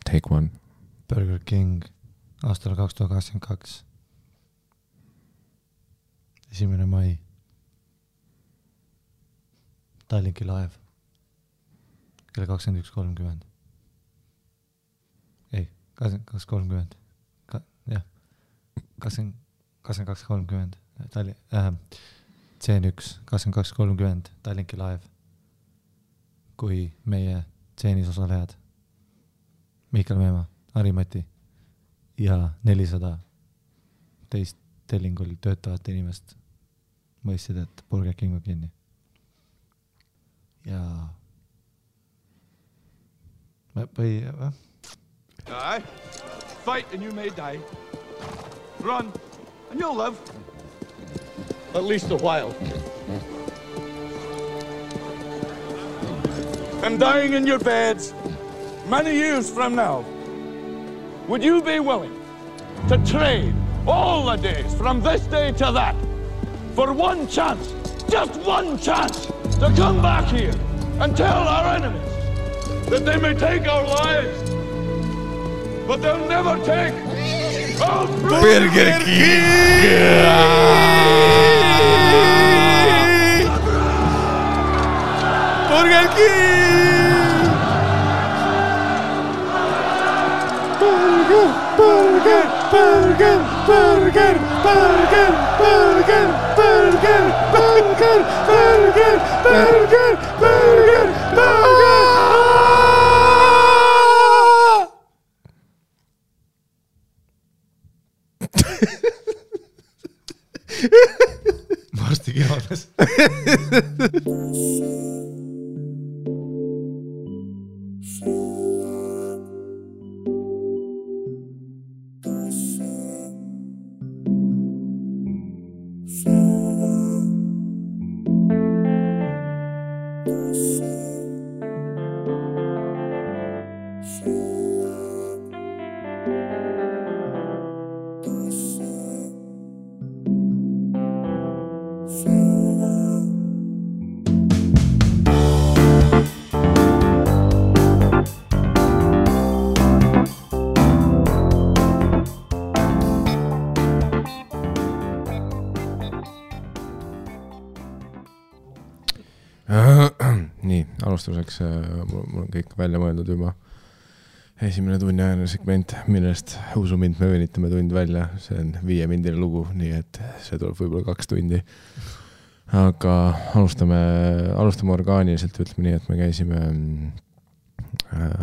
Take One. Burger King aastal 2022. 1. mai. Tallinki Live. Kell 21.30. Ei, 22.30. Jah. 22.30. C1 22.30 Tallinki Live. Kui meie tseenis osalejad Mihkel Meemaa, Harimati ja 400 teist tellingul töötavate inimest mõistsid, et Burger King on kinni. Ja Die. Fight and you may die. Run and you'll live. At least a while. And dying in your beds many years from now, would you be willing to trade all the days from this day to that for one chance, just one chance, to come back here and tell our enemies that they may take our lives, but they'll never take our Burger King! Burger King! Burger, burger, burger, burger, burger, burger, burger, burger, burger, burger, burger, burger. Varsti kinodes. Nii, alustuseks mul on kõik välja mõeldud juba. Esimene tunniajane segment, millest usu mind me venitame tund välja. See on 5-mindine lugu, nii et see tuleb võib-olla 2 tundi. Aga alustame orgaaniliselt, ütleme nii, et me käisime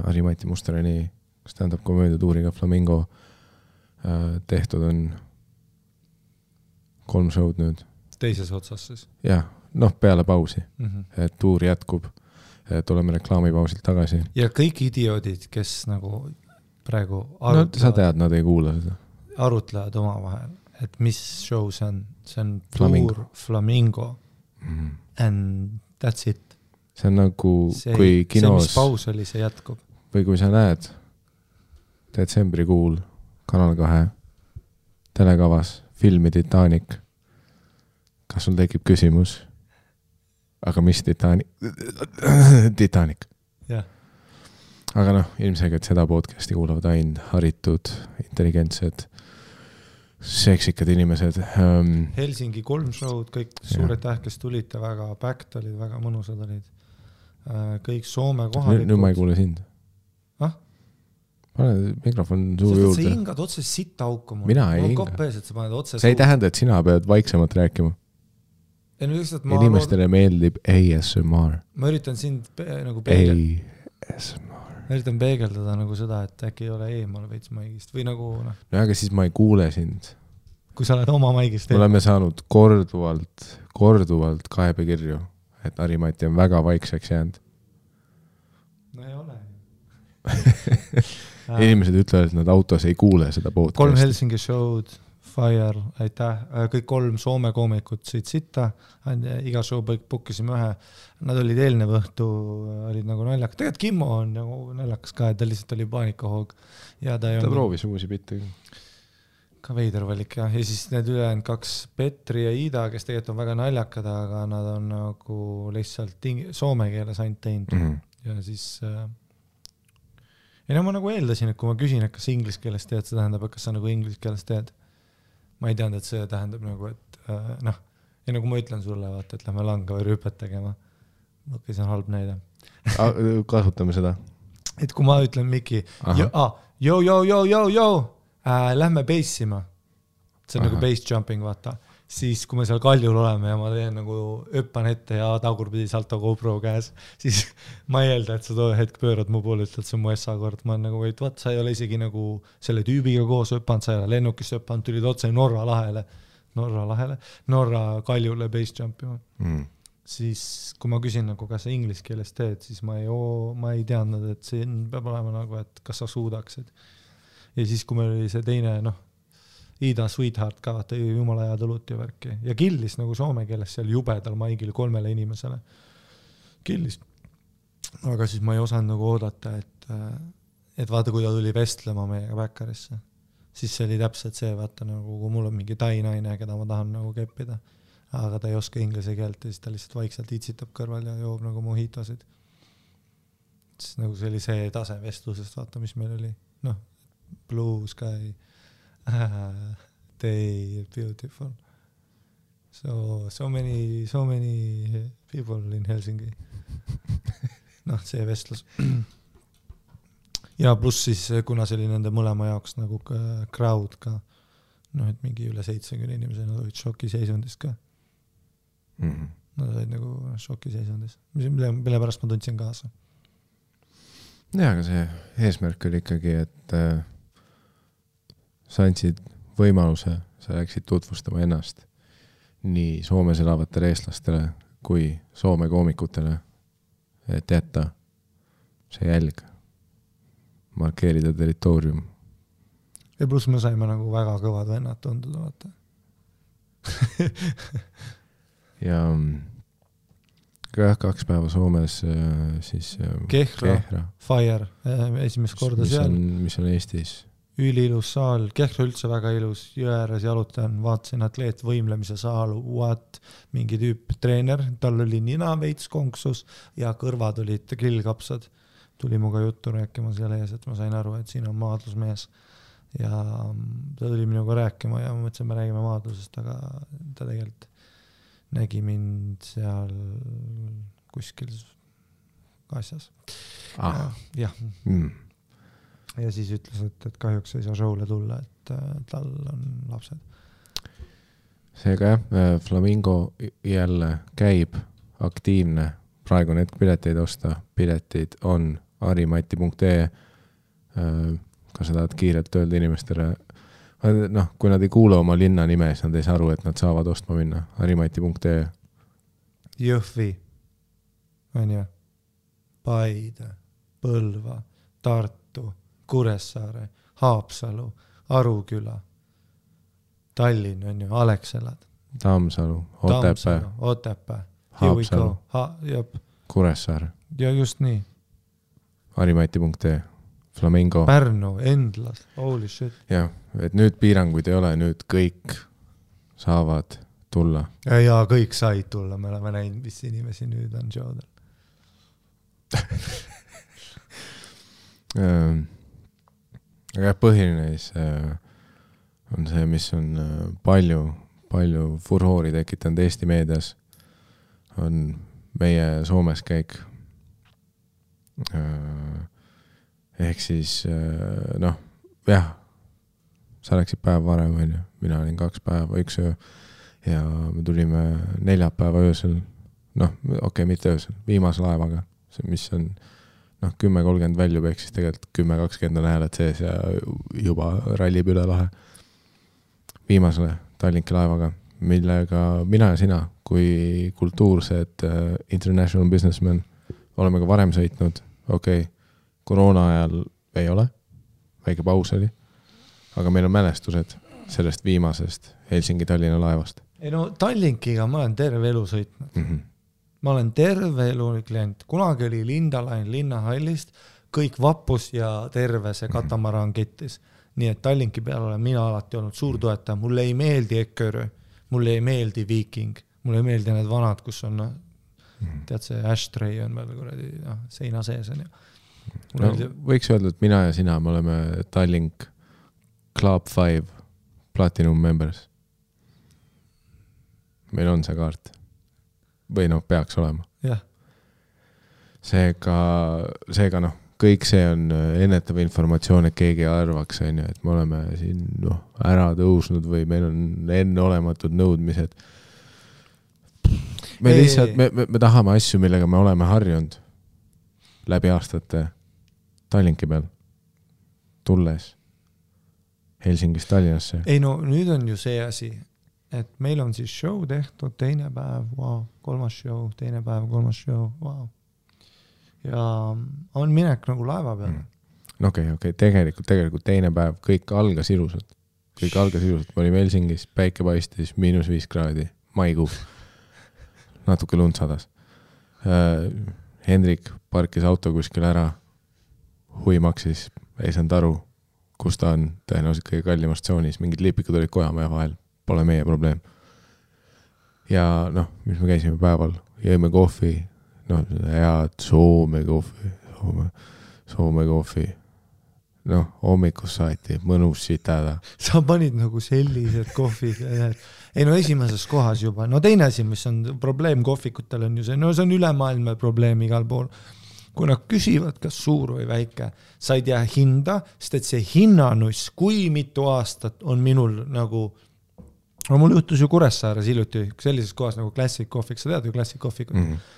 Harimati Musterani stand-up komöödia tuuriga Flamingo. Tehtud on 3 show'd nüüd. Teises otsas siis? Jah, peale pausi. Et tuur jätkub. Tuleme reklaamipausilt tagasi. Ja kõik idioodid, kes nagu praegu sa tead, nad ei kuula seda. Arutlevad oma vahel, et mis show see on. See on Flamingo. tuur Flamingo. And that's it. See on nagu kui kinos... See, mis paus oli, see jätkub. Või kui sa näed detsembrikuul Kanal 2 telekavas filmi Titanic, kas sul tekib küsimus? Aga mis Titanic? Yeah. Aga ilmselgelt seda podcasti kuulavad ainult haritud, intelligentsed, seksikad inimesed. Helsingi 3 show'd, kõik suured tähkes tulite, väga backed olid, väga mõnusad olid. Kõik Soome kohalikud. Nüüd ma ei kuule sind. Pane mikrofon suu juurde. Sa hingad otse sitta auku mul. Mina ei hinga. See ei tähenda, et sina pead vaiksemalt rääkima. Inimestele meeldib ASMR. Ma üritan sind nagu peegeldada nagu seda, et äkki ei ole eemal veits maigist või nagu aga siis ma ei kuule sind. Kui sa oled oma maigist. Me oleme saanud korduvalt kaebekirju, et Harimati on väga vaikseks jäänud. No ei ole. Inimesed ütlevad, et nad autos ei kuule seda podcasti. 3 Helsingi show'd, Fire, aitäh. Kõik 3 Soome koomikut sõid sitta. Iga show bookisime ühe. Nad olid eelnev õhtu, olid nagu naljakas. Tegelikult Kimmo on nagu naljakas ka, et ta lihtsalt oli paanikahoog. Ja ta proovis uusi bitte. Ka veider valik, jah. Ja siis need ülejäänud 2 Petri ja Ida, kes tegelikult on väga naljakad, aga nad on nagu lihtsalt soome keeles ainult teinud. Ja siis ei no ma nagu eeldasin, et kui ma küsin, et kas inglise keeles teed, see tähendab, et kas sa nagu inglise keeles teed. Ma ei teadnud, et see tähendab nagu, et noh, ja nagu ma ütlen sulle, vaata, et lähme langa või rüüpet tegema. Okei, see on halb näide. Kasutame seda. Et kui ma ütlen Miki, lähme bassima. See on nagu bass jumping, vaata. Siis kui me seal kaljul oleme ja ma teen nagu öppan ette ja tagurpidi salto GoPro käes, siis ma ei eelda, et sa too hetk pöörad mu poole, ütled, see on mu SA kord. Ma olen nagu, et vaat, sa ei ole isegi nagu selle tüübiga koos öppanud, sa ei ole lennukis öppanud, tulid otse Norra kaljule bass jumpima. Siis kui ma küsin, nagu, kas sa inglise keeles teed, siis ma ei teadnud, et see peab olema nagu, et kas sa suudaksid. Ja siis, kui meil oli see teine, Ida Sweetheart ka, vaata jumala hea tõlut ja värki. Ja killis nagu soome keeles seal jubedal maigil 3 inimesele. Killis. Aga siis ma ei osanud nagu oodata, et vaata, kui ta tuli vestlema meiega Backarisse. Siis see oli täpselt see, vaata, nagu kui mul on mingi tai naine, keda ma tahan nagu keppida. Aga ta ei oska inglise keelt ja siis ta lihtsalt vaikselt itsitab kõrval ja joob nagu mojitosid. Siis nagu see oli see tase vestlusest, vaata, mis meil oli. Blue sky. They beautiful. So many people in Helsingi. See vestlus. Ja pluss siis, kuna see oli nende mõlema jaoks nagu crowd ka, et mingi üle 70 inimesed, nad olid šokiseisundis ka. Nad olid nagu šokiseisundis. Mille pärast ma tundsin kaasa. Ja, aga see eesmärk oli ikkagi, et sa andsid võimaluse, sa läksid tutvustama ennast nii Soomes elavatele eestlastele kui Soome koomikutele, et jätta see jälg, markeerida territoorium. Ja pluss me saime nagu väga kõvad vennad tunduda, vaata. Ja 2 päeva Soomes siis Kehra. Fire, esimest korda seal. Mis on Eestis? Ülilus saal, Kehra üldse väga ilus, jõe ääres jalutan, vaatasin atleet võimlemise saal, mingi tüüp treener, tal oli nina veits konksus ja kõrvad olid grillkapsad. Tuli muga juttu rääkima seal ees, et ma sain aru, et siin on maadlusmees ja ta tuli minuga rääkima ja ma mõtlesin, me räägime maadlusest, aga ta tegelikult nägi mind seal kuskil asjas. Ja. Ja siis ütles, et kahjuks ei saa showle tulla, et tal on lapsed. Seega Flamingo jälle käib aktiivne. Praegu need pileteid osta. Piletid on arimati.ee. Kas sa tahad kiirelt öelda inimestele? Kui nad ei kuule oma linna nime, siis nad ei saa aru, et nad saavad ostma minna. arimati.ee. Jõhvi, on ju, Paide, Põlva, Tartu, Kuressaare, Haapsalu, Aruküla, Tallinn on ju, Alexelad, Tammsalu, Otepää, Haapsalu, Kuressaare. Ja just nii. Arimati.ee, Flamingo. Pärnu, Endlas, holy shit. Ja, et nüüd piiranguid ei ole, nüüd kõik saavad tulla. Ja kõik said tulla, me oleme näinud, mis inimesi nüüd on showdel. Aga põhiline on see, mis on palju furhoori tekitanud Eesti meedias, on meie Soomes käik. Ehk siis, sa läksid päev varem, mina olin 2 päeva, 1 öö ja me tulime 4 päeva öösel, mitte öösel, viimase laevaga, mis on 10.30 väljub, ehk siis tegelikult 10.20 on hääled sees ja juba rallib üle lahe viimasele Tallinki laevaga, millega mina ja sina kui kultuursed international businessmen oleme ka varem sõitnud. Koroona ajal ei ole, väike paus oli, aga meil on mälestused sellest viimasest Helsingi-Tallinna laevast. Tallinkiga ma olen terve elu sõitnud. Ma olen terve elu klient. Kunagi oli Lindalain linnahallist, kõik vappus ja terve see katamaran kettis. Nii et Tallinki peal olen mina alati olnud suur toetaja. Mulle ei meeldi Ekkerö, mulle ei meeldi Viking, mulle ei meeldi need vanad, kus on, tead see ashtray on veel kuradi seina sees on ju. No, võiks öelda, et mina ja sina, me oleme Tallink Club 5 Platinum Members. Meil on see kaart. Või noh, peaks olema. Jah. Seega noh, kõik see on ennetav informatsioon, et keegi arvaks, et me oleme siin ära tõusnud või meil on enneolematud nõudmised. Me lihtsalt, me tahame asju, millega me oleme harjunud läbi aastate Tallinki peal tulles Helsingist Tallinnasse. Ei no nüüd on ju see asi, et meil on siis show tehtud, teine päev, wow, kolmas show, teine päev, kolmas show, wow. Ja on minek nagu laeva peale. No okei, tegelikult teine päev, kõik algas ilusalt. Me olime Helsingis, päike paistis, -5 kraadi, maikuu. Natuke lund sadas. Hendrik parkis auto kuskil ära, hui maksis, ei saanud aru, kus ta on tõenäoliselt kõige kallimas tsoonis, mingid lipikud olid Kojamäe vahel, pole meie probleem. Ja noh, mis me käisime päeval, jõime kohvi, head Soome kohvi, hommikus saati, mõnus sitada. Sa panid nagu sellised kohvid, ei no esimeses kohas juba, teine asi, mis on probleem kohvikutel on ju see, see on ülemaailmne probleem igal pool. Kui nad küsivad, kas suur või väike, sa ei tea hinda, sest et see hinnanuss, kui mitu aastat on minul nagu, mul juhtus ju Kuressaares hiljuti sellises kohas nagu Classic Coffee, sa tead ju Classic Coffee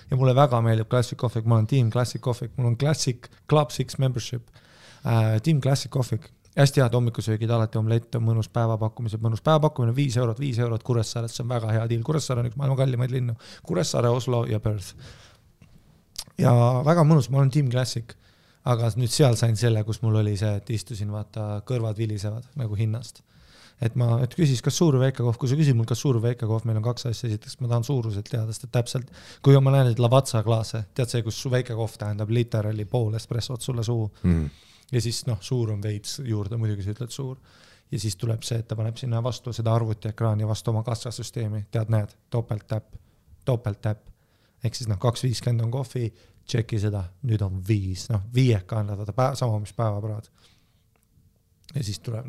ja mulle väga meeldib Classic Coffee, ma olen Team Classic Coffee, mul on Classic Club 6 membership, Team Classic Coffee, hästi head hommikusöögid, alati omlett on mõnus päevapakkumised, mõnus päevapakkumine 5 €, Kuressaares, see on väga hea deal, Kuressaare on üks maailma kallimaid linnu, Kuressaare, Oslo ja Perth. Ja väga mõnus, ma olen Team Classic, aga nüüd seal sain selle, kus mul oli see, et istusin, vaata, kõrvad vilisevad nagu hinnast. Et küsis, kas suur või väike kohv, kui sa küsid mul, kas suur või väike kohv, meil on 2 asja, esiteks ma tahan suuruselt teada, sest täpselt, kui ma näen neid Lavazza klaase, tead see, kus väike kohv tähendab literally pool espressot sulle suu ja siis suur on veits juurde, muidugi sa ütled suur ja siis tuleb see, et ta paneb sinna vastu seda arvutiekraani vastu oma kassasüsteemi, tead, näed, topelttäpp, ehk siis 2.50 on kohvi, tšeki seda, nüüd on 5, viieka annad, sama mis päevapraad ja siis tuleb,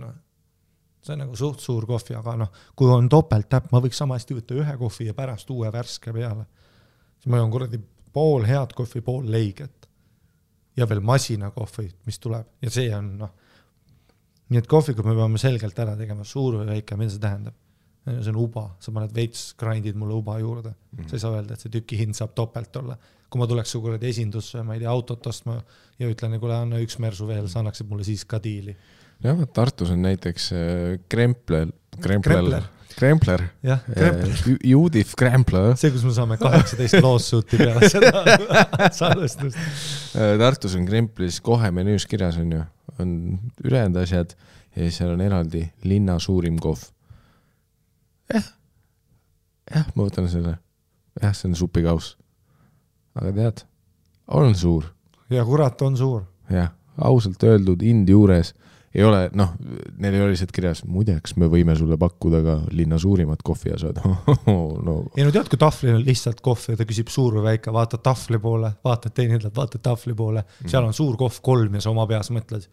see on nagu suht suur kohvi, aga kui on topelttäpp, ma võiks samasti võtta ühe kohvi ja pärast uue värske peale. Siis ma on kuradi pool head kohvi, pool leiget. Ja veel masina kohvi, mis tuleb. Ja see on, nii et kohvikud me peame selgelt ära tegema, suur või väike, mida see tähendab. See on uba, sa paned veits grindid mulle uba juurde. Sa ei saa öelda, et see tüki hind saab topelt olla. Kui ma tuleks su kuradi esindusse, ma ei tea, autot ostma ja ütlen, kui anna üks mersu veel, sa annaksid mulle siis ka diili. Jah, Tartus on näiteks Krempler. Jah, Judith Krempler. See, kus me saame 18 lawsuiti peale seda salvestust. Tartus on Kremplis kohe menüüs kirjas on ju, on ülejäänud asjad ja seal on eraldi linna suurim kohv. Jah, ma võtan selle. Jah, see on supikaus. Aga tead, on suur. Ja kurat on suur. Jah, ausalt öeldud indi juures ei ole, neil ei ole lihtsalt kirjas, muideks me võime sulle pakkuda ka linna suurimat kohvi ja saad. Ei no tead, kui taflil on lihtsalt kohv ja ta küsib suur või väike, vaatad tafli poole, vaatad teinidelt, vaatad tafli poole, seal on suur kohv 3 ja sa oma peas mõtled,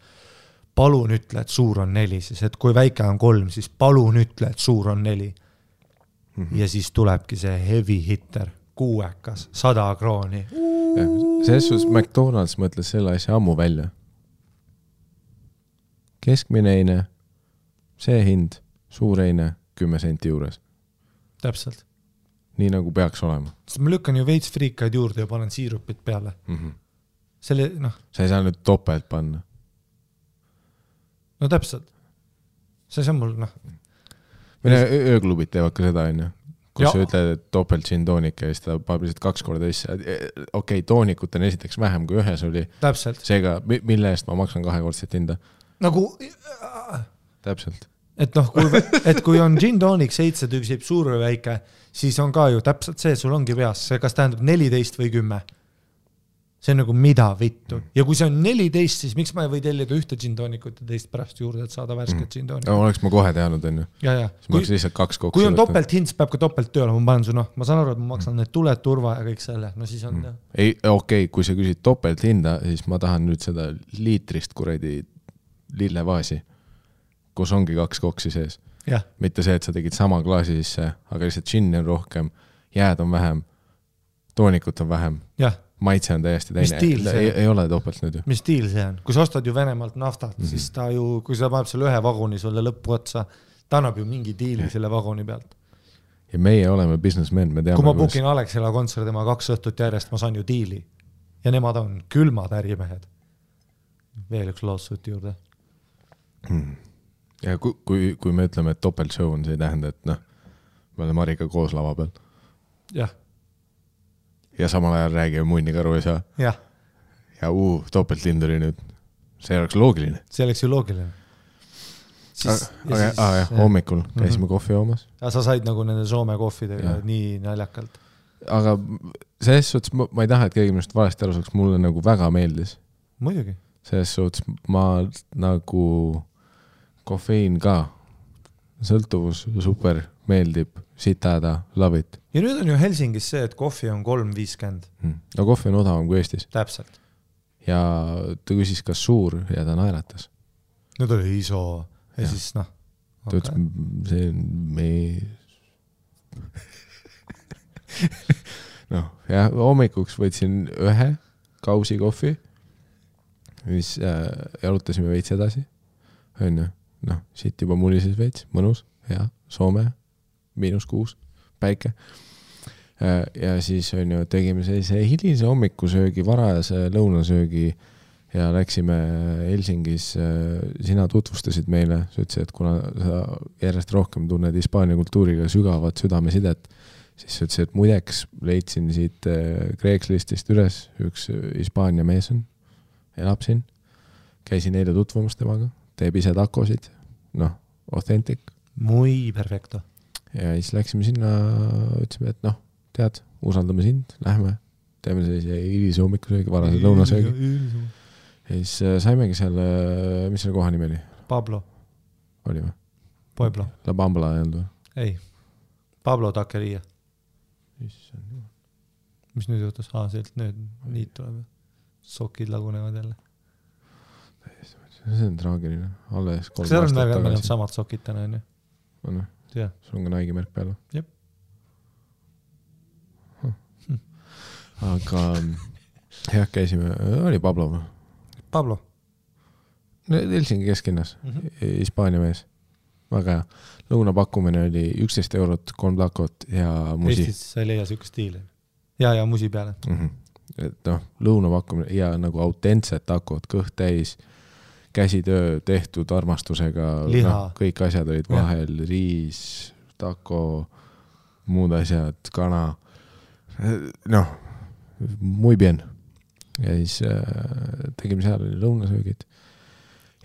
palun ütle, et suur on 4, siis et kui väike on 3, siis palun ütle, et suur on 4. Ja siis tulebki see heavy hitter, 6, 100 krooni. Selles suhtes McDonald's mõtles selle asja ammu välja. Keskmine eine, see hind, suur eine, 10 senti juures. Täpselt. Nii nagu peaks olema. Sest ma lükkan ju veits friikaid juurde ja panen siirupit peale. Selle, Sa ei saa nüüd topelt panna. No täpselt. See on mul, Mine ööklubid teevad ka seda, kus sa ütled, et topelt gin toonik ja siis ta paneb lihtsalt 2 korda isse. Okei, toonikut on esiteks vähem kui ühes oli. Täpselt. Seega, mille eest ma maksan 2-kordset hinda? Nagu Täpselt. Et kui on gin tonic 7 tüksib suur või väike, siis on ka ju täpselt see, sul ongi peas, see kas tähendab 14 või 10. See on nagu mida vittu. Ja kui see on 14, siis miks ma ei või tellida ühte džintoonikut ja teist pärast juurde, et saada värsket džintoonikut? Oleks ma kohe teadnud, on ju. Siis ma oleks lihtsalt 2 kokku. Kui on topelt hind, peab ka topelt tööle, ma panen su, ma saan aru, et ma maksan need tuled, turva ja kõik selle. No siis on Ei, okei, kui sa küsid topelt hinda, siis ma tahan nüüd seda liitrist kuradi lillevaasi, kus ongi 2 koksi sees. Ja. Mitte see, et sa tegid sama klaasi sisse, aga lihtsalt džinni on rohkem, jääd on vähem, toonikut on vähem. Jah. Maitse on täiesti teine. Ei ole topelt nüüd ju. Mis stiil see on? Kui sa ostad ju Venemaalt naftat, siis ta ju, kui sa paneb selle ühe vaguni sulle lõppu otsa, ta annab ju mingi diili selle vaguni pealt. Ja meie oleme businessmen, me teame. Kui ma bookin Alexela kontserdi, ma 2 õhtut järjest, ma saan ju diili. Ja nemad on külmad ärimehed. Veel üks lawsuit juurde. Ja kui me ütleme, et topelt show on, see ei tähenda, et me oleme Marika koos lava peal. Jah. Ja samal ajal räägime munnikaru ei saa. Ja topelt lind oli nüüd. See oleks loogiline. See oleks ju loogiline. Aga hommikul käisime kohvi joomas. Ja sa said nagu nende Soome kohvidega nii naljakalt. Aga selles suhtes ma ei taha, et keegi minust valesti aru saaks, mulle nagu väga meeldis. Muidugi. Selles suhtes ma nagu kofeiin ka. Sõltuvus super meeldib, sitada, love it. Ja nüüd on ju Helsingis see, et kohvi on 3.50. No kohvi on odavam kui Eestis. Täpselt. Ja ta küsis, kas suur ja ta naeratas. Nüüd oli iso. Ja siis Ta ütles, see on meie... hommikuks võtsin 1 kausi kohvi, mis jalutasime veits edasi. Siit juba mulises veits, mõnus, hea, Soome, -6, päike. Ja siis tegime sellise hilise hommikusöögi, varajase lõunasöögi ja läksime Helsingis, sina tutvustasid meile, sa ütlesid, et kuna sa järjest rohkem tunned Hispaania kultuuriga sügavat südamesidet, siis sa ütlesid, et muideks leidsin siit Craigslistist üles, üks Hispaania mees on, elab siin, käisin eile tutvumas temaga, teeb ise takosid, authentic. Muy perfecto. Ja siis läksime sinna, ütlesime, et tead, usaldame sind, lähme, teeme sellise hilise hommikusöögi, varase lõunasöögi. Ja siis saimegi seal, mis selle koha nimi oli? Pablo. Oli või? Pueblo. La Bambla ei olnud või? Ei. Pablo Taqueria. Mis nüüd juhtus? Sealt nüüd niit tuleb. Sokid lagunevad jälle. See on traagiline. Alles 3 aastat tagasi. Meil on samad sokid täna, on ju? On või? Sul on ka Nike märk peal või? Jep. Aga käisime, oli Pablo või? Pablo. Helsingi kesklinnas, Hispaania mees. Väga hea. Lõunapakkumine oli 11 eurot, 3 takot ja musi. Eestis sa ei leia siukest stiili. Ja musi peale. Et lõunapakkumine ja nagu autentsed takod, kõht täis, käsitöö tehtud armastusega. Kõik asjad olid vahel, riis, tako, muud asjad, kana. Muy bien. Ja siis tegime seal lõunasöögid.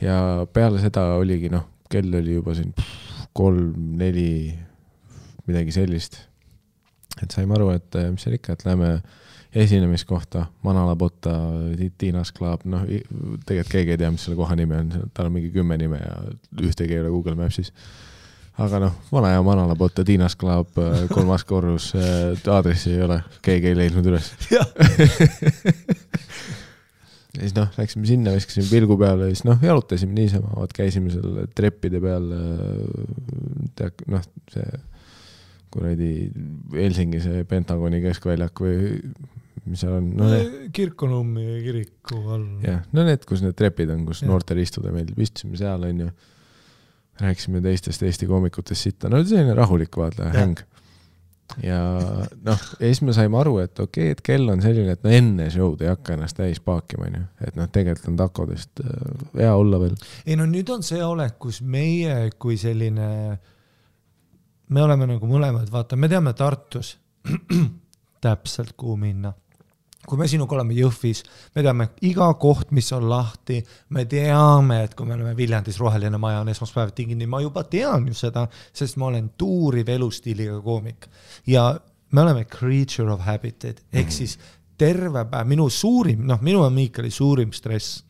Ja peale seda oligi, kell oli juba siin 3-4 midagi sellist. Et saime aru, et mis seal ikka, et läheme esinemiskohta, Manala Botta, Tiinas Club, tegelikult keegi ei tea, mis selle koha nimi on, tal on mingi 10 nime ja ühtegi ei ole Google Mapsis. Aga vana ja Manala Botta, Tiinas Club, 3. korrus, aadressi ei ole, keegi ei leidnud üles. Ja siis läksime sinna, viskasime pilgu peale ja siis jalutasime niisama, käisime seal treppide peal, see kuradi Helsingi see Pentagoni keskväljak või mis seal on? Kirkonummi kiriku all. Jah, need, kus need trepid on, kus noortel istuda meeldib, istusime seal, on ju. Rääkisime teistest Eesti koomikutest sitta. Selline rahulik vaata, häng. Ja siis me saime aru, et okei, et kell on selline, et enne show'd ei hakka ennast täis paakima, et tegelikult on takodest hea olla veel. Ei nüüd on see olek, kus meie kui selline, me oleme nagu mõlemad, vaata, me teame Tartus täpselt kuhu minna. Kui me sinuga oleme Jõhvis, me teame iga koht, mis on lahti, me teame, et kui me oleme Viljandis roheline maja on esmaspäev tingini, ma juba tean ju seda, sest ma olen tuuriv elustiiliga koomik. Ja me oleme creature of habit, ehk siis terve päev, minu ja Miikali suurim stress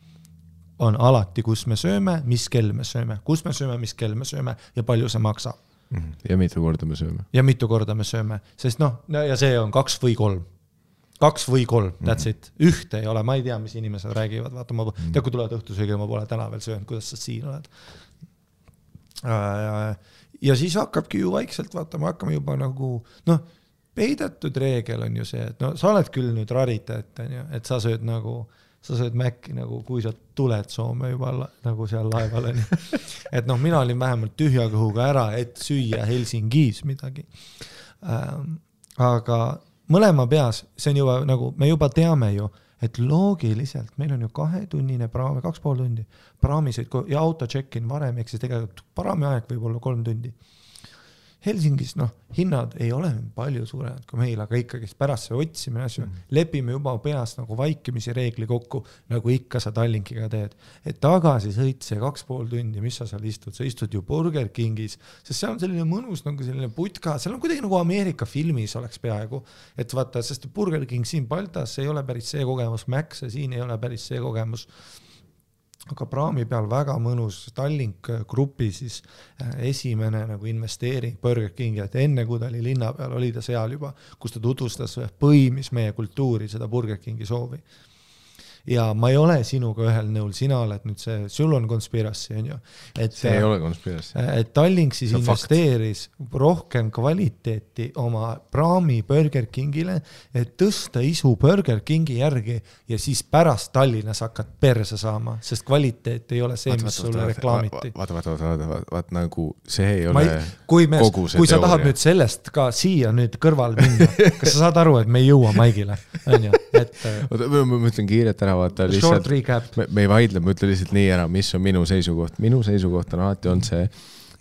on alati, kus me sööme, mis kell me sööme, kus me sööme, mis kell me sööme ja palju see maksab. Ja mitu korda me sööme. Sest ja see on 2 või 3, that's it. Ühte ei ole, ma ei tea, mis inimesed räägivad, vaata, kui tulevad õhtusöögi, ma pole täna veel söönud, kuidas sa siin oled. Ja siis hakkabki ju vaikselt, vaata, me hakkame juba nagu, peidetud reegel on ju see, et sa oled küll nüüd rariteet, et sa sööd Mäkki nagu, kui sa tuled Soome juba nagu seal laeval on. Et mina olin vähemalt tühja kõhuga ära, et süüa Helsingis midagi. Aga mõlema peas, see on juba nagu, me juba teame ju, et loogiliselt meil on ju 2-tunnine praam, 2,5 tundi praamisõid ja auto check-in varem, eks siis tegelikult praami aeg võib olla 3 tundi. Helsingis, hinnad ei ole palju suuremad kui meil, aga ikkagi pärast see otsimine asju, lepime juba peas nagu vaikimisi reegli kokku, nagu ikka sa Tallinkiga teed. Et tagasi sõit see 2,5 tundi, mis sa seal istud? Sa istud ju Burger Kingis, sest seal on selline mõnus nagu selline putka, seal on kuidagi nagu Ameerika filmis oleks peaaegu. Et vaata, sest Burger King siin Baltas ei ole päris see kogemus, Max siin ei ole päris see kogemus. Aga praami peal väga mõnus Tallink grupi siis esimene nagu investeering Burger Kingi, et enne kui ta oli linna peal, oli ta seal juba, kus ta tutvustas põimis meie kultuuri, seda Burger Kingi soovi. Ja ma ei ole sinuga ühel nõul, sina oled nüüd see, sul on konspirassi, on ju. See ei ole konspirassi. Et Tallink siis investeeris rohkem kvaliteeti oma praami Burger Kingile, et tõsta isu Burger Kingi järgi ja siis pärast Tallinnas hakkad perse saama, sest kvaliteet ei ole see, mis sulle reklaamiti. Vaat nagu see ei ole kogu see teooria. Kui sa tahad nüüd sellest ka siia nüüd kõrval minna, kas sa saad aru, et me ei jõua Maigile? Ma ütlen kiiret ära, vaata lihtsalt, me ei vaidle, ma ütlen lihtsalt nii ära, mis on minu seisukoht. Minu seisukoht on alati on see,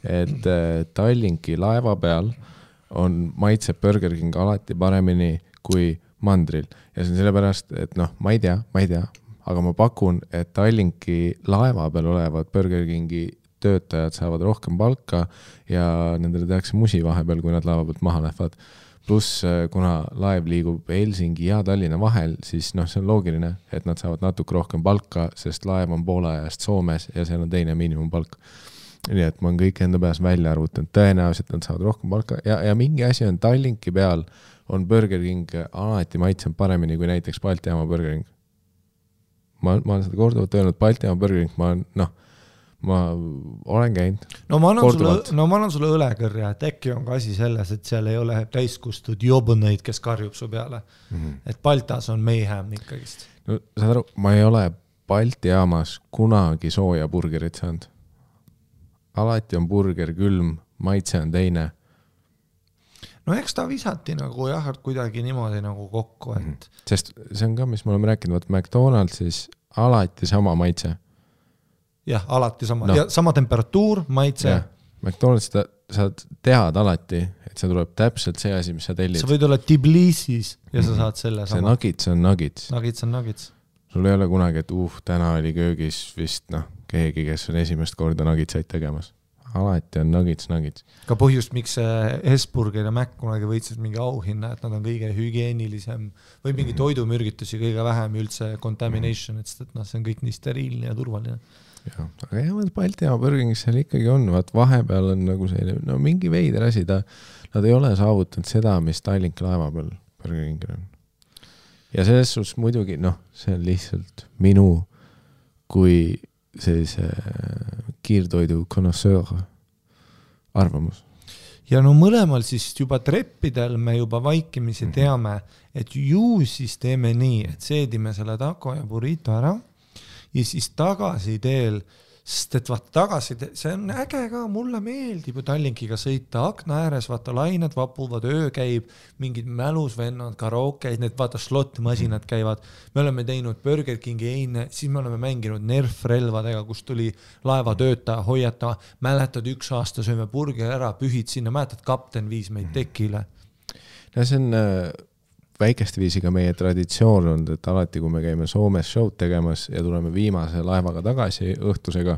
et Tallinki laeva peal on maitseb Burger King alati paremini kui mandril. Ja see on sellepärast, et ma ei tea, aga ma pakun, et Tallinki laeva peal olevad Burger Kingi töötajad saavad rohkem palka ja nendele tehakse musi vahepeal, kui nad laeva pealt maha lähevad. Plus, kuna laev liigub Helsingi ja Tallinna vahel, siis see on loogiline, et nad saavad natuke rohkem palka, sest laev on poole ajast Soomes ja seal on teine miinimumpalk. Nii et ma olen kõik enda peas välja arvutanud. Tõenäoliselt nad saavad rohkem palka ja mingi asi on Tallinki peal on Burger King alati maitseb paremini kui näiteks Balti jaama Burger King. Ma olen seda korduvalt öelnud, Balti jaama Burger King, ma olen käinud. Ma annan sulle õlekõrja, et äkki on ka asi selles, et seal ei ole täiskustud jobuneid, kes karjub su peale. Et Baltas on mayhem ikkagist. Saad aru, ma ei ole Balti jaamas kunagi sooja burgerit saanud. Alati on burger külm, maitse on teine. Eks ta visati nagu kuidagi niimoodi nagu kokku. Sest see on ka, mis me oleme rääkinud, McDonald'sis alati sama maitse. Jah, alati sama. Ja sama temperatuur, maitse. Ja, McDonald'is sa tead alati, et see tuleb täpselt see asi, mis sa tellid. Sa võid olla Tbilisis ja sa saad selle sama. See nuggets on nuggets. Nuggets on nuggets. Sul ei ole kunagi, et täna oli köögis vist keegi, kes on esimest korda nuggetsaid tegemas. Alati on nuggets. Ka põhjust, miks Hesburger ja Mac kunagi võitsid mingi auhinna, et nad on kõige hügieenilisem või mingi toidumürgitusi kõige vähem üldse contamination, et see on kõik nii steriilne ja turvaline. Ja, aga Balti jaama Burger Kingis seal ikkagi on, vahepeal on nagu selline, mingi veider asi, nad ei ole saavutanud seda, mis Tallinki laeva peal Burger Kingil on. Ja selles suhtes muidugi, see on lihtsalt minu kui sellise kiirtoidu connoisseur arvamus. Ja mõlemal siis juba treppidel me juba vaikimisi teame, et ju siis teeme nii, et seedime selle taco ja burrito ära ja siis tagasi teel, sest et tagasi, see on äge ka, mulle meeldib ju Tallinkiga sõita akna ääres, lained vapuvad, öö käib, mingid mälusvennad, karaokeid, need slot-masinad käivad. Me oleme teinud Burger Kingi eine, siis me oleme mänginud Nerf-relvadega, kus tuli laevatöötaja hoiata, mäletad 1 aasta sööme burger ära, pühid sinna, mäletad kapten viis meid tekile. Ja see on väikeste viisiga meie traditsioon on, et alati, kui me käime Soomes showd tegemas ja tuleme viimase laevaga tagasi õhtusega,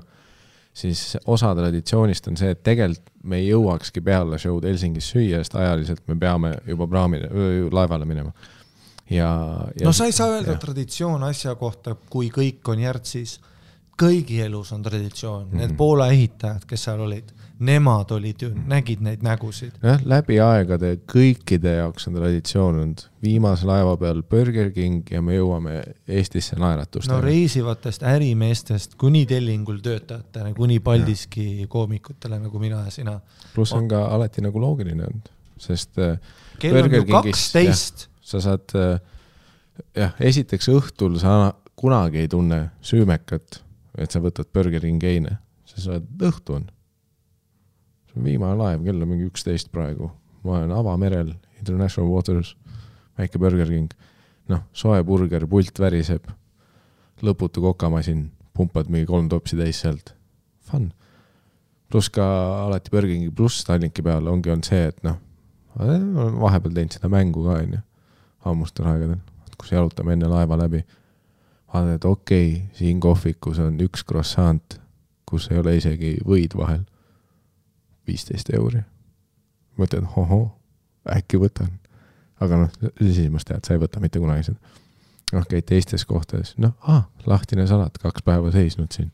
siis osa traditsioonist on see, et tegelikult me ei jõuakski peale showd Helsingis süüa, sest ajaliselt me peame juba laevale minema. ja no sa ei saa öelda traditsioon asja kohta, kui kõik on järtsis. Kõigi elus on traditsioon. Need Poola ehitajad, kes seal olid, nemad olid ju, nägid neid nägusid. Läbi aegade kõikide jaoks on traditsioon olnud. Viimase laeva peal Burger King ja me jõuame Eestisse naeratust. No reisivatest ärimeestest kuni tellingul töötajatele, kuni Paldiski koomikutele nagu mina ja sina. Plus on ka alati nagu loogiline olnud, sest kell on ju 12. Sa saad, esiteks õhtul sa kunagi ei tunne süümekat, et sa võtad Burger King eine. Sa saad õhtu on. See on viimane laev, kell on mingi 11 praegu. Ma olen avamerel, International Waters, väike Burger King. Soe burger, pult väriseb, lõputu kokamasin, pumpad mingi 3 topsi täis sealt. Fun. Plus ka alati Burger King pluss Tallinki peal ongi on see, et vahepeal teinud seda mängu ka, ammustel aegadel, kus jalutame enne laeva läbi. Vaadad, et okei, siin kohvikus on 1 croissant, kus ei ole isegi võid vahel. 15 €. Mõtled, äkki võtan. Aga siis tead, sa ei võta mitte kunagi seda. Käid teistes kohtades. Lahtine salat, 2 päeva seisnud siin.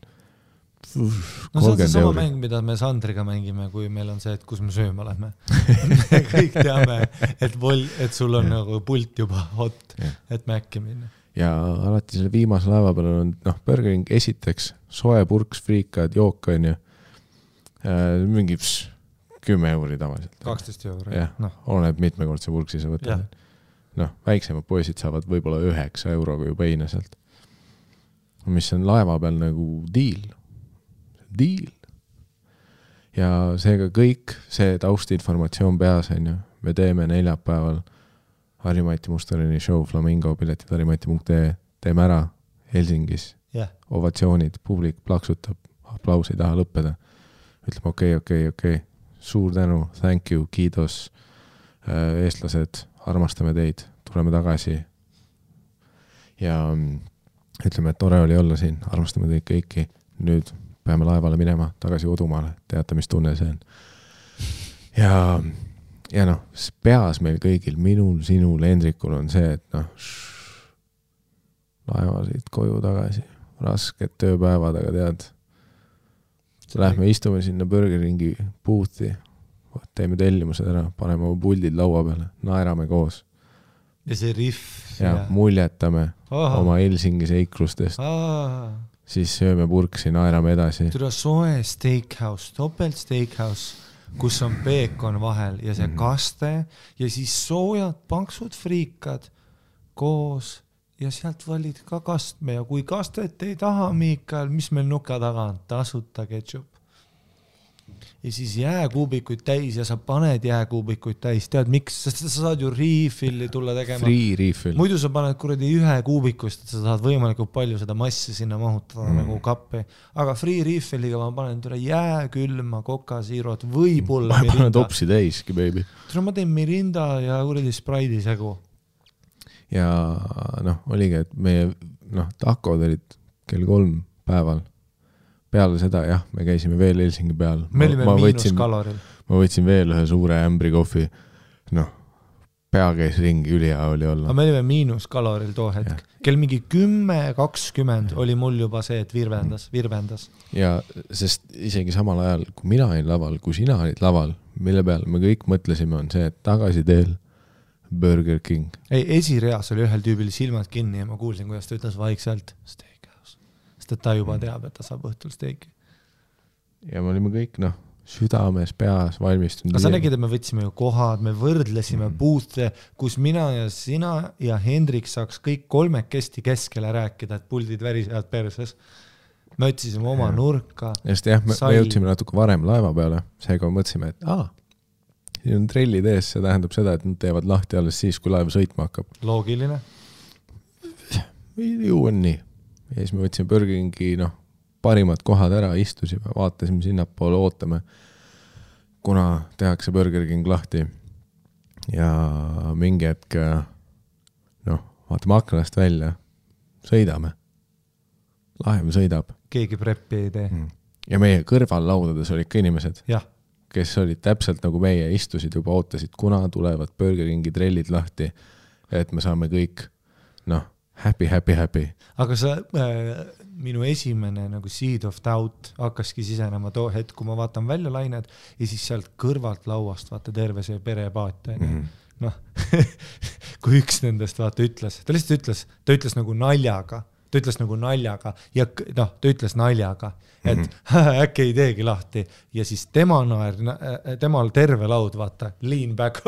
No see on see sama mäng, mida me Sandriga mängime, kui meil on see, et kus me sööma lähme. Me kõik teame, et sul on nagu pult juba hot, et mäkki minna. Ja alati selle viimase laeva peal on Burger King esiteks soe purks, friikad, jook on ju mingi 10 € tavaliselt. 12 €. Jah, oleneb mitmekordse purksi sa võtad. Väiksemad poisid saavad võib-olla 9 € juba heina sealt. Mis on laeva peal nagu deal. Ja seega kõik see taustinformatsioon peas on ju. Me teeme neljapäeval Harimati Mustarini show Flamingo piletid harimati.ee. Teeme ära Helsingis. Ovatsioonid, publik plaksutab, aplaus ei taha lõppeda. Ütleme okei. Suur tänu, thank you, kiitos. Eestlased, armastame teid, tuleme tagasi. Ja ütleme, et tore oli olla siin, armastame teid kõiki. Nüüd peame laevale minema tagasi kodumaale, teate, mis tunne see on. Ja peas meil kõigil, minul, sinul, Hendrikul on see, et laevasid koju tagasi, rasked tööpäevad, aga tead, lähme istume sinna Burger Kingi boothi, teeme tellimused ära, paneme oma puldid laua peale, naerame koos. Ja see riff. Ja muljetame oma Helsingi seiklustest. Siis sööme purksi, naerame edasi. Tule soe steakhouse, topelt steakhouse, kus on peekon vahel ja see kaste ja siis soojad paksud friikad koos ja sealt valid ka kastme ja kui kastet ei taha, Miikael, mis meil nuka taga on? Tasuta ketšup. Ja siis jääkuubikuid täis ja sa paned jääkuubikuid täis. Tead, miks? Sest sa saad ju refilli tulla tegema. Free refill. Muidu sa paned kuradi 1 kuubikust, et sa saad võimalikult palju seda massi sinna mahutada nagu kappi. Aga free refilliga ma panen tule jääkülma, kokasiirot, võib-olla Mirinda. Ma panen topsi täiski, baby. Tule ma teen Mirinda ja kuradi Sprite'i segu. Ja oligi, et meie takod olid kell 3 päeval. Peale seda, me käisime veel Helsingi peal. Me olime miinuskaloril. Ma võtsin veel ühe suure ämbri kohvi. Pea käis ringi, ülihea oli olla. Aga me olime miinuskaloril too hetk. Kell mingi 10-20 oli mul juba see, et virvendas. Ja sest isegi samal ajal, kui mina olin laval, kui sina olid laval, mille peal me kõik mõtlesime, on see, et tagasi teel Burger King. Ei, esireas oli ühel tüübil silmad kinni ja ma kuulsin, kuidas ta ütles vaikselt et ta juba teab, et ta saab õhtul steiki. Ja me olime kõik, südames, peas, valmistunud. Aga sa nägid, et me võtsime ju kohad, me võrdlesime boothe, kus mina ja sina ja Hendrik saaks kõik 3 keskele rääkida, et puldid värisevad perses. Me otsisime oma nurka. Just me jõudsime natuke varem laeva peale, seega mõtlesime, et siin on trellid ees, see tähendab seda, et nad teevad lahti alles siis, kui laev sõitma hakkab. Loogiline. Ju on nii. Ja siis me võtsime Burger Kingi parimad kohad ära, istusime, vaatasime sinnapoole, ootame, kuna tehakse Burger King lahti. Ja mingi hetk, vaatame aknast välja, sõidame. Laev sõidab. Keegi preppi ei tee. Ja meie kõrval laudades olid ka inimesed, kes olid täpselt nagu meie, istusid juba, ootasid, kuna tulevad Burger Kingi trellid lahti. et me saame kõik, happy. Aga sa, minu esimene nagu seed of doubt hakkaski sisenema too hetk, kui ma vaatan välja lained ja siis sealt kõrvalt lauast vaata terve see perepaat. Kui üks nendest vaata ütles, ta ütles nagu naljaga, ja ta ütles naljaga, et äkki ei teegi lahti ja siis temal terve laud, vaata, lean back,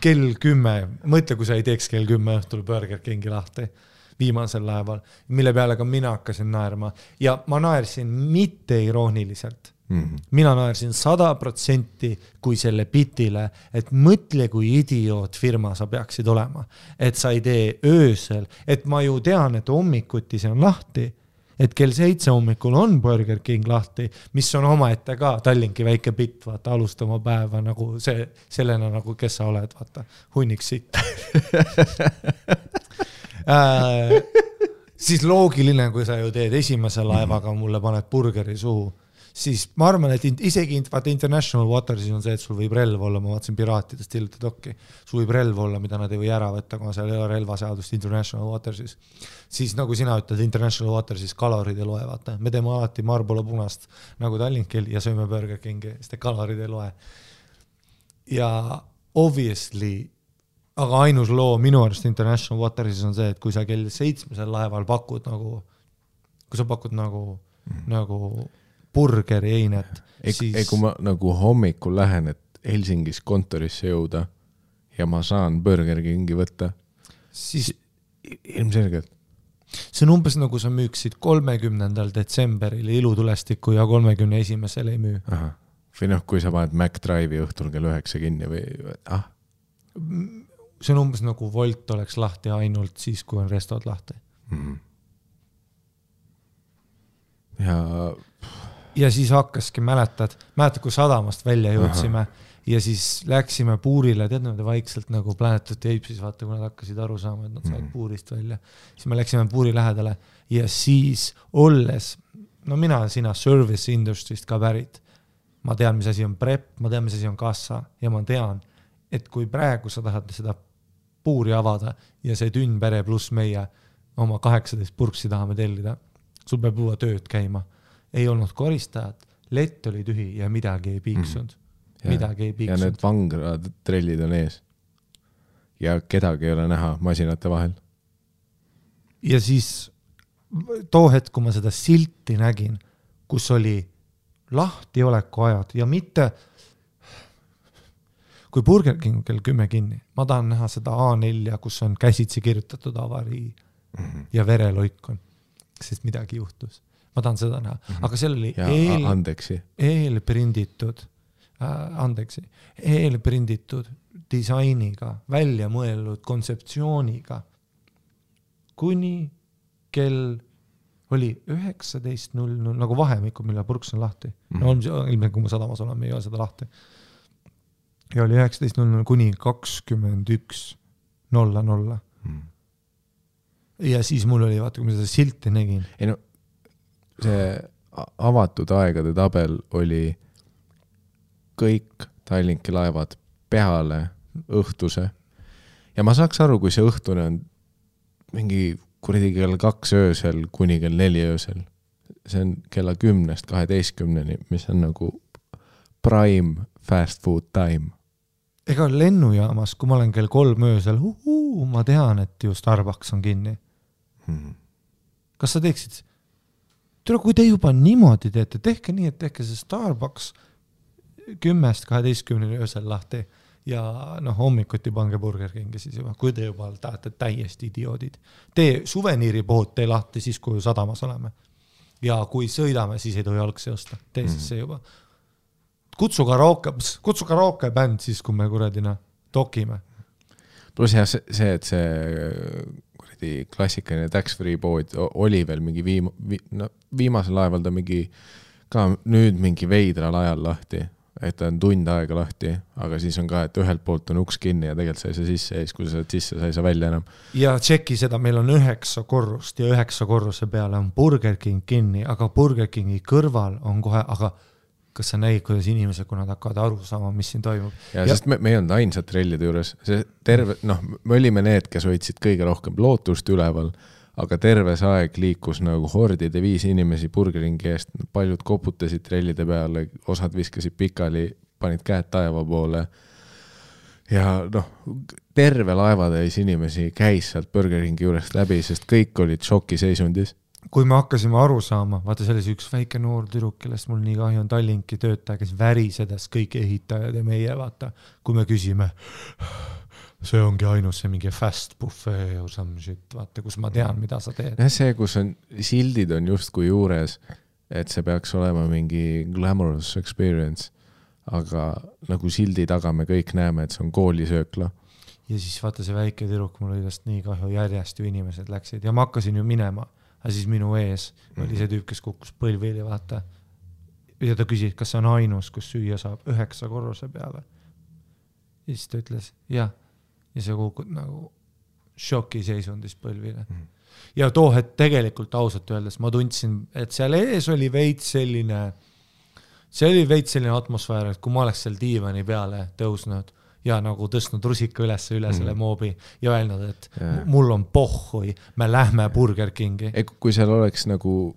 kell 10, mõtle, kui sa ei teeks kell 10 õhtul Burger Kingi lahti viimasel laeval, mille peale ka mina hakkasin naerma ja ma naersin mitte irooniliselt. Mina naersin 100% kui selle bitile, et mõtle, kui idioot firma sa peaksid olema, et sa ei tee öösel, et ma ju tean, et hommikuti see on lahti, et kell 7 hommikul on Burger King lahti, mis on omaette ka Tallinki väike bitt, vaata, alustama päeva nagu sellena nagu, kes sa oled, vaata, hunnik sitt. Siis loogiline, kui sa ju teed esimese laevaga, mulle paned burgeri suhu, siis ma arvan, et isegi vaata International Watersis on see, et sul võib relv olla, ma vaatasin Piraatidest hiljuti dokki, sul võib relv olla, mida nad ei või ära võtta, kuna seal ei ole relvaseadust International Watersis. Siis nagu sina ütled, International Watersis kalorid ei loe, vaata. Me teeme alati Marlboro punast nagu Tallinkil ja sööme Burger Kingi, sest kalorid ei loe. Ja obviously aga ainus loo minu arust International Watersis on see, et kui sa kell 7 laeval pakud nagu, kui sa pakud nagu burgeri einet, siis... Kui ma nagu hommikul lähen, et Helsingis kontorisse jõuda ja ma saan Burger Kingi võtta, siis ilmselgelt. See on umbes nagu sa müüksid 30. detsemberil ilutulestiku ja 31. ei müü. Aha. Või kui sa paned McDrive'i õhtul kell 9 kinni või... See on umbes nagu Volt oleks lahti ainult siis, kui on restod lahti. Ja siis hakkaski, mäletad, kui sadamast välja jõudsime ja siis läksime puurile, tead nad vaikselt nagu Planet of the Apes, vaata, kui nad hakkasid aru saama, et nad saavad puurist välja. Siis me läksime puuri lähedale ja siis olles, mina sina service industry'st ka pärit, ma tean, mis asi on prep, ma tean, mis asi on kassa ja ma tean, et kui praegu sa tahad seda puuri avada ja see tünn pere pluss meie oma 18 purksi tahame tellida, sul peab juba tööd käima. Ei olnud koristajat, lett oli tühi ja midagi ei piiksunud. Ja need vangrad trellid on ees. Ja kedagi ei ole näha masinate vahel. Ja siis too hetk, kui ma seda silti nägin, kus oli lahtioleku ajad ja mitte... Kui Burger King kell 10 kinni, ma tahan näha seda A4, kus on käsitsi kirjutatud avarii ja vereloikon, sest midagi juhtus. Ma tahan seda näha. Aga seal oli eelprinditud disainiga, välja mõeldud kontseptsiooniga, kuni kell oli 19.00, nagu vahemikud, mille purks on lahti. Ilmselt, kui ma sadamas olen, ei ole seda lahti. Ja oli 19.00 kuni 21.00. Ja siis mul oli, vaata, kui ma seda silti nägin. See avatud aegade tabel oli kõik Tallinki laevad peale õhtuse. Ja ma saaks aru, kui see õhtune on mingi kuradi kell 2 öösel kuni kell 4 öösel. See on kella 10-12, mis on nagu prime fast food time. Ega lennujaamas, kui ma olen kell 3 öösel, ma tean, et ju Starbucks on kinni. Kas sa teeksid? Kui te juba niimoodi teete, tehke nii, et tehke see Starbucks 10-12 öösel lahti ja hommikuti pange Burger Kingi siis juba, kui te juba tahate täiesti idioodid. Tee suveniiripood, tee lahti siis, kui sadamas oleme. Ja kui sõidame, siis ei tohi algse osta. Tee siis see juba. Kutsu karaoke bänd siis, kui me kuradina dokime. Plus jah, see, et see klassikaline tax-free pood oli veel mingi viimasel laeval ta ka nüüd mingi veidral ajal lahti, et ta on tund aega lahti, aga siis on ka, et ühelt poolt on uks kinni ja tegelikult sa ei saa sisse ees, kui sa saad sisse, sa ei saa välja enam. Ja tšeki seda, meil on 9 korrust ja 9 korruse peale on Burger King kinni, aga Burger Kingi kõrval on kohe, aga kas sa nägid, kuidas inimesed, kui nad hakkavad aru saama, mis siin toimub. Ja sest me ei olnud ainsad trellide juures, see terve, me olime need, kes hoidsid kõige rohkem lootust üleval, aga terve see aeg liikus nagu hordide 5 inimesi burgeringi eest, paljud koputasid trellide peale, osad viskasid pikali, panid käed taeva poole ja terve laevatäis inimesi käis sealt burgeringi juurest läbi, sest kõik olid šokiseisundis. Kui me hakkasime aru saama, vaata selles üks väike noor tüdruk, kellest mul nii kahju on Tallinki töötaja, kes värisedas kõik ehitajad ja meie, vaata, kui me küsime, see ongi ainus see mingi fast buffet or some shit, vaata, kus ma tean, mida sa teed. Ja see, kus on, sildid on justkui juures, et see peaks olema mingi glamorous experience, aga nagu sildi taga me kõik näeme, et see on koolisöökla. Ja siis vaata see väike tüdruk, mul oli tast nii kahju, järjest ju inimesed läksid ja ma hakkasin ju minema. Aga siis minu ees oli see tüüp, kes kukkus põlvili, vaata. Ja ta küsis, kas see on ainus, kus süüa saab 9 korruse peale. Ja siis ta ütles, jah. Ja see kukud nagu šokiseisundis põlvile. Ja et tegelikult ausalt öeldes ma tundsin, et seal ees oli veits selline atmosfäär, et kui ma oleks seal diivani peale tõusnud ja nagu tõstnud rusika üle selle moobi ja öelnud, et mul on pohhui, me lähme Burger Kingi. Kui seal oleks nagu,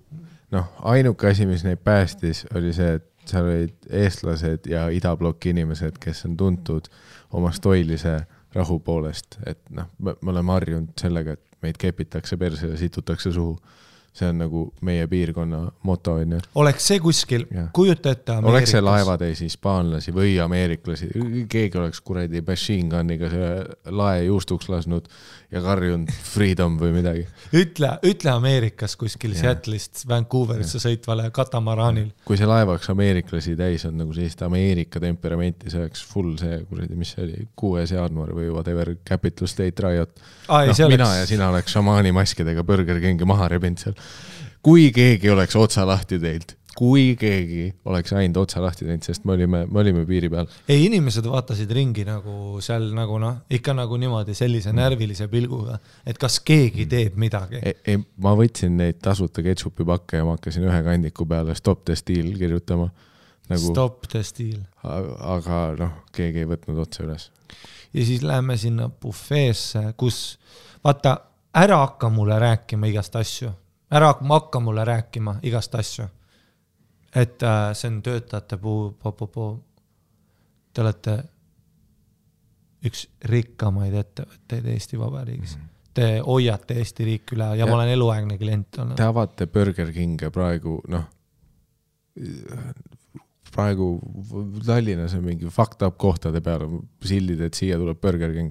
ainuke asi, mis neid päästis, oli see, et seal olid eestlased ja idabloki inimesed, kes on tuntud oma stoilise rahu poolest, et me oleme harjunud sellega, et meid kepitakse perse ja situtakse suhu. See on nagu meie piirkonna moto. Oleks see kuskil, kujuta ette Ameerikas. Oleks see laevatäis hispaanlasi või ameeriklasi. Keegi oleks kuradi machine gunniga see lae juustuks lasnud ja karjunud freedom või midagi. Ütle Ameerikas kuskil Seattle'ist Vancouverisse sõitvale katamaraanil. Kui see laevaks ameeriklasi täis on nagu sellist Ameerika temperamenti, see oleks full see, kuradi, mis see oli, 6. jaanuar või whatever, Capital State Riot. Mina ja sina oleks šamaani maskidega Burger Kingi maha rebinud seal. Kui keegi oleks otsa lahti teilt, kui keegi oleks ainult otsa lahti teinud, sest me olime piiri peal. Ei, inimesed vaatasid ringi nagu seal nagu ikka nagu niimoodi sellise närvilise pilguga, et kas keegi teeb midagi. Ei, ma võtsin neid tasuta ketšupi pakke ja ma hakkasin ühe kandiku peale Stop the Steal kirjutama. Nagu, Stop the Steal. Aga keegi ei võtnud otsa üles. Ja siis läheme sinna buffeesse, kus vaata, ära hakka mulle rääkima igast asju. Ära hakka mulle rääkima igast asju. Et see on töötajate te olete üks rikkamaid ettevõtteid Eesti Vabariigis. Te hoiate Eesti riik üle ja ma olen eluaegne klient. Te avate Burger Kinge praegu, praegu Tallinnas on mingi fucked up kohtade peale sildid, et siia tuleb Burger King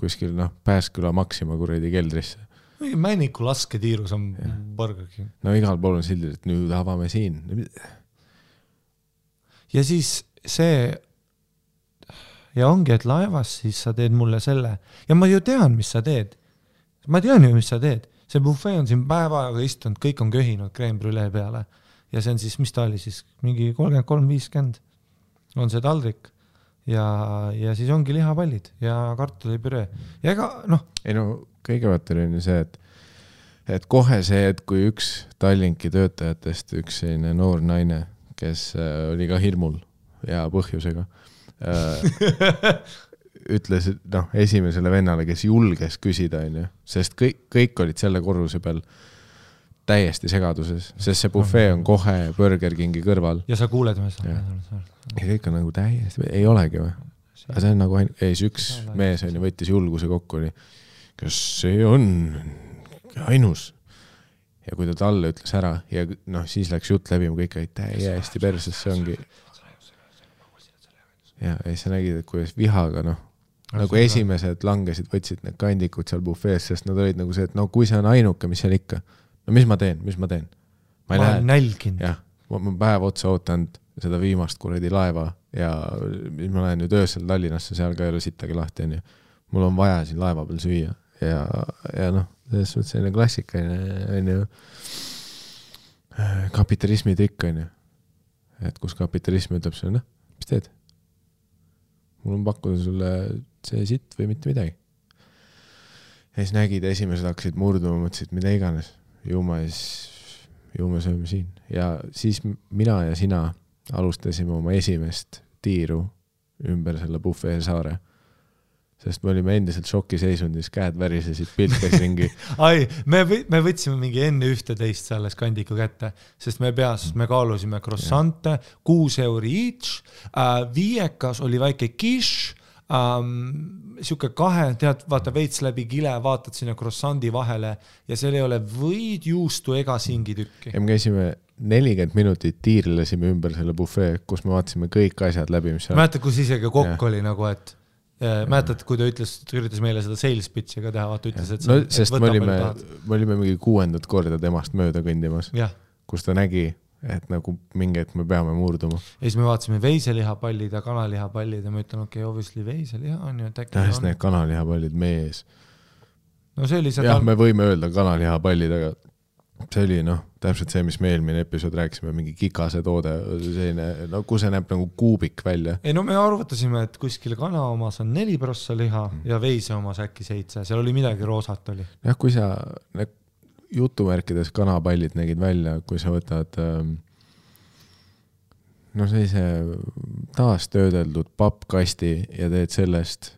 kuskil Pääsküla Maxima kuredi keldrisse. Männiku lasketiirus on Burger King. Igal pool on sildid, et nüüd avame siin. Ja siis see ja ongi, et laevas siis sa teed mulle selle ja ma ju tean, mis sa teed. Ma tean ju, mis sa teed. See buffet on siin päeva aega istunud, kõik on köhinud crème brûlée peale. Ja see on siis, mis ta oli siis, mingi 33-50 on see taldrik ja siis ongi lihapallid ja kartulipüree. Ja ega, Ei kõigepealt oli see, et kohe see, et kui üks Tallinki töötajatest, üks selline noor naine, kes oli ka hirmul ja põhjusega, ütles esimesele vennale, kes julges küsida, sest kõik olid selle korruse peal täiesti segaduses, sest see buffet on kohe Burger Kingi kõrval. Ja sa kuuled me seda. Ja kõik on nagu täiesti, ei olegi või? Aga see on nagu üks mees võttis julguse kokku, kas see on ainus? Ja kui ta talle ütles ära ja siis läks jutt läbi, kõik olid täiesti perses, see ongi. Ja sa nägid, et kuidas vihaga, nagu esimesed langesid, võtsid need kandikud seal buffees, sest nad olid nagu see, et kui see on ainuke, mis seal ikka. Mis ma teen? Ma olen nälginud. Jah, ma päev otsa ootanud seda viimast kuradi laeva ja ma lähen nüüd öösel Tallinnasse, seal ka ei ole sittagi lahti. Mul on vaja siin laeva peal süüa ja selles suhtes selline klassikaline kapitalismi trikk, et kus kapitalism ütleb sulle, mis teed? Mul on pakkuda sulle see sitt või mitte midagi. Ja siis nägid, esimesed hakkasid murduma, mõtlesid, mida iganes. Ju me sööme siin. Ja siis mina ja sina alustasime oma esimest tiiru ümber selle bufee saare. Sest me olime endiselt šokiseisundis, käed värisesid, pilt käis ringi. Ai, me võtsime mingi enne 11 selles kandiku kätte, sest me kaalusime croissante, 6 € each, viiekas oli väike kiš, siuke 2, tead, vaata veits läbi kile, vaatad sinna croissandi vahele ja seal ei ole võid, juustu ega singitükki. Ja me käisime 40 minutit tiirlesime ümber selle bufee, kus me vaatasime kõik asjad läbi, mis seal... Mäletad, kus isegi kokk oli nagu, et mäletad, kui ta üritas meile seda sales pitchi ka teha, vaata ütles, et... No, sest me olime mingi 6. korda temast mööda kõndimas, kus ta nägi, et nagu mingi, et me peame murduma. Ja siis me vaatasime veiselihapallid ja kanalihapallid ja ma ütlen, okei, obviously veiseliha on ju, et äkki on. Need kanalihapallid meie ees. No see oli seda... Jah, me võime öelda kanalihapallid, aga see oli täpselt see, mis me eelmine episood rääkisime, mingi kikase toode, selline, kui see näeb nagu kuubik välja. Ei, me arvutasime, et kuskil kana omas on 4% liha ja veise omas äkki 7, seal oli midagi roosat oli. Jah, kui sa jutumärkides kanapallid nägid välja, kui sa võtad sellise taastöödeldud pappkasti ja teed sellest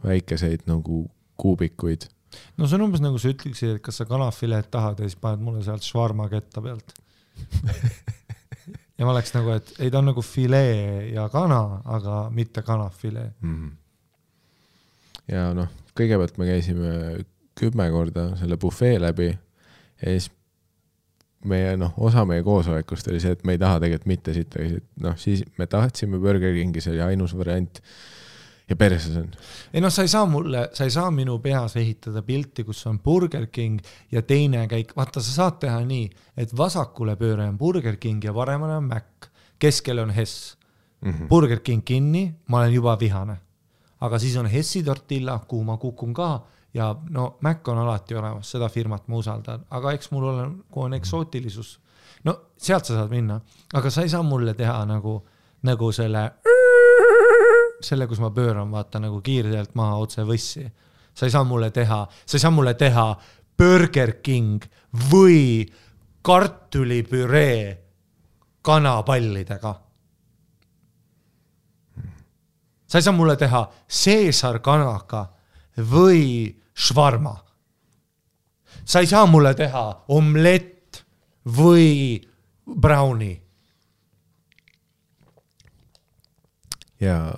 väikeseid nagu kuubikuid. No see on umbes nagu sa ütleksid, et kas sa kanafileet tahad ja siis paned mulle sealt švarma ketta pealt. Ja ma oleks nagu, et ei ta on nagu filee ja kana, aga mitte kanafilee. Ja kõigepealt me käisime 10 korda selle bufee läbi ja siis osa meie koosolekust oli see, et me ei taha tegelikult mitte sitta. Siis me tahtsime Burger Kingi, see oli ainus variant. Ja perses on. Ei sa ei saa minu peas ehitada pilti, kus on Burger King ja teine käik. Vaata, sa saad teha nii, et vasakule pööre on Burger King ja paremale on Mac. Keskel on Hess. Burger King kinni, ma olen juba vihane. Aga siis on Hessi tortilla, kuhu ma kukun ka ja Mac on alati olemas, seda firmat ma usaldan. Aga eks mul on eksootilisus. Sealt sa saad minna. Aga sa ei saa mulle teha nagu selle, kus ma pööran, vaata nagu kiirelt maha otse võssi. Sa ei saa mulle teha Burger King või kartulipüree kanapallidega. Sa ei saa mulle teha Caesar kanaga või švarma. Sa ei saa mulle teha omlett või brownie. Ja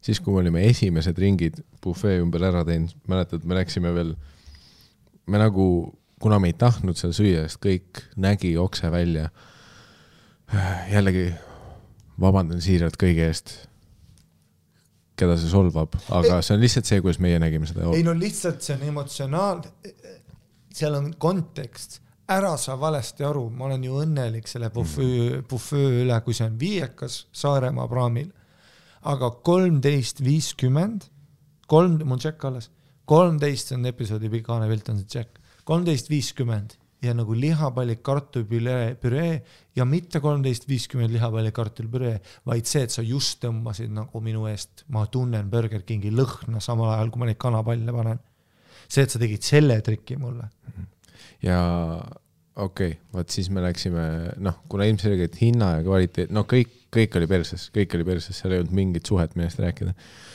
siis, kui me olime esimesed ringid bufee ümber ära teinud, mäletad, me läksime veel, kuna me ei tahtnud seal süüa, sest kõik nägi okse välja. Jällegi vabandan siiralt kõige eest, keda see solvab, aga see on lihtsalt see, kuidas meie nägime seda. Ei, lihtsalt see on emotsionaal, seal on kontekst, ära sa valesti aru, ma olen ju õnnelik selle bufee üle, kui see on viiekas Saaremaa praamil. Aga 13.50, mul tšekk alles, 13 on episoodi pikane pilt on see tšekk, 13.50 ja nagu lihapallik kartulipüree ja mitte 13.50 lihapallik kartulipüree, vaid see, et sa just tõmbasid nagu minu eest, ma tunnen Burger Kingi lõhna samal ajal, kui ma neid kanapalle panen. See, et sa tegid selle triki mulle. Ja okei, vaat siis me läksime, kuna ilmselgelt hinna ja kvaliteet, kõik oli perses, seal ei olnud mingit suhet millest rääkida.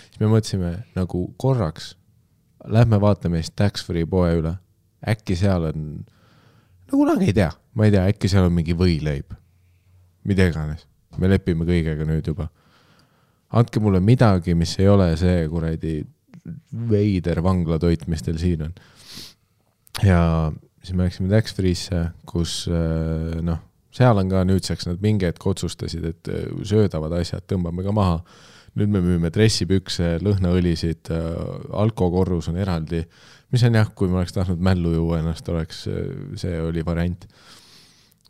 Siis me mõtlesime nagu korraks, lähme vaatame siis tax-free poe üle. Äkki seal on, kunagi ei tea, ma ei tea, äkki seal on mingi võileib. Mida iganes. Me lepime kõigega nüüd juba. Andke mulle midagi, mis ei ole see kuradi veider vanglatoit, mis teil siin on. Ja siis me läksime tax-free'sse, kus seal on ka nüüdseks nad mingi hetk otsustasid, et söödavad asjad tõmbame ka maha. Nüüd me müüme dressipükse, lõhnaõlisid, alkokorrus on eraldi, mis on jah, kui ma oleks tahtnud mällu juua ennast, see oli variant.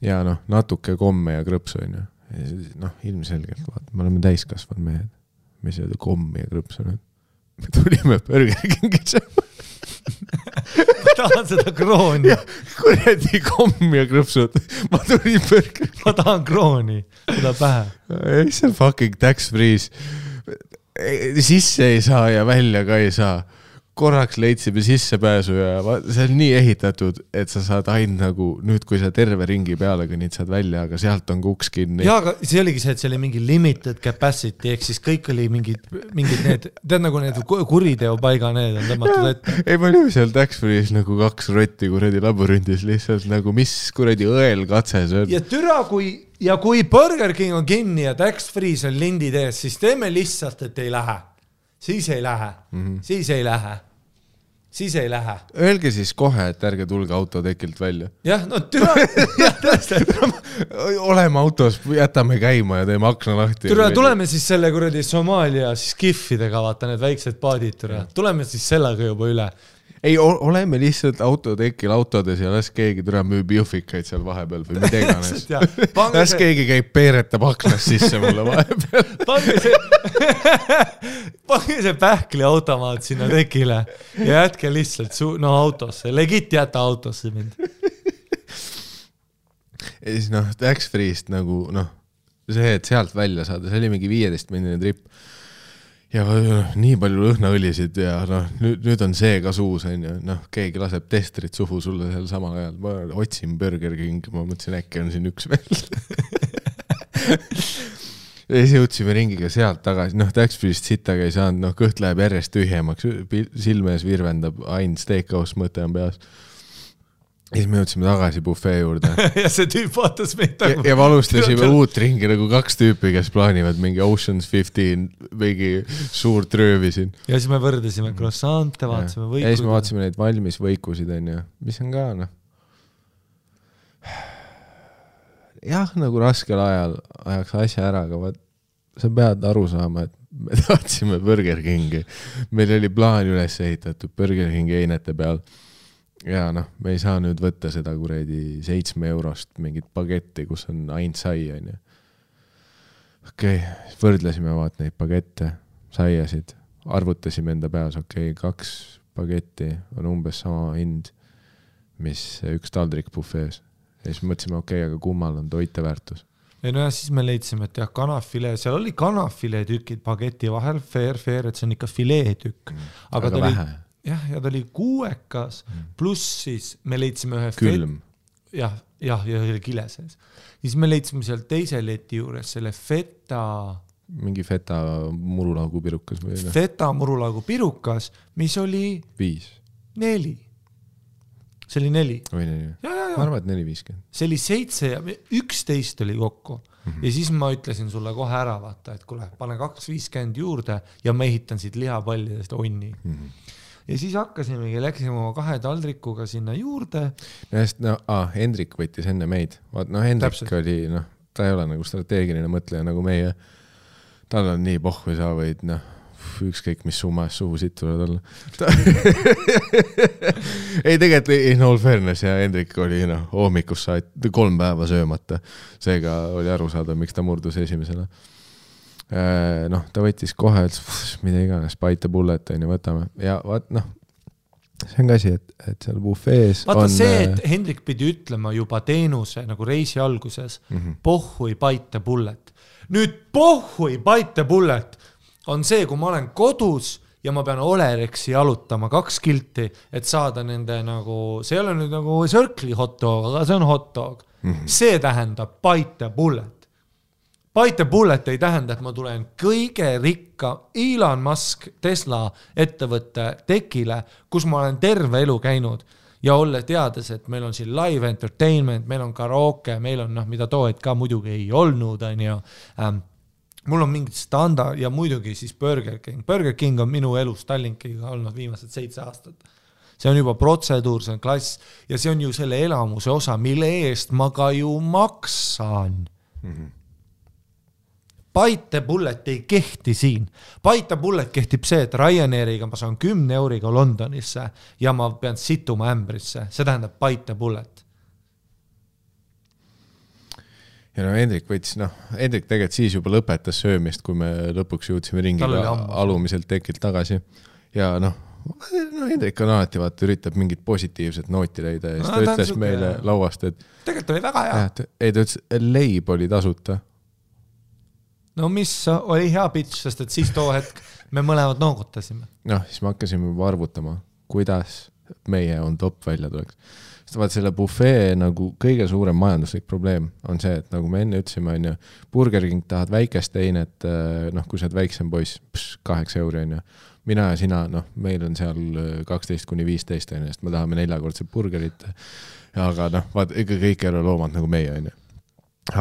Ja natuke komme ja krõpsu on ju. Ilmselgelt, vaata, me oleme täiskasvad mehed. Me ei sööda kommi ja krõpsu nüüd. Me tulime Burger Kingisse. Ma tahan seda krooni. Kuredi komm ja krõpsud. Ma tulin Burger. Ma tahan krooni. Seda pähe. Ei, see on fucking tax-freeze. Sisse ei saa ja välja ka ei saa. korraks leidsime sissepääsu ja see on nii ehitatud, et sa saad ainult nagu nüüd, kui sa terve ringi peale kõnnid, saad välja, aga sealt on uks kinni. Jaa, aga see oligi see, et see oli mingi limited capacity, ehk siis kõik oli mingid need, tead nagu need kuriteopaiga need on tõmmatud ette. Ei, ma olin seal Tax-Free's nagu 2 rotti kuradi labürindis lihtsalt nagu mis kuradi õelkatse see on. Ja türa, kui Burger King on kinni ja Tax-Free's on lindid ees, siis teeme lihtsalt, et ei lähe. Siis ei lähe. Siis ei lähe. Öelge siis kohe, et ärge tulge autotekilt välja. Jah, no türa. Oleme autos, jätame käima ja teeme akna lahti. Türa, tuleme siis selle kuradi Somaalia siis kiffidega, vaata need väiksed paadid, türa. Tuleme siis sellega juba üle. Ei, oleme lihtsalt autotekil autodes ja las keegi türa müüb jõhvikaid seal vahepeal või mida iganes. Las keegi käib peeretab aknas sisse mulle vahepeal. Pange see pähkli automaat sinna tekile ja jätke lihtsalt autosse. Legit jäta autosse mind. Ja siis Tax-Free'st nagu see, et sealt välja saada, see oli mingi 15-minine trip. Ja nii palju lõhnaõlisid ja nüüd on see ka suus, keegi laseb testerit suhu sulle seal samal ajal. Ma otsin Burger King, ma mõtlesin, äkki on siin üks veel. Ja siis jõudsime ringiga sealt tagasi. Tax-Free'st sittaga ei saanud, kõht läheb järjest tühjemaks, silmees virvendab, ainult steakhouse mõte on peas. Ja siis me jõudsime tagasi buffet juurde. Ja see tüüp vaatas meid nagu... Ja alustasime uut ringi nagu 2 tüüpi, kes plaanivad mingi Ocean's 15, mingi suur tröövi siin. Ja siis me võrdesime croissante, vaatasime võikusid. Ja siis me vaatasime neid valmis võikusid, mis on ka, jah, nagu raskel ajal ajaks asja ära, aga sa pead aru saama, et me tahtsime Burger Kingi. Meil oli plaan üles ehitatud Burger Kingi einete peal. Ja me ei saa nüüd võtta seda kuredi 7 eurost mingit pagetti, kus on ainult sai. Okei, võrdlesime vaat neid pagette, saiasid, arvutasime enda peas, 2 pagetti on umbes sama hind, mis üks taldrik buffees. Ja siis mõtlesime, aga kummal on toiteväärtus. Ja siis me leidsime, et jah, kanafile, seal oli kanafile tükid pageti vahel, fair, et see on ikka filee tükk. Aga ta vähe. Ja ta oli 6, pluss siis me leidsime ühe külm. Ja oli kile sees. Siis me leidsime seal teise leti juures selle feta... Mingi feta murulaugu pirukas või? Feta murulaugu pirukas, mis oli... 5. 4. See oli 4. Või 4. Ma arvan, et 4.50. See oli 7 ja 11 oli kokku. Ja siis ma ütlesin sulle kohe ära, vaata, et kuule, pane 2.50 juurde ja ma ehitan siit lihapallidest onni. Ja siis hakkasimegi, läksime oma 2 taldrikuga sinna juurde. Hendrik võttis enne meid. Hendrik täpselt. Oli, ta ei ole nagu strateegiline mõtleja nagu meie. Tal on nii pohhu sa võid, ükskõik mis summas suhu siit tuleb olla. Ei, tegelikult in all fairness ja Hendrik oli hoomikus 3 päeva söömata. Seega oli aru saada, miks ta murdus esimesena. Ta võttis kohe, mida iganes, bite the bullet võtame. Ja see on ka asi, et seal buffees vaata on... see, et Hendrik pidi ütlema juba teenuse nagu reisi alguses, pohhui bite the bullet. Nüüd pohhui bite the bullet on see, kui ma olen kodus ja ma pean Olerexi jalutama 2 kilti, et saada nende nagu, see ei ole nüüd nagu Circle'i hot dog, aga see on hot dog. See tähendab bite the bullet. Bite the bullet ei tähenda, et ma tulen kõige rikka Elon Musk Tesla ettevõtte tekile, kus ma olen terve elu käinud ja olla teades, et meil on siin live entertainment, meil on karaoke, meil on mida toed ka muidugi ei olnud. Mul on mingid standard ja muidugi siis Burger King. Burger King on minu elus Tallinkiga olnud viimased 7 aastat. See on juba protseduur, see on klass ja see on ju selle elamuse osa, mille eest ma ka ju maksan. Bite the bullet ei kehti siin. Bite the bullet kehtib see, et Ryanairiga ma saan 10 euriga Londonisse ja ma pean situma ämbrisse. See tähendab bite the bullet. Ja Hendrik võttis, Hendrik tegelikult siis juba lõpetas söömist, kui me lõpuks jõudsime ringiga alumiselt tekilt tagasi. Ja Hendrik on alati üritab mingit positiivset nooti leida ja siis ta ütles meile lauast, et tegelikult oli väga hea. Ei, ta ütles, leib oli tasuta. No mis oli hea pitch, sest et siis too hetk me mõlemad noogutasime. Noh, siis me hakkasime juba arvutama, kuidas meie on top välja tuleks. Sest vaat selle buffee nagu kõige suurem majanduslik probleem on see, et nagu me enne ütlesime, on ju, Burger King tahad väikest teinet, noh, kui sa oled väiksem poiss, 8 euri on ju. Mina ja sina, noh, meil on seal 12-15 on ju, sest me tahame 4-kordset burgerit, aga noh, vaat, ikka kõik ei ole loomad nagu meie on ju.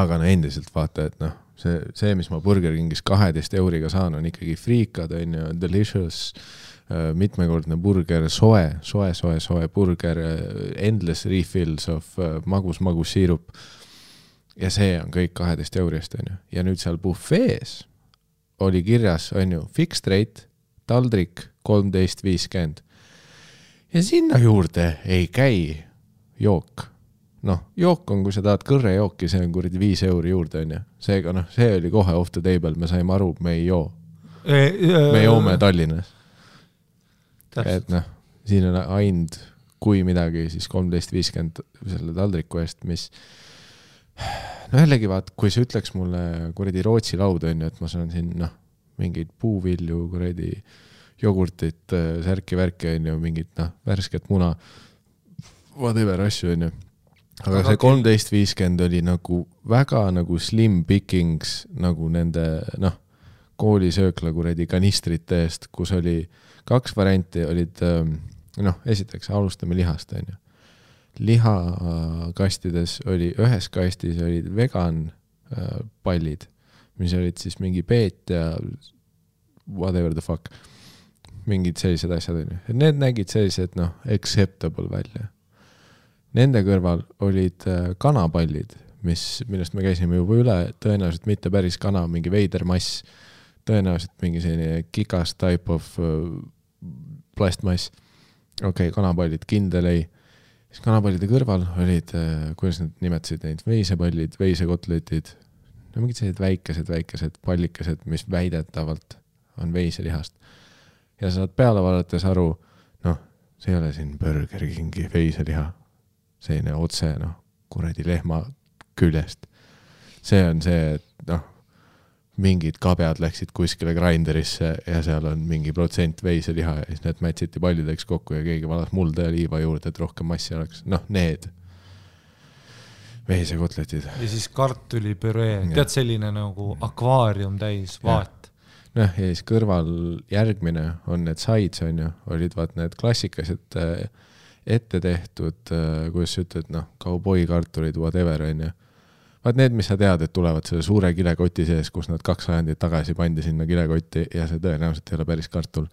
Aga no endiselt vaata, et noh, see, mis ma Burger Kingis 12 euriga saan, on ikkagi friikad, on ju, delicious, mitmekordne burger, soe burger, endless refills of magus siirup. Ja see on kõik 12 eurist, on ju. Ja nüüd seal buffees oli kirjas, on ju, fixed rate, taldrik 13.50. Ja sinna juurde ei käi jook. Noh, jook on, kui sa tahad kõrrejooki, see on kuradi 5 euri juurde, on ju. Seega, noh, see oli kohe off the table, me saime aru, me ei joo. Me joome Tallinnas. Et noh, siin on aind, kui midagi, siis 13.50 selle taldriku eest, mis no jällegi vaat, kui sa ütleks mulle kuradi Rootsi laud on ju, et ma saan siin noh, mingeid puuvilju, kuradi jogurtit, särki-värki on ju, mingit noh, värsket muna, whatever asju on ju. Aga see 13.50 oli nagu väga nagu slim pickings nagu nende noh, koolisöökla kuradi kanistrite eest, kus oli 2 varianti, olid noh, esiteks alustame lihast on ju. Lihakastides oli, ühes kastis olid vegan pallid, mis olid siis mingi peet ja whatever the fuck, mingid sellised asjad on ju. Need nägid sellised noh, acceptable välja. Nende kõrval olid kanapallid, millest me käisime juba üle, tõenäoliselt mitte päris kana, mingi veider mass, tõenäoliselt mingi selline kikas type of plastmass. Okei, kanapallid, kindel ei. Siis kanapallide kõrval olid, kuidas nad nimetasid neid, veisepallid, veisekotletid, no mingid sellised väikesed pallikesed, mis väidetavalt on veiselihast. Ja saad peale vaadates aru, noh, see ei ole siin Burger Kingi veiseliha, selline otse, noh, kuradi lehma küljest. See on see, et noh, mingid kabjad läksid kuskile grinderisse ja seal on mingi protsent veiseliha ja siis need mätsiti pallideks kokku ja keegi valas mulda ja liiva juurde, et rohkem massi oleks. Noh, need veisekotletid. Ja siis kartulipüree, tead selline nagu akvaarium täis vaat. Noh, ja siis kõrval järgmine on need sides, on ju, olid vaat need klassikased ette tehtud, kuidas sa ütled, noh, kauboikartulid, whatever, on ju. Vaat need, mis sa tead, et tulevad selle suure kilekoti sees, kus nad 2 sajandit tagasi pandi sinna kilekotti ja see tõenäoliselt ei ole päris kartul.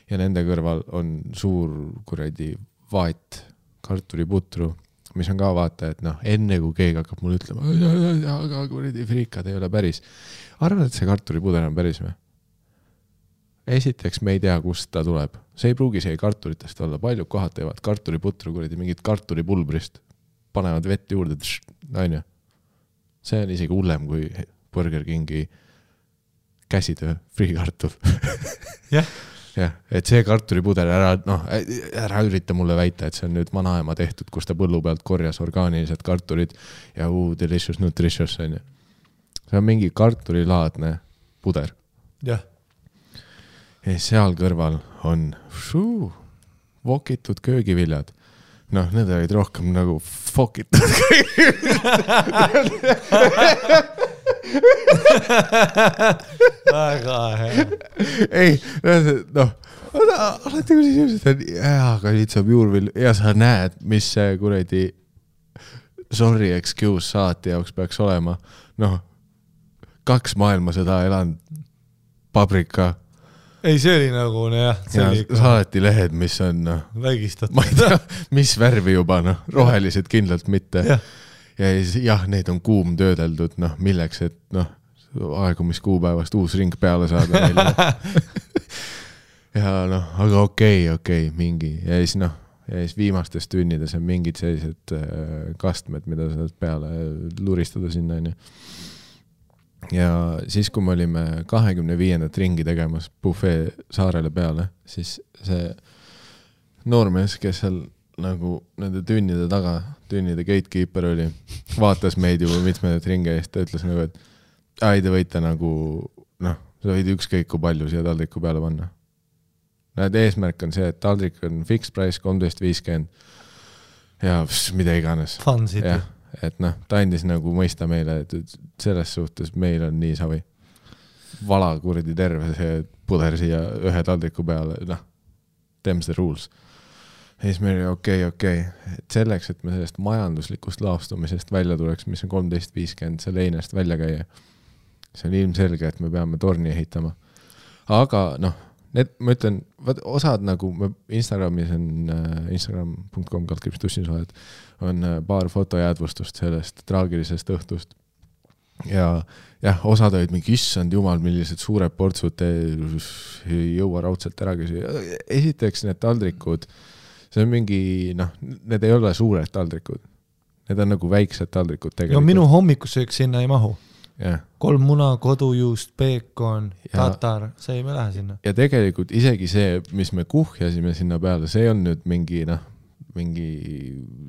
Ja nende kõrval on suur kuradi vaat kartuliputru, mis on ka vaata, et noh, enne kui keegi hakkab mulle ütlema, aga kuradi friikad ei ole päris. Arvad, et see kartulipuder on päris või? Esiteks me ei tea, kust ta tuleb. See ei pruugi see kartulitest olla. Paljud kohad teevad kartuliputru kuradi mingit kartulipulbrist. Panevad vett juurde, on ju. See on isegi hullem kui Burger Kingi käsitöö friikartul. Jah. Jah, et see kartulipuder ära ürita mulle väita, et see on nüüd vanaema tehtud, kus ta põllu pealt korjas orgaanilised kartulid ja delicious nutritious on ju. See on mingi kartulilaadne puder. Jah. Ja seal kõrval on vokitud köögiviljad. Noh, need olid rohkem nagu fokitud. Väga hea. Ei, noh, alati kui siis inimesed on, aga nüüd saab juurvill ja sa näed, mis see kuradi sorry excuse saati jaoks peaks olema. Noh, 2 maailmasõda elanud paprika. Ei, see oli nagu, jah. Saati lehed, mis on, noh, vägistatud. Ma ei tea, mis värvi juba, noh, rohelised kindlalt mitte. Ja jah, need on kuum töödeldud, noh, milleks, et noh, aegumiskuupäevast uus ring peale saada. Ja noh, aga okei, mingi. Ja siis noh, ja siis viimastes tünnides on mingid sellised kastmed, mida saad peale luristada sinna, on ju. Ja siis, kui me olime 25. ringi tegemas buffet saarele peale, siis see noormees, kes seal nagu nende tünnide taga, tünnide gatekeeper oli, vaatas meid juba mitmeid ringe eest, ta ütles nagu, et te võite nagu, noh, sa võid ükskõik kui palju siia taldriku peale panna. Eesmärk on see, et taldrik on fixed price 13.50 ja mida iganes. Fun city. Ja, et noh, ta andis nagu mõista meile, et selles suhtes meil on nii savi. Vala kuradi terve see puder siia ühe taldriku peale, noh, them's the rules. Ja siis meil oli okei. Et selleks, et me sellest majanduslikust laastumisest välja tuleks, mis on 13.50 selle einest välja käia, see on ilmselge, et me peame torni ehitama. Aga noh, ma ütlen, osad nagu Instagramis on instagram.com/tussinsvahed on paar fotojäädvustust sellest traagilisest õhtust. Ja jah, osad olid mingi issand jumal, millised suured portsud ei jõua raudselt ära küsida. Esiteks need taldrikud, see on mingi, noh, need ei ole suured taldrikud. Need on nagu väiksed taldrikud tegelikult. Ja minu hommikusöök sinna ei mahu. Yeah. 3 muna, kodujuust, peekon, tatar, see ei me lähe sinna. Ja tegelikult isegi see, mis me kuhjasime sinna peale, see on nüüd mingi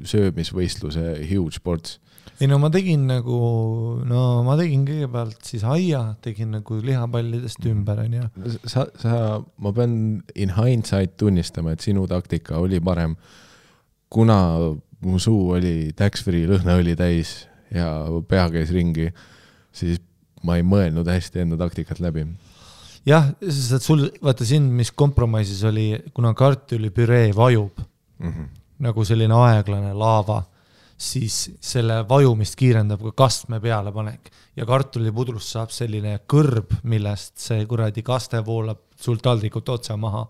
söömisvõistluse huge sports. Ei no ma tegin kõigepealt siis aia, tegin nagu lihapallidest ümber. Ma pean in hindsight tunnistama, et sinu taktika oli parem, kuna mu suu oli tax-free lõhnaõli täis ja pea käis ringi, siis ma ei mõelnud hästi enda taktikat läbi. Jah, sest sul, vaata siin, mis kompromissis oli, kuna kartulipüree vajub, nagu selline aeglane laava, siis selle vajumist kiirendab ka kastme peale panek. Ja kartulipudrust saab selline kõrb, millest see kuradi kaste voolab sul taldrikult otsa maha.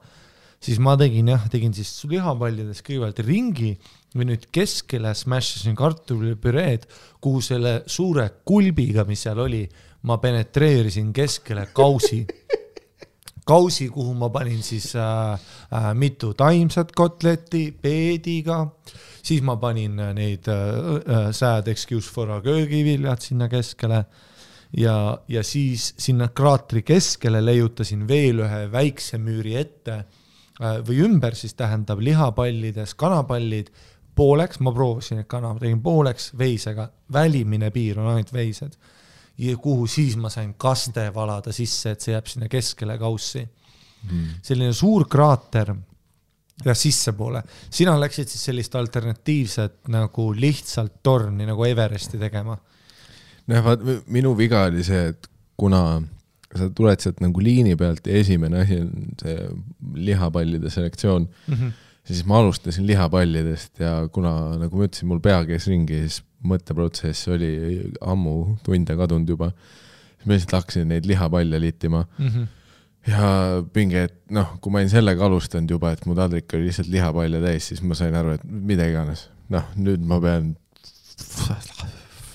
Siis ma tegin siis lihapallides kõigepealt ringi või nüüd keskele smashisin kartulipüreed, kuhu selle suure kulbiga, mis seal oli, ma penetreerisin keskele kausi, kuhu ma panin siis mitu taimsat kotletti peediga, siis ma panin neid sad excuse for a köögiviljad sinna keskele ja siis sinna kraatri keskele leiutasin veel ühe väikse müüri ette või ümber siis tähendab lihapallides kanapallid pooleks, ma proovisin, et kana tegin pooleks veisega, välimine piir on ainult veised ja kuhu siis ma sain kaste valada sisse, et see jääb sinna keskele kaussi. Selline suur kraater ja sisse poole. Sina läksid siis sellist alternatiivset nagu lihtsalt torni nagu Everesti tegema. No, minu viga oli see, et kuna sa tuled sealt nagu liini pealt ja esimene asi on see lihapallide selektsioon, siis ma alustasin lihapallidest ja kuna, nagu ma ütlesin, mul pea käis ringi, siis mõtteprotsess oli ammu tunde kadunud juba, siis ma lihtsalt hakkasin neid lihapalle liitima ja pinge, et noh, kui ma olin sellega alustanud juba, et mu taldrik oli lihtsalt lihapalle täis, siis ma sain aru, et mida iganes. Noh, nüüd ma pean,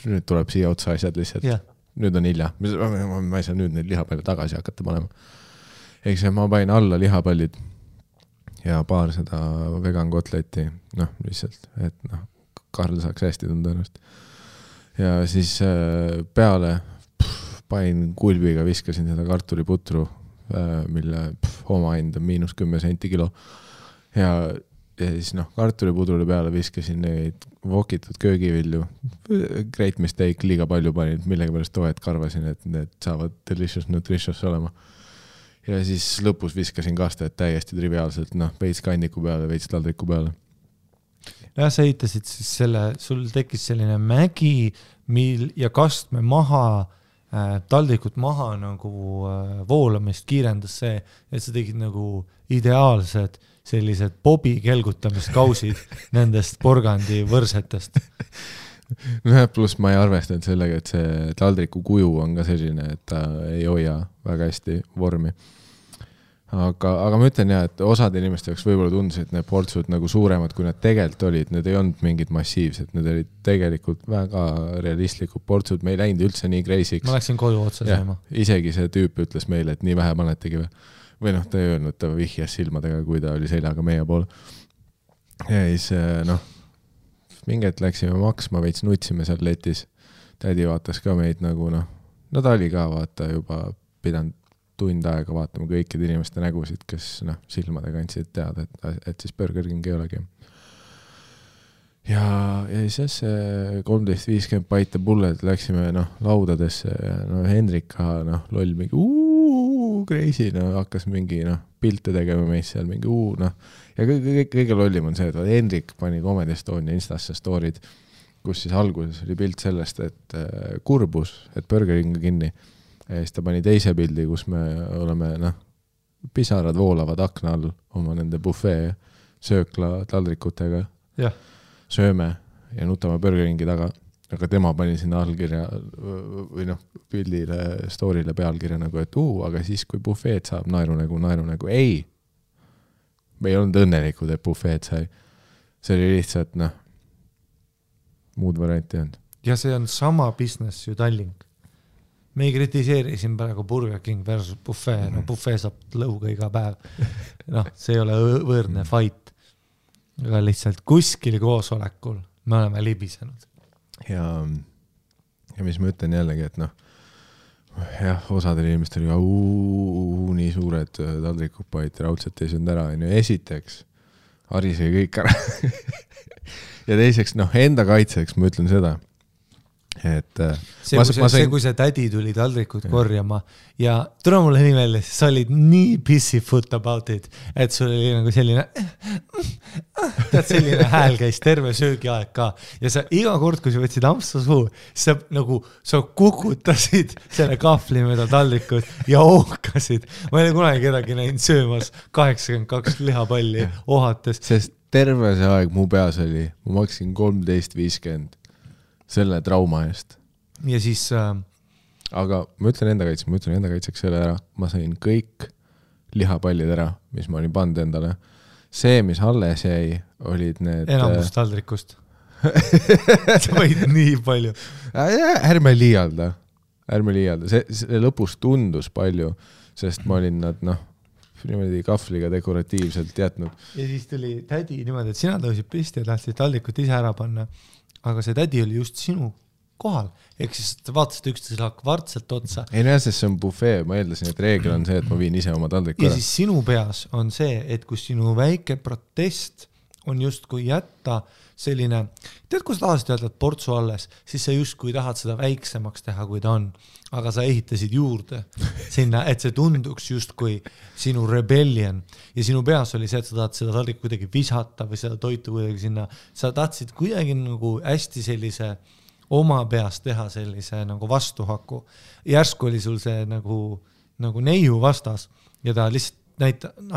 nüüd tuleb siia otsa asjad lihtsalt. Nüüd on hilja. Ma ei saa nüüd neid lihapalle tagasi hakata panema. Eks ma pain alla lihapallid ja paar seda vegan kotletti, noh, lihtsalt, et noh, Karl saaks hästi tunda ennast. Ja siis peale pain kulbiga, viskasin seda kartuliputru, mille oma hind on -10 senti kilo. Ja siis noh, kartulipudrule peale viskasin neid vokitud köögivilju. Great mistake, liiga palju panin, millega pärast toet karvasin, et need saavad delicious nutritious olema. Ja siis lõpus viskasin kastet täiesti triviaalselt, noh, veits kanniku peale, veits taldriku peale. Ja sa ehitasid siis sul tekkis selline mägi ja kastme maha, taldrikut maha nagu voolamist kiirendas see, et sa tegid nagu ideaalsed sellised bobi kelgutamiskausid nendest porgandi võrsetest. No, pluss ma ei arvestanud sellega, et see taldriku kuju on ka selline, et ta ei hoia väga hästi vormi. Aga ma ütlen jah, et osad inimeste jaoks võib-olla tundusid need portsud nagu suuremad, kui nad tegelikult olid. Need ei olnud mingid massiivsed, need olid tegelikult väga realistlikud portsud. Me ei läinud üldse nii kreisiks. Ma läksin koju otsa sööma. Isegi see tüüp ütles meile, et nii vähe panetegi või noh, ta ei öelnud, ta vihjas silmadega, kui ta oli seljaga meie pool. Ja siis noh, minget läksime maksma, veits nutsime seal letis. Tädi vaatas ka meid nagu noh, no ta oli ka vaata juba pidanud tund aega vaatama kõikide inimeste nägusid, kes noh, silmadega andsid teada, et siis Burger King ei olegi. Ja siis 13.50 paite pulled läksime noh, laudadesse ja no Hendrik ka noh, loll mingi crazy, no hakkas mingi pilte tegema meist seal, mingi ja kõige lollim on see, et Hendrik pani Comedy Estonia Instasse story'd, kus siis alguses oli pilt sellest, et kurbus, et Burger King kinni ja siis ta pani teise pildi, kus me oleme, pisarad voolavad akna all oma nende buffet söökla taldrikutega, sööme ja nutame Burger Kingi taga. Aga tema pani sinna allkirja või pildile, story'le pealkirja nagu, et aga siis kui buffeed saab naeru nagu, ei. Me ei olnud õnnelikud, et buffeed sai. See oli lihtsalt, muud varianti olnud. Ja see on sama business ju Tallink. Me ei kritiseeri siin praegu Burger King versus buffet, buffet saab lõuga iga päev. See ei ole võõrne fight. Aga lihtsalt kuskil koosolekul me oleme libisenud. Ja mis ma ütlen jällegi, et jah, osadel inimestel nii suured taldrikupaid raudselt ei söönud ära. Esiteks, harisegi kõik ära. Ja teiseks, enda kaitseks ma ütlen seda, et kui see tädi tuli taldrikud korjama ja tule mulle nii välja, sa olid nii pissifoot about it, et sul oli nagu selline tead, selline hääl käis terve söögiaeg ka ja sa iga kord, kui sa võtsid ampsu suu, sa kukutasid selle kahvli mööda taldrikud ja ohkasid. Ma ei ole kunagi kedagi näinud söömas 82 lihapalli ohates. Sest terve see aeg mu peas oli, ma maksin 13.50 selle trauma eest. Ja siis aga ma ütlen enda kaitseks selle ära. Ma sain kõik lihapallid ära, mis ma olin pannud endale. See, mis alles jäi, olid need enamus taldrikust. Sa võid nii palju. Ärme liialda. See lõpus tundus palju, sest ma olin nad niimoodi kahvliga dekoratiivselt jätnud. Ja siis tuli tädi niimoodi, et sina tõusid pisti ja tahtsid taldrikut ise ära panna. Aga see tädi oli just sinu kohal. Ehk siis vaatasid üksteisele kvartselt otsa. Ei näe, sest see on buffet. Ma eeldasin, et reegel on see, et ma viin ise oma taldriku ära. Ja siis sinu peas on see, et kui sinu väike protest on just kui jätta selline, tead, kui sa tahasid öelda, et portsu alles, siis sa just kui tahad seda väiksemaks teha, kui ta on. Aga sa ehitasid juurde sinna, et see tunduks just kui sinu rebellion. Ja sinu peas oli see, et sa tahad seda taldrikku kuidagi visata või seda toitu kuidagi sinna. Sa tahtsid kuidagi nagu hästi sellise oma peas teha sellise nagu vastuhaku. Järsku oli sul see nagu neiu vastas ja ta lihtsalt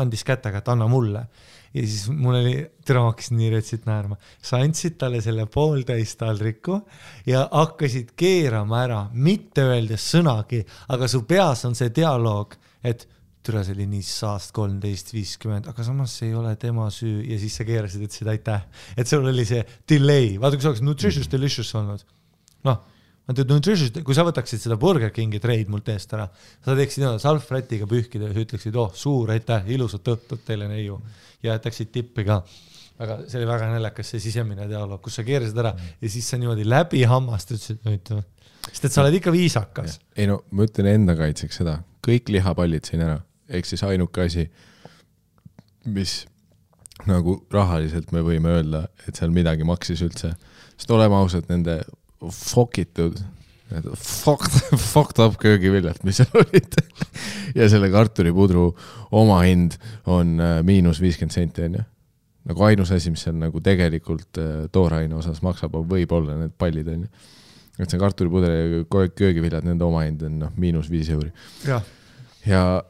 andis kätega, et anna mulle. Ja siis mul oli, tere hakkas nii retsit naerma. Sa andsid talle selle pooltäis taldriku ja hakkasid keerama ära, mitte öeldes sõnagi, aga su peas on see dialoog, et türa see oli nii saast 13.50, aga samas see ei ole tema süü ja siis sa keerasid, ütlesid aitäh. Et sul oli see delay, vaata kui sa oleks nutritious delicious olnud. Kui sa võtaksid seda Burger Kingi treid mult eest ära, sa teeksid salvrätiga pühkida ja sa ütleksid, suur aitäh, ilusat õhtut teile neiu ja jätaksid tippi ka. Aga see oli väga näljakas see sisemine dialoog, kus sa keerasid ära ja siis sa niimoodi läbi hammast ütlesid, sest et sa oled ikka viisakas. Ei ma ütlen enda kaitseks seda, kõik lihapallid siin ära, ehk siis ainuke asi, mis nagu rahaliselt me võime öelda, et seal midagi maksis üldse, sest oleme ausalt nende fokitud, fucked up köögiviljalt, mis seal olid ja selle kartulipudru oma hind on -50 senti on ju. Nagu ainus asi, mis seal nagu tegelikult tooraine osas maksab, võib-olla need pallid on ju. Et see kartulipudru ja köögiviljad, nende oma hind on -5 euri. Ja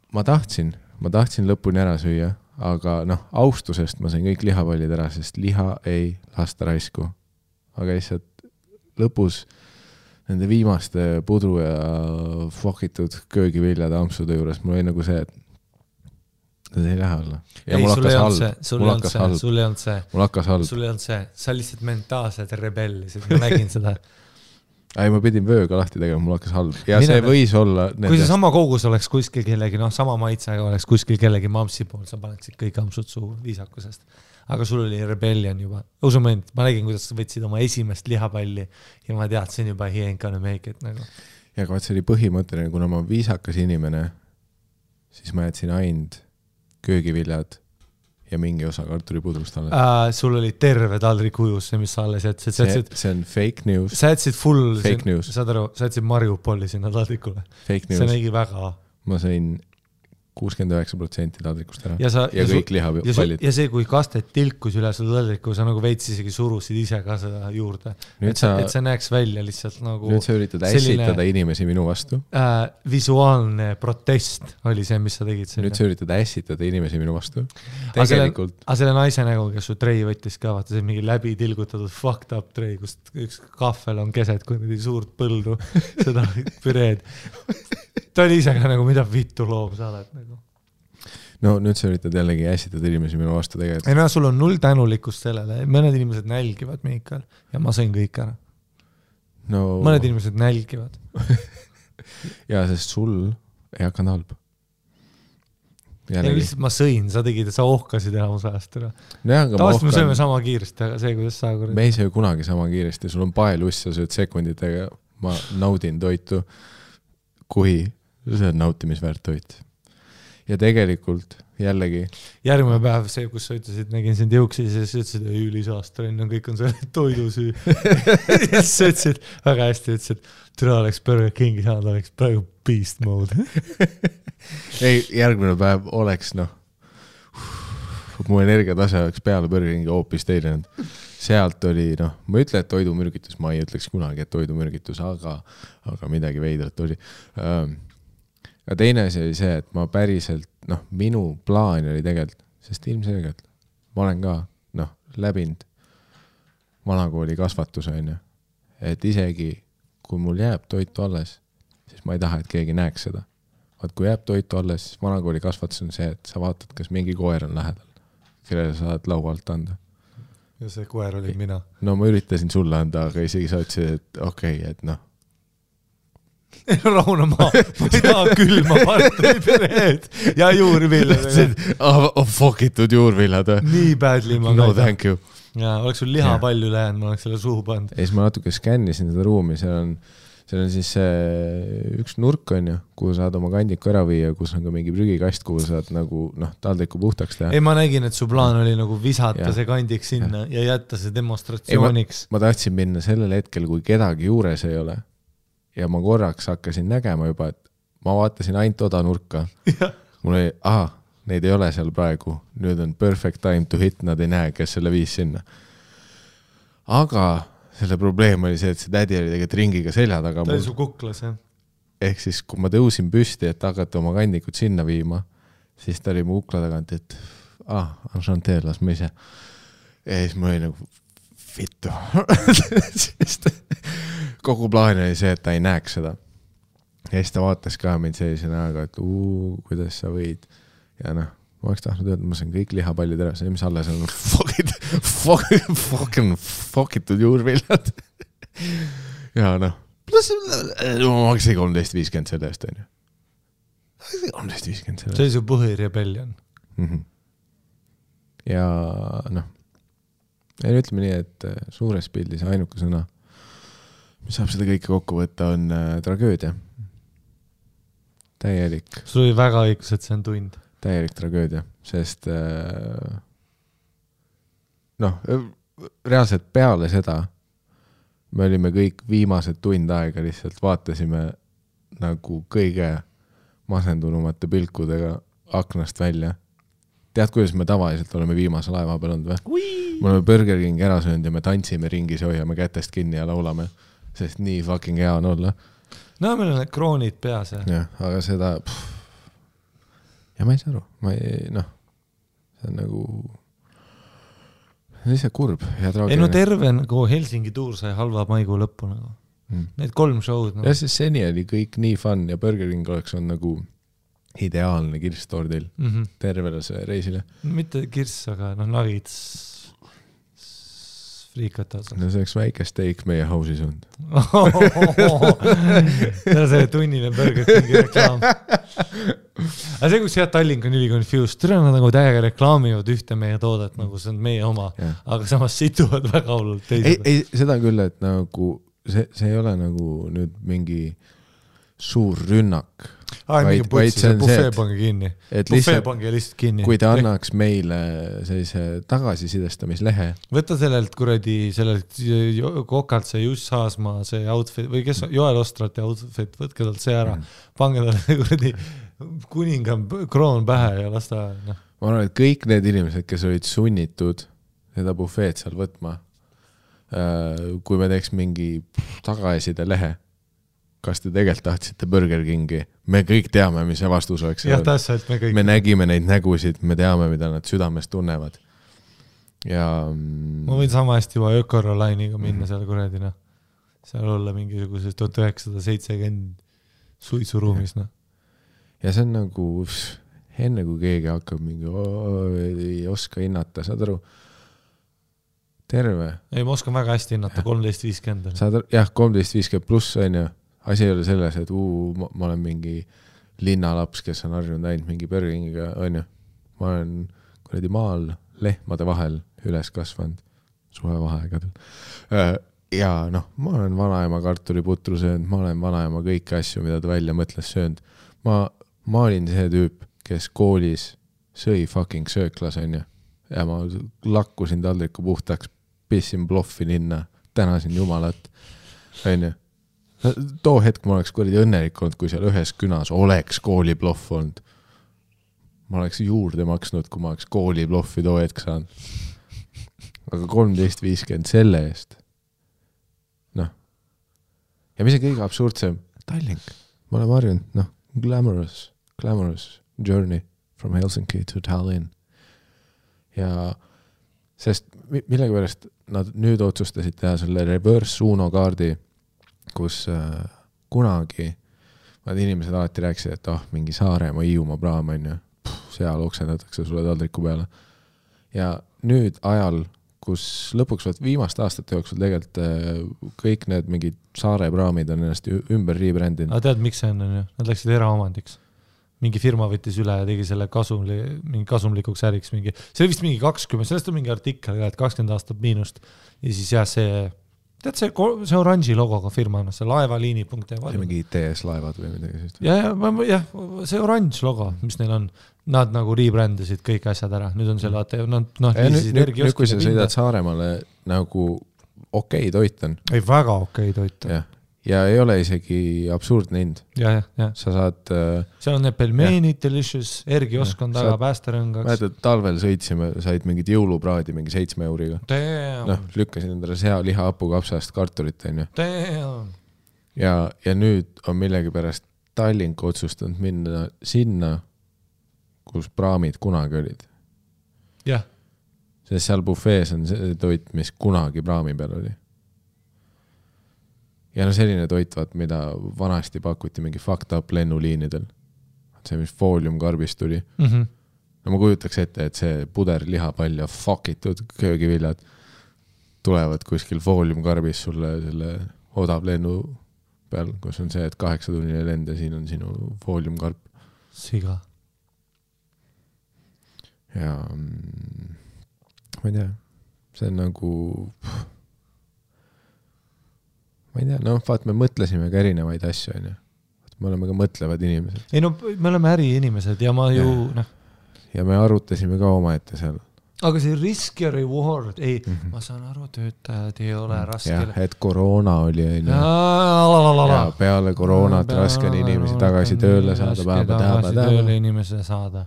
ma tahtsin lõpuni ära süüa, aga austusest ma sain kõik lihapallid ära, sest liha ei lasta raisku. Aga lihtsalt lõpus nende viimaste pudru ja fokitud köögiviljade ampsude juures mul oli nagu see, et see ei lähe alla. Ja ei, sul ei olnud see. Sa lihtsalt mentaalselt rebellisid, ma nägin seda. Ei, ma pidin vööga lahti tegema, mul hakkas halb. Ja see võis olla... Kui see sama kogus oleks kuskil kellegi, sama maitsega oleks kuskil kellegi mamsi pool, sa paneksid kõik ampsud suu viisakusest. Aga sul oli rebellion juba. Usumend, ma nägin, kuidas sa võtsid oma esimest lihapalli ja ma teadsin juba he ain't gonna make it nagu. Ja aga see oli põhimõtteline, kuna ma viisakas inimene, siis ma jätsin ainult köögiviljad ja mingi osa kartulipudrust alles. Sul oli terve taldrik ujus, see, mis sa alles jätsid. See on fake news. Sa jätsid full, saad aru, sa jätsid Mariupoli sinna taldrikule. Fake news. See nägi väga. Ma sain 69% taldrikust ära. Ja kõik lihapallid. Ja see, kui kastet tilkus üle seda taldriku, sa nagu veits isegi surusid ise ka seda juurde. Et see näeks välja lihtsalt nagu... Nüüd sa üritad ässitada inimesi minu vastu. Visuaalne protest oli see, mis sa tegid. Nüüd sa üritad ässitada inimesi minu vastu. Tegelikult... Aga selle naise nägu, kes su trei võttis ka, vaata see mingi läbi tilgutatud fucked up trei, kus üks kahvel on keset, kui nüüd suurt põldu seda püreed. Ta oli ise ka nagu, mida vittu loom sa oled nagu. No nüüd sa üritad jällegi ässitada inimesi minu vastu tegelikult. Ei no, sul on null tänulikkust sellele. Mõned inimesed nälgivad Miikal ja ma sõin kõik ära. No... Mõned inimesed nälgivad. ja sest sul ei hakanud halb. Ja lihtsalt ma sõin, sa tegid, sa ohkasid enamus ajast ära. Tavaliselt me sööme sama kiiresti, aga see, kuidas sa... Me ei söö kunagi sama kiiresti, sul on paeluss, sa sööd sekunditega, ma naudin toitu, kui see on nautimisväärt toit. Ja tegelikult jällegi... Järgmine päev see, kus sa ütlesid, nägin sind jõuksi, siis sa ütlesid, et ülisaastren on, kõik on selle toidusüü. Ja siis sa ütlesid, väga hästi ütlesid, türa oleks Burger Kingi saanud, oleks praegu beast mode. Ei, järgmine päev oleks, mu energiatase oleks peale Burger Kingi hoopis teilenud. Sealt oli, ma ütle, et toidumürgitus, ma ei ütleks kunagi, et toidumürgitus, aga midagi veidrat oli. Ja teine asi oli see, et ma päriselt, minu plaan oli tegelikult, sest ilmselgelt ma olen ka, läbinud vanakooli kasvatuse, et isegi kui mul jääb toitu alles, siis ma ei taha, et keegi näeks seda. Vaat kui jääb toitu alles, siis vanakooli kasvatus on see, et sa vaatad, kas mingi koer on lähedal, kellele sa saad laua alt anda. Ja see koer oli mina. No ma üritasin sulle anda, aga isegi sa ütlesid, et okei, et Rauna ma ei taha külma parteipereed ja juurvillad. Fokitud juurvillad. Nii badly ma no thank you. Ja oleks sul liha palju lähenud, ma oleks selle suhu pand. Ja siis ma natuke skännisin seda ruumi, seal on siis üks nurk on ju, kuhu saad oma kandiku ära viia, kus on ka mingi prügikast, kuhu saad nagu taldriku puhtaks teha. Ei, ma nägin, et su plaan oli nagu visata see kandik sinna ja jätta see demonstratsiooniks. Ma tahtsin minna sellel hetkel, kui kedagi juures ei ole. Ja ma korraks hakkasin nägema juba, et ma vaatasin ainult oda nurka. Mul oli, neid ei ole seal praegu. Nüüd on perfect time to hit, nad ei näe, kes selle viis sinna. Aga selle probleem oli see, et see tädi oli tegelikult ringiga selja taga. Ta oli su kuklas, jah? Ehk siis, kui ma tõusin püsti, et hakata oma kandikut sinna viima, siis ta oli mu kukla tagant, et enchanté, las ma ise. Ja siis ma oli nagu vittu. Sest kogu plaan oli see, et ta ei näeks seda. Ja siis ta vaatas ka mind sellise näoga, et kuidas sa võid. Ja ma oleks tahtnud öelda, ma sain kõik lihapallid ära, see mis alles on fuckitud juurvillad. Ja pluss ma maksin 13.50 selle eest, on ju. 13.50 selle eest. See oli su põhirebellion. Ja ütleme nii, et suures pildis ainuke sõna, mis saab seda kõike kokku võtta, on tragöödia. Täielik. Sul oli väga õigus, et see on tund. Täielik tragöödia, sest reaalselt peale seda me olime kõik viimased tund aega lihtsalt vaatasime nagu kõige masendunumate pilkudega aknast välja. Tead, kuidas me tavaliselt oleme viimase laeva peal olnud või? Me oleme Burger King ära söönud ja me tantsime ringis ja hoiame kätest kinni ja laulame, sest nii fucking hea on olla. No, meil on need kroonid peas. Ja, aga seda... Ja ma ei saa aru. See on nagu... See on lihtsalt kurb ja traagiline. Ei no terve nagu Helsingi tuur sai halva maikuu lõppu nagu. Need 3 show'd. Ja siis seni oli kõik nii fun ja Burger King oleks on nagu ideaalne kirstordil tervele see reisile. Mitte kirss, aga nagits friikata. No see oleks väike steak meie house'is on. See on see tunnine Burger Kingi reklaam. Aga see, kus Tallink on üli confused, türa nad nagu täiega reklaamivad ühte meie toodet, nagu see on meie oma, aga samas situvad väga hullult teised. Ei, seda küll, et nagu see ei ole nagu nüüd mingi suur rünnak. mingi putsi, see bufee pange kinni. Bufee pange lihtsalt kinni. Kui ta annaks meile sellise tagasisidestamislehe. Võta sellelt kokalt see Juss Haasmaa see outfit või kes Joel Ostrati outfit, võtke talt see ära. Pange talle kuradi kuninga kroon pähe ja lasta. No. Ma arvan, et kõik need inimesed, kes olid sunnitud seda bufeed seal võtma, kui me teeks mingi tagaeside lehe, kas te tegelikult tahtsite Burger Kingi? Me kõik teame, mis see vastus oleks. Jah, täpselt, me kõik. Me nägime neid nägusid, me teame, mida nad südames tunnevad. Ja... Ma võin sama hästi juba Ökorolainiga minna seal kuradina. Seal olla mingisuguses 1970 suitsuruumis. No. Ja see on nagu, enne kui keegi hakkab mingi, ei oska hinnata, saad aru, terve. Ei, ma oskan väga hästi hinnata, 13.50. Jah, 13.50 pluss on ju. Asi ei ole selles, et ma olen mingi linnalaps, kes on harjunud ainult mingi Burgeringiga, on ju. Ma olen kuradi maal lehmade vahel üles kasvanud suvevaheaegadel. Ja noh, ma olen vanaema kartuliputru söönud, ma olen vanaema kõiki asju, mida ta välja mõtles söönud. Ma olin see tüüp, kes koolis sõi fucking sööklas, on ju. Ja ma lakkusin taldriku puhtaks, pissin bloffi linna, tänasin jumalat, on ju. Too hetk ma oleks kuradi õnnelik olnud, kui seal ühes künas oleks koolibloff olnud. Ma oleks juurde maksnud, kui ma oleks koolibloffi too hetk saanud. Aga 13.50 selle eest. Noh. Ja mis on kõige absurdsem? Tallink. Ma olen harjunud, noh, glamorous journey from Helsinki to Tallinn. Ja sest millegi pärast nad nüüd otsustasid teha selle reverse Uno kaardi, kus kunagi nad inimesed alati rääkisid, et mingi Saaremaa Hiiumaa praam on ju, seal oksendatakse sulle taldriku peale. Ja nüüd ajal, kus lõpuks viimaste aastate jooksul tegelikult kõik need mingid Saare praamid on ennast ümber rebrändinud. Aga tead, miks see on ju? Nad läksid eraomandiks. Mingi firma võttis üle ja tegi selle mingi kasumlikuks äriks. See oli vist mingi 20, sellest on mingi artikkel, et 20 aastat miinust. Ja siis jah, tead see oranži logoga firma, see laevaliini.ee. See mingi TS laevad või midagi. Ja, see oranž logo, mis neil on, nad nagu rebrändasid kõik asjad ära. Nüüd on selle nüüd kui sa sõidad Saaremaale nagu okei toit on. Ei, väga okei toit on. Ja ei ole isegi absurdne hind. Ja. Sa saad... seal on need pelmeenid, delicious, Ergiosk on taga päästerõngaks. Mäletad, talvel sõitsime, said mingid jõulupraadi mingi 7 euriga. Lükkasin endale liha hapukapsast kartulit, on ju. Ja nüüd on millegi pärast Tallink otsustanud minna sinna, kus praamid kunagi olid. Jah. Sest seal bufees on see toit, mis kunagi praami peal oli. Ja selline toit, mida vanasti pakuti mingi fucked up lennuliinidel. See, mis fooliumkarbist tuli. No ma kujutaks ette, et see puder lihapall ja fuckitud köögiviljad tulevad kuskil fooliumkarbis sulle selle odav lennu peal, kus on see, et 8-tunnine lend ja siin on sinu fooliumkarp. Siga. Ja ma ei tea, see on nagu... Ma ei tea, vaat me mõtlesime ka erinevaid asju, on ju. Me oleme ka mõtlevad inimesed. Ei me oleme äriinimesed ja ma ju... Ja me arutasime ka omaette seal. Aga see risk ja reward, ma saan aru, töötajad ei ole raske. Jah, et koroona oli, on ju. Ja peale koroonat raske on inimesi tagasi tööle saada. Tööle inimese saada.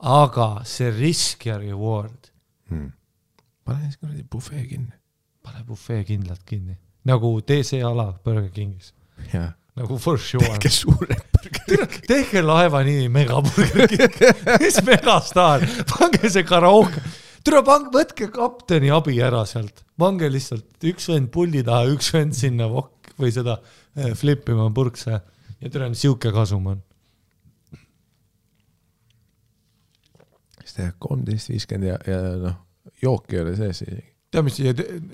Aga see risk ja reward. Pane siis bufee kinni. Pane bufee kindlalt kinni. Nagu DC ala Burger Kingis. Ja. Nagu for sure. Tehke suured Burger King. Tehke laeva nimi Mega Burger King. Mis megastar. Pange see karaoke. Tule võtke kapteni abi ära sealt. Pange lihtsalt üks vend puldi taha, üks vend sinna või seda flippima purkse. Ja tule siuke kasum on. Siis teha 13.50 ja jook ei ole sees isegi.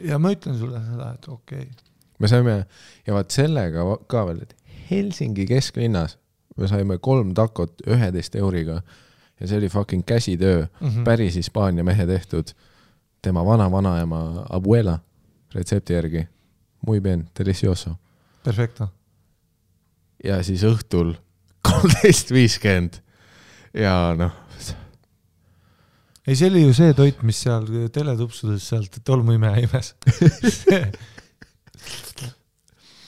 Ja ma ütlen sulle seda, et okei. Me saime, ja vaat sellega ka veel, et Helsingi kesklinnas me saime 3 takot 11 euriga ja see oli fucking käsitöö, päris Hispaania mehe tehtud, tema vanaema abuela retsepti järgi. Muy bien, delicioso. Perfecto. Ja siis õhtul 13.50 ja noh. Ei, see oli ju see toit, mis seal teletupsudes sealt tolmuime imes.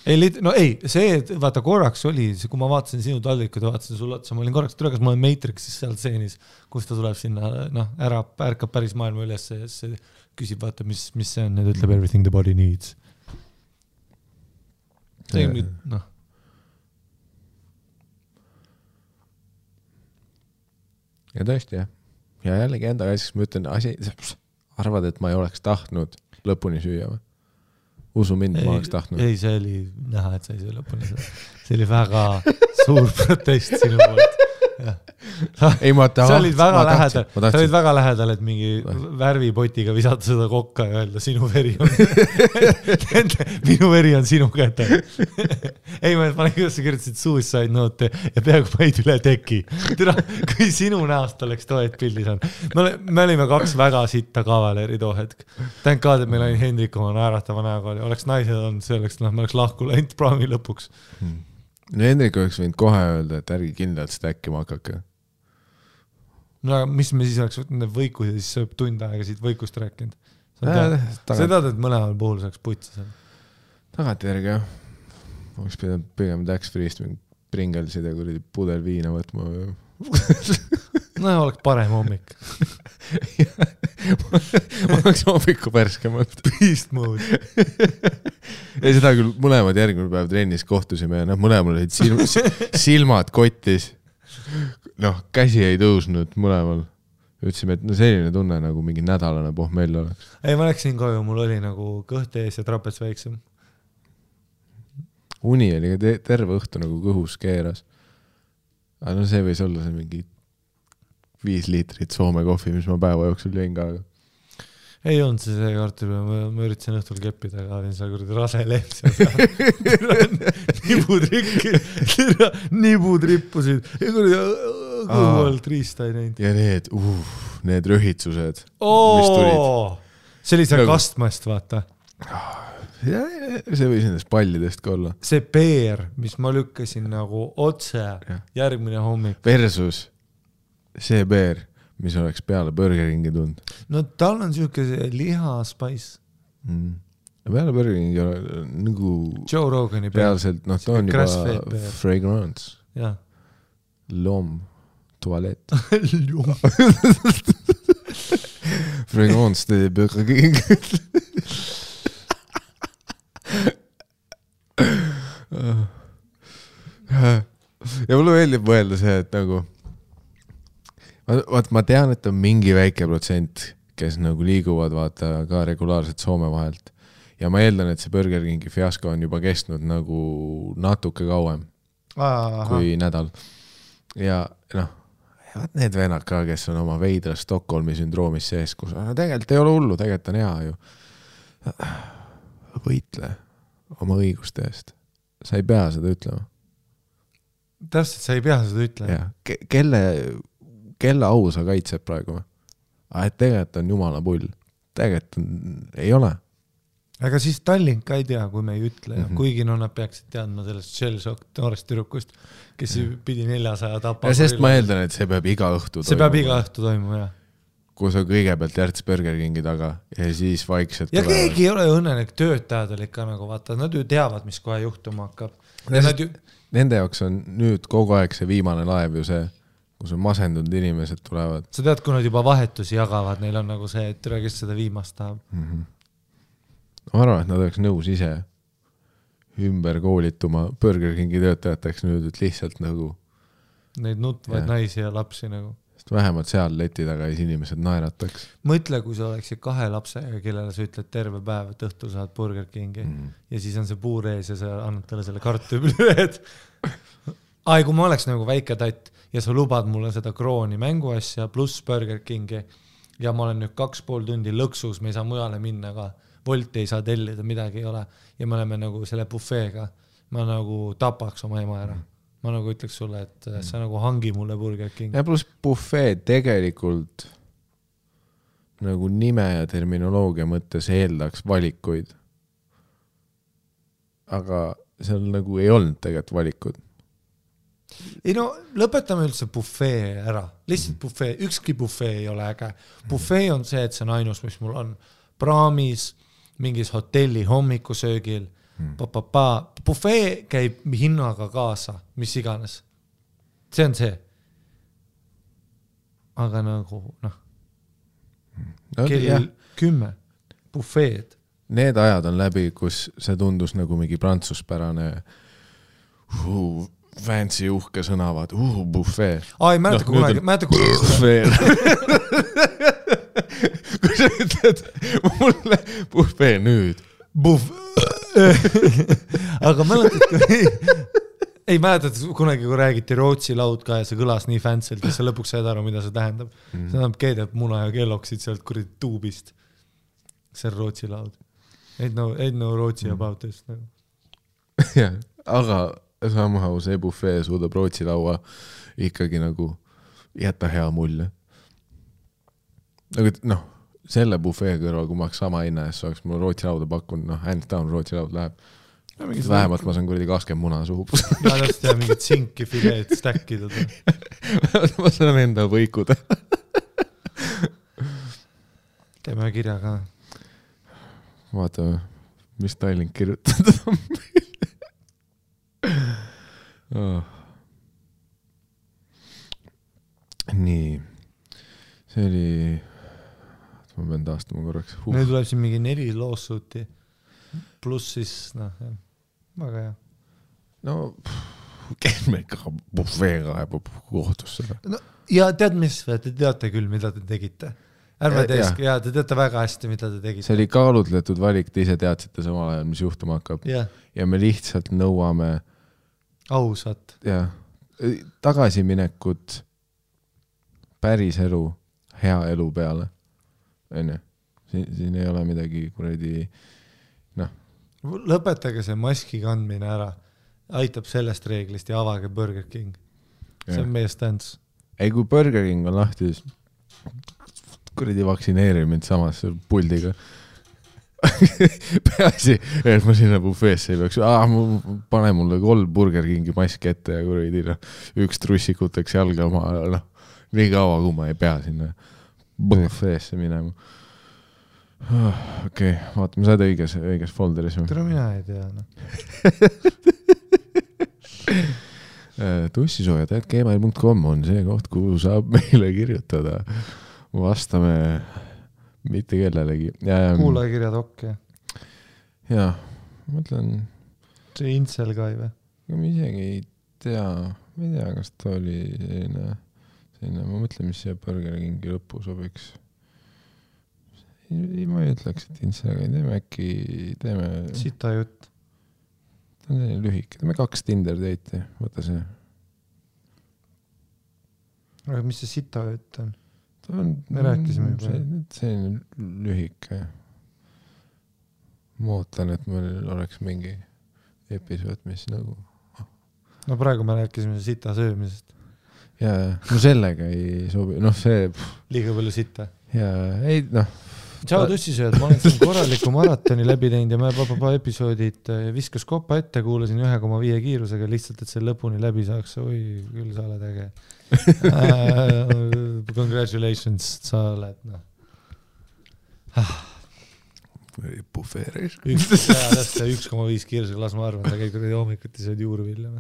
See, vaata korraks oli, kui ma vaatasin sinu taldrikud ja vaatasin sulle otsa, ma olin korraks tulekas, ma olen Matrixis seal stseenis, kus ta tuleb sinna, ärkab päris maailma üles ja see küsib, vaata, mis see on, ja ta ütleb everything the body needs. See on nüüd, Ja tõesti, jah. Ja jällegi enda asjaks ma ütlen, arvad, et ma ei oleks tahtnud lõpuni süüa või? Usu mind, ma oleks tahtnud. Ei, see oli näha, et sa ei söö lõpuni. See oli väga suur protest sinu poolt. Ei, sa olid väga lähedal, et mingi värvipotiga visata seda kokka ja öelda, minu veri on sinu käte. Ei, ma panen, kuidas sa kirjutasid suicide note ja peaaegu paid üle teki. Kui sinu näost oleks toet pildis on. Me olime 2 väga sitta kavaleri too hetk. Tänk ka, et meil oli Hendrik oma naeratava näoga. Oleks naised on, see oleks, me oleks lahku läinud praami lõpuks. No Hendrik oleks võinud kohe öelda, et ärgi kindlalt stäkkima hakake. No aga mis me siis oleks võtnud need võikud ja siis sööb tund aega siit võikust rääkinud? Sa tead, et mõlemal puhul saaks putsa seal? Tagantjärgi, jah. Oleks pidanud pigem tax-free'st Pringelsid ja kuridi pudel viina võtma. No oleks parem hommik. Ma oleks hommiku pärskemalt. Beast mode. Ja seda küll mõlemad järgmine päev trennis kohtusime ja mõlemal olid silmad kottis. Käsi ei tõusnud mõlemal. Ütlesime, et selline tunne nagu mingi nädalane pohmell oleks. Ei, ma läksin koju, mul oli nagu kõht ees ja trapets väiksem. Uni oli terve õhtu nagu kõhus keeras. Aga see võis olla see mingi 5 liitrit Soome kohvi, mis ma päeva jooksul jõin ka. Ei olnud see kartuli, ma üritasin õhtul keppida, aga olin seal kuradi rase leht nibud rippusid ja kuradi kõhualt riista ei näinud. Ja need rühitsused, mis tulid. See oli see kastmast, vaata. See võis nendest pallidest ka olla. See peer, mis ma lükkasin nagu otse järgmine hommik. Versus see peer, mis oleks peale Burger Kingi tund. No tal on siuke lihaspais. Peale Burger Kingi nagu Joe Rogani peal. Reaalselt, ta on juba fragrance. Ja. Lom, tualet. Fragrance de Burger King. Ja mulle meeldib mõelda see, et nagu ma tean, et on mingi väike protsent, kes nagu liiguvad vaata ka regulaarselt Soome vahelt ja ma eeldan, et see Burger Kingi fiasko on juba kestnud nagu natuke kauem kui nädal ja need vennad ka, kes on oma veidra Stockholmi sündroomis sees, kus tegelikult ei ole hullu, tegelikult on hea ju võitle oma õiguste eest. Sa ei pea seda ütlema. Täpselt, sa ei pea seda ütlema. Kelle au sa kaitseb praegu? Et tegelikult on jumala pull. Tegelikult ei ole. Aga siis Tallink ka ei tea, kui me ei ütle. Kuigi nad peaksid teadma sellest Shellshock noorest tüdrukust, kes pidi 400 tapa. Ja sest ma eeldan, et see peab iga õhtu toimuma. See peab iga õhtu toimuma, jah. Kus on kõigepealt Järts Burger Kingi taga ja siis vaikselt ja tulevad. Keegi ei ole õnnelik, töötajad oli ka nagu vaata, nad ju teavad, mis kohe juhtuma hakkab. Nende jaoks on nüüd kogu aeg see viimane laev ju see, kus on masendunud inimesed tulevad. Sa tead, kui nad juba vahetusi jagavad, neil on nagu see, et türa, kes seda viimast tahab. Ma arvan, et nad oleks nõus ise ümber koolituma Burger Kingi töötajateks nüüd, et lihtsalt nagu neid nutvaid naisi ja lapsi nagu. Vähemalt seal leti taga ees inimesed naerataks. Mõtle, kui sa oleksid 2 lapsega, kellele sa ütled terve päev, et õhtul saad Burger Kingi ja siis on see puur ees ja sa annad talle selle kartupilüed. Kui ma oleks nagu väike tatt ja sa lubad mulle seda krooni mänguasja pluss Burger Kingi ja ma olen nüüd 2,5 tundi lõksus, me ei saa mujale minna ka, Wolti ei saa tellida, midagi ei ole ja me oleme nagu selle bufeega, ma nagu tapaks oma ema ära. Ma nagu ütleks sulle, et sa nagu hangi mulle Burger King. Ja pluss buffet tegelikult nagu nime ja terminoloogia mõttes eeldaks valikuid. Aga seal nagu ei olnud tegelikult valikud. ei no lõpetame üldse bufee ära, lihtsalt bufee, ükski bufee ei ole äge. Bufee on see, et see on ainus, mis mul on praamis, mingis hotelli hommikusöögil, bufee käib hinnaga kaasa, mis iganes. See on see. Aga nagu, kell 10 bufeed. Need ajad on läbi, kus see tundus nagu mingi prantsuspärane fancy uhke sõnavad, bufee. Ei mäleta kunagi. Bufee. Kui sa ütled mulle bufee nüüd. Aga mäletad, ei mäletad kunagi, kui räägiti Rootsi laud ka ja see kõlas nii fantsilt, ja sa lõpuks saad aru, mida see tähendab. See tähendab keedab muna ja kelloksid sealt kuradi tuubist. See on Rootsi laud. Ain't no Rootsi about this. Ja, aga somehow see bufee suudab Rootsi laua ikkagi nagu jätta hea mulje. Nagu, selle bufee kõrval, kui ma oleks sama hinna ees, oleks mul Rootsi lauda pakkunud, hands down Rootsi laud läheb. Vähemalt ma saan kuradi 20 muna suhu. Ja täpselt ja mingid sinki fileed stäkkida. Ma saan enda võikuda. Teeme kirja ka. Vaatame, mis Tallink kirjutada on meil. Nii. See oli... Ma pean taastama korraks. Nüüd tuleb siin mingi 4 lawsuiti. Plus siis, väga hea. No, käime ikka bufeega ja kohtusse. Ja tead mis, te teate küll, mida te tegite. Ärme teesk, ja te teate väga hästi, mida te tegite. See oli kaalutletud valik, te ise teadsite samal ajal, mis juhtuma hakkab. Ja me lihtsalt nõuame ausat. Ja, tagasiminekut päris elu, hea elu peale. Siin ei ole midagi kuradi, Lõpetage see maski kandmine ära. Aitab sellest reeglist ja avage Burger King. See on meie stance. Ei, kui Burger King on lahti, kuradi vaktsineerimine samas puldiga. Peasi, et ma sinna bufeesse ei peaks. Pane mulle 3 Burger Kingi maski ette ja kuradi üks trussikuteks jalga oma. Nii kaua, kui ma ei pea sinna bufeesse minema. Okei, vaatame, sa oled õiges folderis. Tere mina ei tea. Tussisooja.gmail.com on see koht, kuhu saab meile kirjutada. Vastame mitte kellelegi. Kuulajakirjad okei. Jaa, ma mõtlen... See Intsel ka ei või? Ma isegi ei tea, kas ta oli selline, ma mõtlen, mis see Burger Kingi lõppu sobiks. Ma ei ütleks, et Intsel, teeme... Sita jutt. Ta on selline lühik. Teeme 2 Tinder date'i, võta see. Aga mis see sita jutt on? Me rääkisime juba. See on lühike. Ma ootan, et meil oleks mingi episood, mis nagu... No praegu me rääkisime sita söömisest. Jaa, no sellega ei sobi. See... Liiga palju sita. Jaa, ei, Tšau tussisööd, ma olen siin korraliku maratoni läbi teinud ja ma episoodid viskas kopa ette, kuulasin 1,5 kiirusega lihtsalt, et see lõpuni läbi saaks. Oi, küll sa oled äge. Congratulations, sa oled. Bufeeris. 1,5 kiirusega, las ma arvan, ta käib hommikuti sööd juurvilja.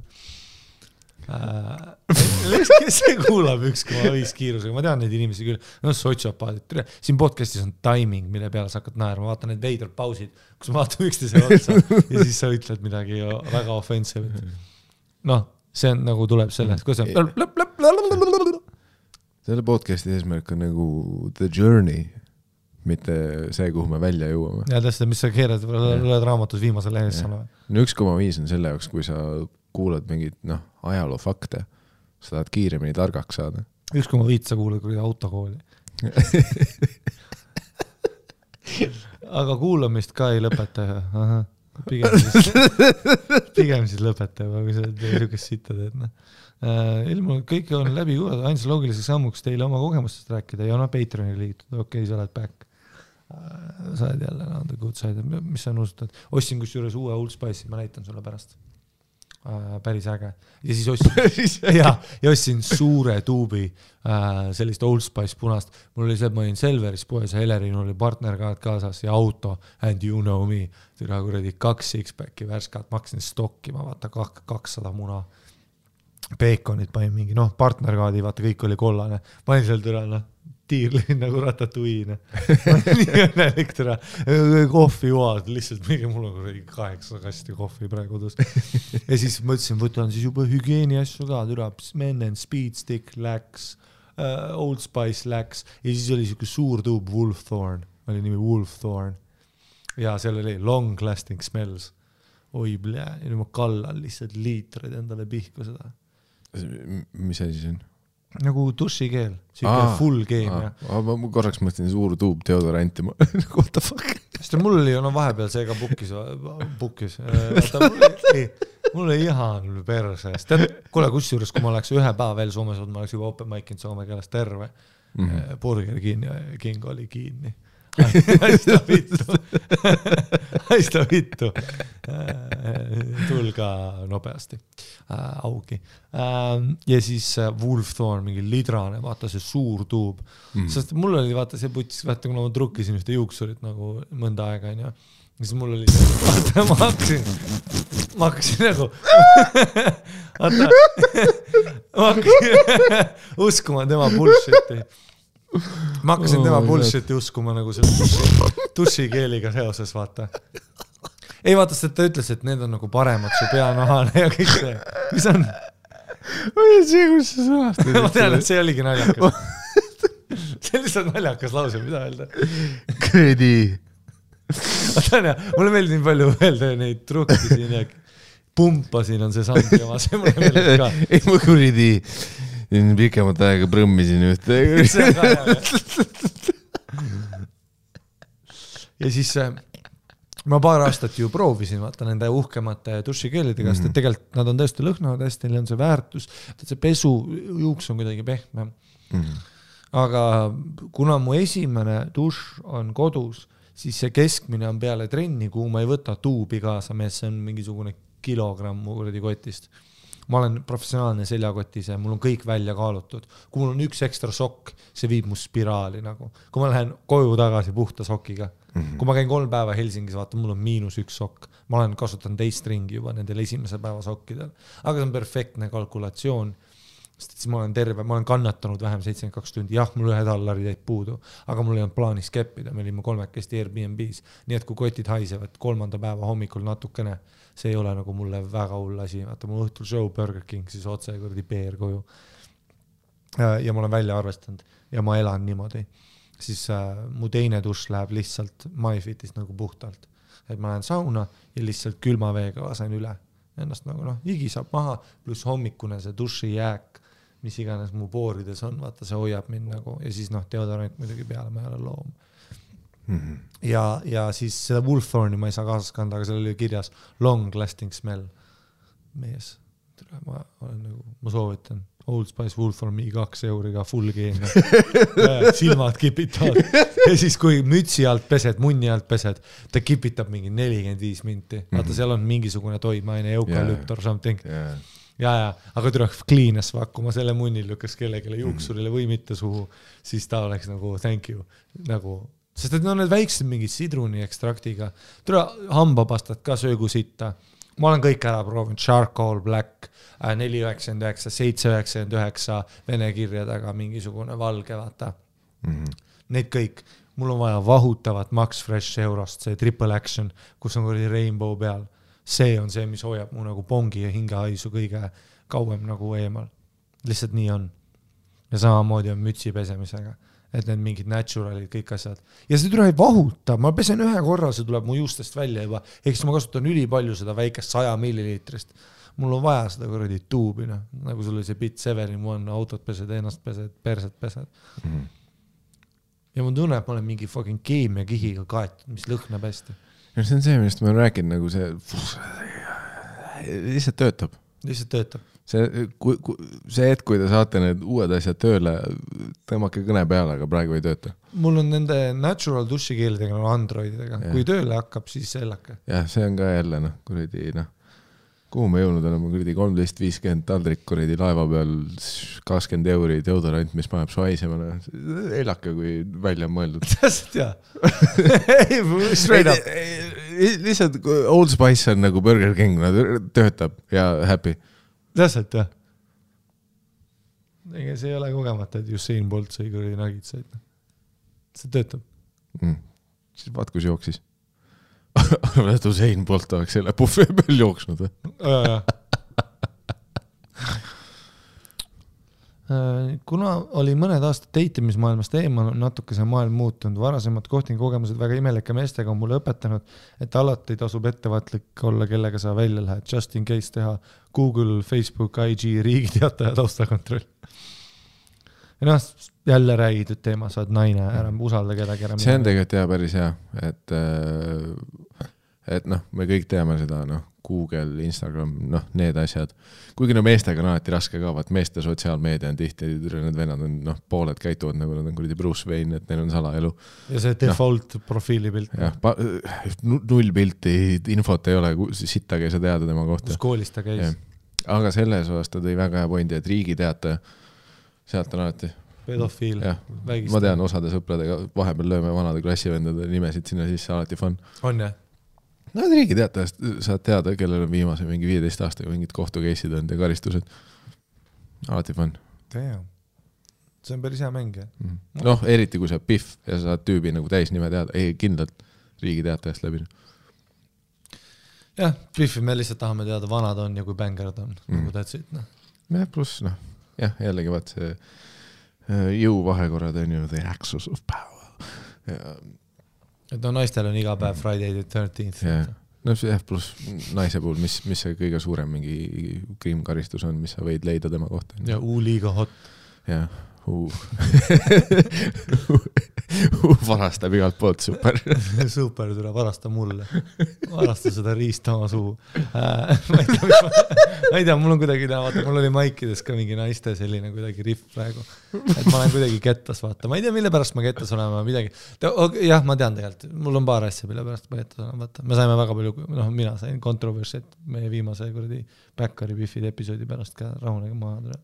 Kes see kuulab 1,5 kiirusega, ma tean neid inimesi küll, sotsiopaadid, siin podcastis on timing, mille peale sa hakkad naerma, vaata need veidrad pausid, kus ma vaatan üksteise otsa ja siis sa ütled midagi väga offensive. See on nagu tuleb sellest, kus on selle podcasti eesmärk on nagu the journey, mitte see, kuhu me välja jõuame. Ja täpselt, mis sa keerad, oled raamatus viimase lehes. 1,5 on selle jaoks, kui sa kuulad mingid ajaloo fakte, sa tahad kiiremini targaks saada. 1,5 sa kuulad kui autokooli. Aga kuulamist ka ei lõpeta. Pigem siis lõpeta, kui sa niisugust sitta teed. Ilma kõik on läbi kuulada, ainsa loogiliseks sammuks teile oma kogemustest rääkida ja Patreoni liitud. Okei, sa oled back. Sa oled jälle the good side. Mis sa nusutad? Ostsin kus juures uue Old Spice'i, ma näitan sulle pärast. päris äge. Ja siis ostsin suure tuubi sellist Old Spice punast. Mul oli see, et ma olin Selveris poes ja Helerin oli partnerkaad kaasas ja auto and you know me. Türa kuradi 2 six-packi värskat, maksin stokki, ma vaata 200 muna. Peekonid panin mingi, partnerkaadi, vaata kõik oli kollane. Panin seal türa, tiirlin nagu ratatuiine. Nii õnnelik türa. Kohvi joad, lihtsalt mingi mul on 8 kasti kohvi praegu kodus. Ja siis mõtlesin, võtan siis juba hügieeni asju ka, türa, Mennen, Speed Stick läks, Old Spice läks ja siis oli siuke suur tuub Wolfthorn, oli nimi Wolfthorn ja seal oli Long Lasting Smells. Oi blää, ja nüüd ma kallan lihtsalt liitrid endale pihku seda. Mis asi see on? Nagu dušikeel, siuke full game. Ma korraks mõtlen suur tuub deodoranti. What the fuck? Sest mul oli vahepeal see ka bukkis. Mul oli ihan persest. Kuule, kusjuures, kui ma oleks ühe päeva veel Soomes olnud, ma oleks juba open mic'inud Soome keeles terve. Burger King oli kinni. Haista vittu. Tulga nopeasti. Augi. Ja siis Wolfthorn, mingi lidrane, vaata see suur tuub. Sest mul oli, vaata see putis, vaata kuna ma trukkisin ühte juuksurit nagu mõnda aega, ja siis mul oli see, vaata ma hakkasin nagu ma hakkasin uskuma tema bullshiti. Ma hakkasin tema bullshiti uskuma nagu selle dušikeeliga seoses, vaata. Ei vaata, et ta ütles, et need on nagu paremad su peanahane ja kõik see. Mis on? Oi, see, kus sa sõnastad? Ma tean, et see oligi naljakas. See on lihtsalt naljakas lause, mida öelda. Kredi. Mulle meeldib palju öelda neid trukkisin ja pumpasin on see sandi oma, see mulle meeldib ka. Ei, ma kuridi pikemat aega prõmmisin ühte. Ja siis ma paar aastat ju proovisin vaata nende uhkemate dušikeelidega, sest tegelikult nad on tõesti lõhnavad hästi, neil on see väärtus, et see pesu juuks on kuidagi pehme. Aga kuna mu esimene duš on kodus, siis see keskmine on peale trenni, kuhu ma ei võta tuubi kaasa, mees, see on mingisugune kilogramm mu kuradi kotist. Ma olen professionaalne seljakotis ja mul on kõik välja kaalutud. Kui mul on üks ekstra sokk, see viib mu spiraali nagu. Kui ma lähen koju tagasi puhta sokiga. Kui ma käin 3 päeva Helsingis, vaata, mul on -1 sokk. Ma olen kasutanud teist ringi juba nendel esimese päeva sokkidel. Aga see on perfektne kalkulatsioon. Sest siis ma olen terve, ma olen kannatanud vähem 72 tundi. Jah, mul $1 jäid puudu, aga mul ei olnud plaanis keppida. Me olime 3 Airbnb's. Nii et kui kotid haisevad 3. päeva hommikul natukene, see ei ole nagu mulle väga hull asi. Vaata, mul õhtul show Burger King, siis otse kuradi peer koju. Ja ma olen välja arvestanud ja ma elan niimoodi. Siis mu teine duš läheb lihtsalt MyFitist nagu puhtalt. Et ma lähen sauna ja lihtsalt külma veega lasen üle. Ennast nagu higi saab maha, pluss hommikune see duši jääk, mis iganes mu poorides on, vaata, see hoiab mind nagu, ja siis deodorant muidugi peale, ma ei ole loom. Ja siis seda Wolfthorni ma ei saa kaasas kanda, aga seal oli kirjas long lasting smell. Mees, ma soovitan Old Spice Wolfthorn €2 full game. Silmad kipitavad. Ja siis kui mütsi alt pesed, munni alt pesed, ta kipitab mingi 45 minti. Vaata, seal on mingisugune toimaine, eukalypt or something. Ja, aga tuleb cleanes vakku, ma selle munni lükkas kellelegi juuksurile või mitte suhu, siis ta oleks nagu thank you. Nagu, sest et need väiksed mingid sidruni ekstraktiga. Tuleb hambapastat ka söögu sitta. Ma olen kõik ära proovinud, Charcoal Black, 4,99, 7,99, vene kirjadega mingisugune valge, vaata. Need kõik. Mul on vaja vahutavat Max Fresh Eurost, see Triple Action, kus on kuradi Rainbow peal. See on see, mis hoiab mu nagu pongi ja hingehaisu kõige kauem nagu eemal. Lihtsalt nii on. Ja samamoodi on mütsi pesemisega. Et need mingid naturalid, kõik asjad. Ja see tuleb vahuta. Ma pesen ühe korra, see tuleb mu juustest välja juba. Ehk ma kasutan ülipalju seda väikest 100 milliliitrist. Mul on vaja seda kuradi tuubi, nagu sul oli see Bit 7-in-1, autot pesed, ennast pesed, perset pesed. Ja ma tunnen, et ma olen mingi fucking keemia kihiga kaetud, mis lõhnab hästi. Ja see on see, millest ma olen rääkinud, nagu see lihtsalt töötab. Lihtsalt töötab. See hetk, kui te saate need uued asjad tööle, tõmmake kõne peale, aga praegu ei tööta. Mul on nende natural dušikeelidega, Androididega. Kui tööle hakkab, siis sellake. Jah, see on ka jälle, kuradi, kuhu me jõudnud oleme, kuradi 13.50 taldrik kuradi laeva peal, 20 euri deodorant, mis paneb su haisema. Elake, kui välja on mõeldud. Täpselt, jah. Straight up. Lihtsalt Old Spice on nagu Burger King, töötab ja happy. Täpselt, jah. Ega see ei ole kogemata, et Usain Bolt sai kuradi nagitsaid. See töötab. Siis vaat, kus jooksis. Arvan, et Usain Bolt oleks selle buffee peal jooksnud. Kuna oli mõned aastad teitimismaailmast eemal, natuke see maailm muutunud. Varasemad kohtingukogemused väga imelike meestega on mulle õpetanud, et alati tasub ettevaatlik olla, kellega sa välja lähed. Just in case teha Google, Facebook, IG, riigiteataja taustakontroll. Ja noh, jälle räägitud teema, sa oled naine, ära usalda kedagi. See on tegelikult hea päris hea, et noh, me kõik teame seda, noh, Google, Instagram, noh, need asjad. Kuigi no meestega on alati raske ka, vaat meeste sotsiaalmeedia on tihti, need vennad on, noh, pooled käituvad nagu nad on kuradi Bruce Wayne, et neil on salaelu. Ja see default profiilipilt. Jah, null pilti, infot ei ole, sittagi ei saa teada tema kohta. Kus koolis ta käis. Aga selles osas ta tõi väga hea pointi, et riigiteataja sealt on alati pedofiil, vägist. Ma tean osade sõpradega, vahepeal lööme vanade klassivendade nimesid sinna sisse, alati fun. On jah? No riigiteatajast saad teada, kellel on viimase mingi 15 aastaga mingid kohtukeisid on ja karistused. Alati fun. See on päris hea mäng, jah? Noh, eriti kui sa piff ja sa saad tüübi nagu täis nime teada, ei kindlalt riigiteatajast läbi. Jah, piffi me lihtsalt tahame teada, vanad on ja kui bängerd on, nagu tätsid. Jah, pluss, noh, jah, jällegi vaat see jõuvahekorrad on ju the axis of power. Et no naistel on iga päev Friday the 13th. No see pluss naise puhul, mis see kõige suurem mingi kriimkaristus on, mis sa võid leida tema kohta. Ja liiga hot. Jah, varastab igalt poolt, super. Super, tule varasta mulle. Varasta seda riista oma suu. Ma ei tea, mul on kuidagi, vaata, mul oli maikides ka mingi naiste selline kuidagi riff praegu. Et ma olen kuidagi kettas, vaata. Ma ei tea, mille pärast ma kettas olema midagi. Jah, ma tean tegelikult. Mul on paar asja, mille pärast ma kettas olema, vaata. Me saime väga palju, noh, mina sain kontroversit meie viimase kuradi Backari Biffide episoodi pärast ka rahunega maha tule.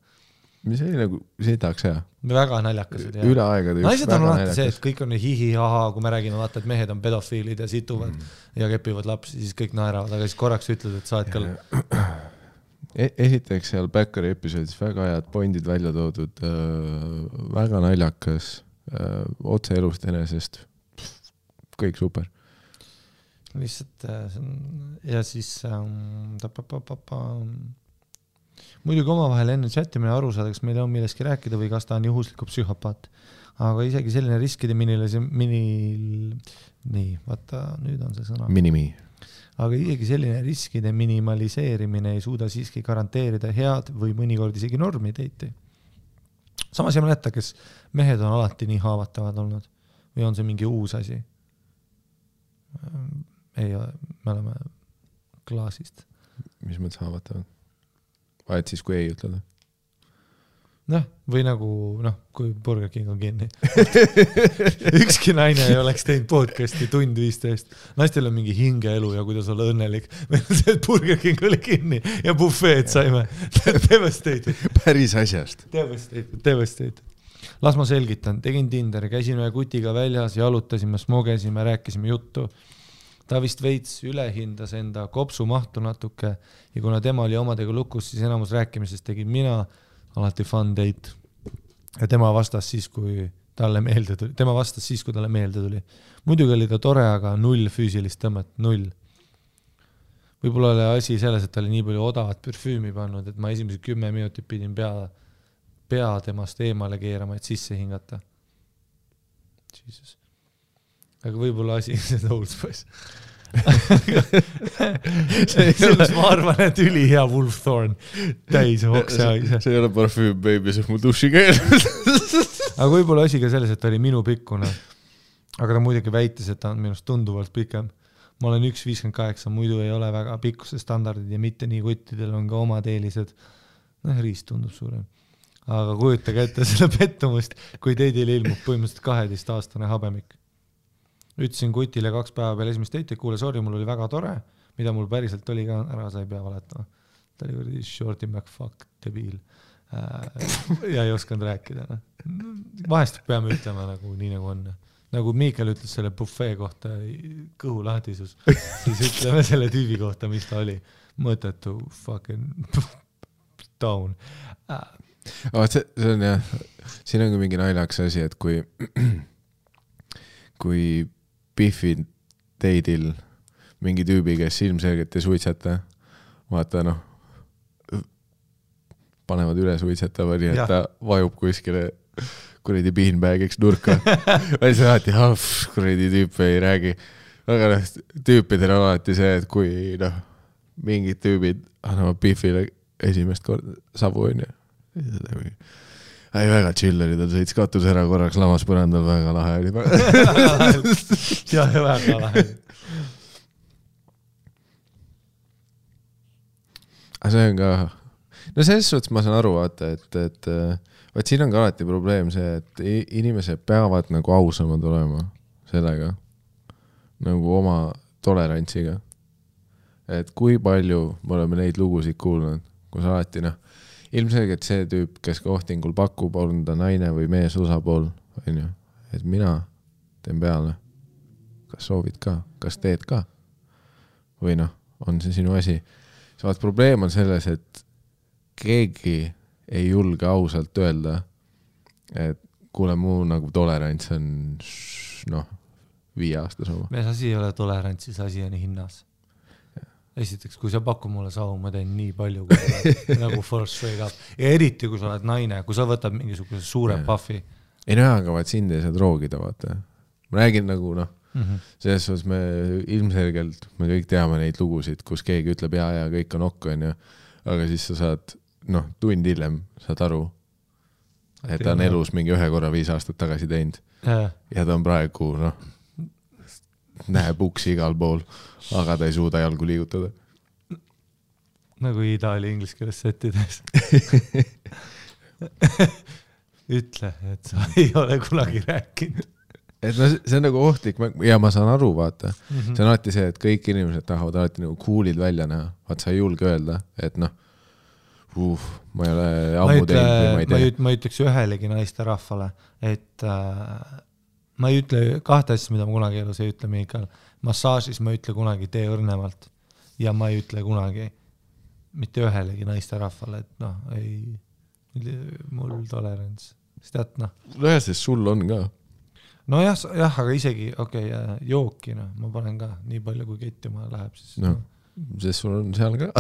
Mis oli nagu, see tahaks hea. Väga naljakased. Üle aegade just naised on alati see, et kõik on hihi-haha, kui me räägime, vaata, et mehed on pedofiilid ja situvad ja kepivad lapsi, siis kõik naeravad, aga siis korraks ütled, et sa oled ka... Esiteks seal Backari episoodis väga head pointid välja toodud, väga naljakas, otse elust enesest, kõik super. Lihtsalt, ja siis... Muidugi omavahel enne chatimine aru saada, kas meil on milleski rääkida või kas ta on juhusliku psühhopaat. Aga isegi selline riskide nii, vaata, nüüd on see sõna. Minimi. Aga isegi selline riskide minimaliseerimine ei suuda siiski garanteerida head või mõnikord isegi normi teiti. Samas ei mäleta, kes mehed on alati nii haavatavad olnud või on see mingi uus asi? Ei, me oleme klaasist. Mis mõttes haavatavad? Vaid siis, kui ei ütleda. Noh, või nagu, noh, kui Burger King on kinni. Ükski naine ei oleks teinud podcasti tund 15. Naistel on mingi hingeelu ja kuidas olla õnnelik. Meil on see, et Burger King oli kinni ja buffeed saime. Devastated. Päris asjast. Devastated. Las ma selgitan. Tegin Tinderi, käisin ühe kutiga väljas, jalutasime, smogesime, rääkisime juttu. Ta vist veits ülehindas enda kopsu mahtu natuke ja kuna tema oli omadega lukus, siis enamus rääkimisest tegin mina, alati fun date. Ja tema vastas siis, kui talle meelde tuli. Muidugi oli ta tore, aga null füüsilist tõmmet, null. Võib-olla oli asi selles, et ta oli nii palju odavat parfüümi pannud, et ma esimesed 10 minutit pidin pea temast eemale keerama, et sisse hingata. Jesus. Aga võib-olla asi see Old Spice. Selles ma arvan, et üli hea Wolf Thorn täis oksa. See ei ole parfüüm, baby, see on mu duši keel. Aga võib-olla asi ka selles, et ta oli minu pikkune. Aga ta muidugi väitis, et ta on minust tunduvalt pikem. Ma olen 1.58, muidu ei ole väga pikkuse standardid ja mitte nii kuttidel on ka omad eelised. Riist tundub suurem. Aga kujutage ette selle pettumust, kui teidil ilmub põhimõtteliselt 12-aastane habemik. Ütlesin kutile 2 päeva peale esimest teiti, kuule, sorry, mul oli väga tore. mida mul päriselt oli ka ära, sa ei pea valetama. Ta oli kuradi Shorty McFuck debiil ja ei osanud rääkida. Vahest peame ütlema nagu nii nagu on. Nagu Miikael ütles selle buffet kohta kõhulahtisus, siis ütleme selle tüübi kohta, mis ta oli. Mõttetu fucking down. See on jah, siin on ka mingi naljaks asi, et kui Biffid teidil mingi tüübi, kes ilmselgelt ei suitseta, vaata panevad üle suitsetava, nii et ta vajub kuskile kuradi beanbagiks nurka. Või see alati, kuradi tüüp ei räägi. Aga tüüpidel on alati see, et kui mingid tüübid annavad Biffile esimest korda savu on ju. Ei, väga chill oli, ta sõits katus ära korraks lamas põrandal, väga lahe oli. Ja väga lahe. Aga see on ka... No selles suhtes ma saan aru, vaata, et vaat siin on ka alati probleem see, et inimesed peavad nagu ausamad olema sellega, nagu oma tolerantsiga. Et kui palju me oleme neid lugusid kuulnud, kus alati ilmselgelt see tüüp, kes kohtingul pakub, on ta naine või mees osapool, on ju, et mina teen peale. Kas soovid ka? Kas teed ka? Või on see sinu asi? Vaat probleem on selles, et keegi ei julge ausalt öelda, et kuule muu nagu tolerants on 5 aastas oma. Mees asi ei ole tolerantsis, asi on hinnas. Esiteks, kui sa paku mulle savu, ma teen nii palju, kui nagu force straight up. Ja eriti, kui sa oled naine, kui sa võtad mingisuguse suure puffi. Ei aga vaat sind ei saa droogida, vaata. Ma räägin nagu, selles suhtes me ilmselgelt, me kõik teame neid lugusid, kus keegi ütleb ja kõik on okk, on ju. Aga siis sa saad, tund hiljem saad aru, et ta on elus mingi 1 korra 5 aastat tagasi teinud. Ja ta on praegu, näeb uksi igal pool, aga ta ei suuda jalgu liigutada. Nagu Itaali inglise keeles settides. Ütle, et sa ei ole kunagi rääkinud. Et see on nagu ohtlik, ja ma saan aru, vaata. See on alati see, et kõik inimesed tahavad alati nagu coolid välja näha. Vaat sa ei julge öelda, et ma ei ole ammu teinud või ma ei tea. Ma ütleks ühelegi naiste rahvale, et ma ei ütle 2 asja, mida ma kunagi elus ei ütle Miikael. Massaažis ma ei ütle kunagi tee õrnemalt ja ma ei ütle kunagi mitte ühelegi naiste rahvale, et ei mul tolerants. Sest jah, sest sul on ka. No jah, aga isegi, jooki, ma panen ka nii palju, kui kettima läheb. Siis, sest sul on seal ka.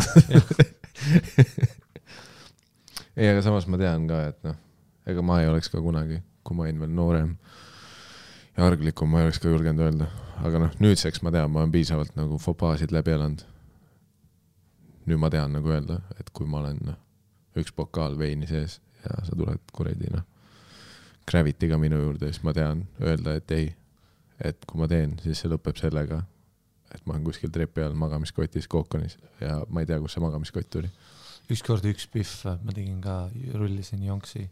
Ei, aga samas ma tean ka, et ega ma ei oleks ka kunagi, kui ma olin veel noorem ja arglikum, ma ei oleks ka julgenud öelda. Aga nüüdseks ma tean, ma olen piisavalt nagu fopaasid läbi elanud. Nüüd ma tean nagu öelda, et kui ma olen 1 pokaal veini sees ja sa tuled kuredi, Gravitiga minu juurde, siis ma tean öelda, et ei, et kui ma teen, siis see lõpeb sellega, et ma olen kuskil trepi all magamiskotis Kookonis ja ma ei tea, kus see magamiskott tuli. Ükskord üks piff, ma tegin ka, rullisin jonksi,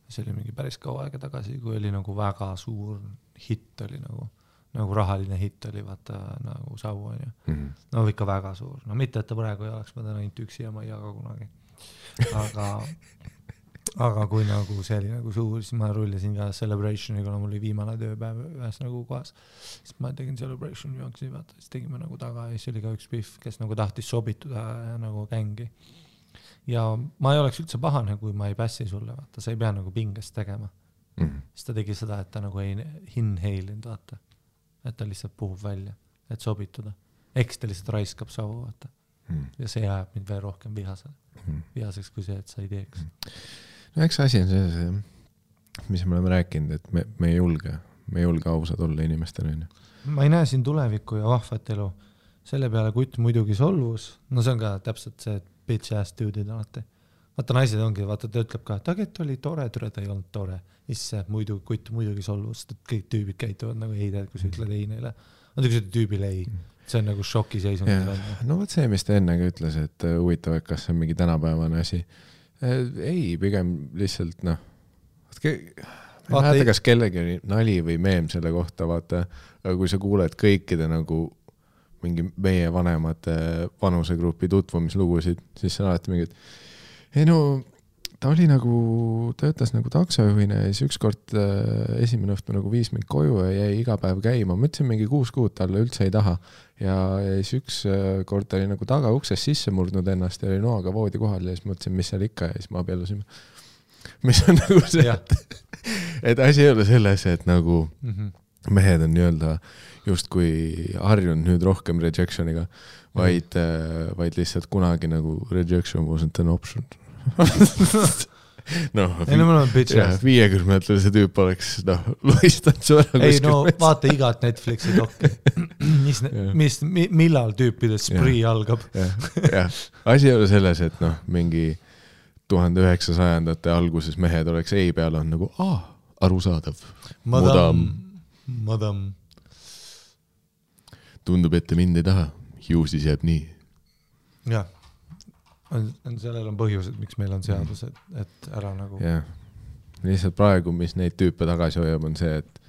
see oli mingi päris kaua aega tagasi, kui oli nagu väga suur hitt oli nagu rahaline hitt oli, vaata nagu savu on ju. Ikka väga suur. Mitte, et ta praegu ei oleks, ma täna ainult üksi ja ma ei jaga kunagi. Aga kui nagu see oli nagu suur, siis ma rullisin ka Celebrationi, kuna mul oli viimane tööpäev ühes nagu kohas. Siis ma tegin Celebration jonksi, vaata, siis tegime nagu taga ja siis oli ka üks piff, kes nagu tahtis sobituda ja nagu gängi. Ja ma ei oleks üldse pahane, kui ma ei pässi sulle, vaata, sa ei pea nagu pingest tegema. Siis ta tegi seda, et ta nagu ei inhalinud, vaata. Et ta lihtsalt puhub välja, et sobituda. Eks ta lihtsalt raiskab savu, vaata. Ja see jääb mind veel rohkem vihaseks kui see, et sa ei teeks. Eks asi on see, mis me oleme rääkinud, et me ei julge ausad olla inimestele. Ma ei näe siin tulevikku ja vahvat elu. Selle peale kutt muidugi solvus. No see on ka täpselt see, et bitch ass dude'id alati. Vaata naised ongi, vaata ta ütleb ka, et oli tore, ta ei olnud tore. Isse kutt muidugi solvus, et kõik tüübid käituvad nagu ei tead, kui sa ütled ei neile. Kui sa ütled tüübile ei. See on nagu šoki seisund. No võt see, mis ta ennegi ütles, et huvitav, et kas see on mingi tänapäevane asi. Ei, pigem lihtsalt vaata, kas kellegi nali või meem selle kohta, vaata, aga kui sa kuuled kõikide nagu mingi meie vanemate vanusegrupi tutvumislugusid, siis see on alati mingi, et ei no, ta töötas nagu taksojuhina ja siis ükskord esimene õhtu nagu viis mind koju ja jäi iga päev käima. Mõtlesin mingi 6 kuud talle üldse ei taha. Ja siis ükskord ta oli nagu taga ukses sisse murdnud ennast ja oli noaga voodi kohal ja siis mõtlesin, mis seal ikka ja siis ma abiellusime. Mis on nagu see, et asi ei ole selles, et nagu mehed on nii-öelda justkui harjunud nüüd rohkem rejectioniga, vaid lihtsalt kunagi nagu rejection wasn't an option. No, 50-se tüüp oleks loistanud su ära. Ei no vaata igat Netflixi dokki. Millal tüüpides spree algab? Ja. Asi ei ole selles, et mingi 1900-ndate alguses mehed oleks ei peal on nagu arusaadav. Madam. Tundub, et te mind ei taha. Ju siis jääb nii. Jah. Sellel on põhjused, miks meil on seadused, et ära nagu... Jah. Lihtsalt praegu, mis neid tüüpe tagasi hoiab, on see, et...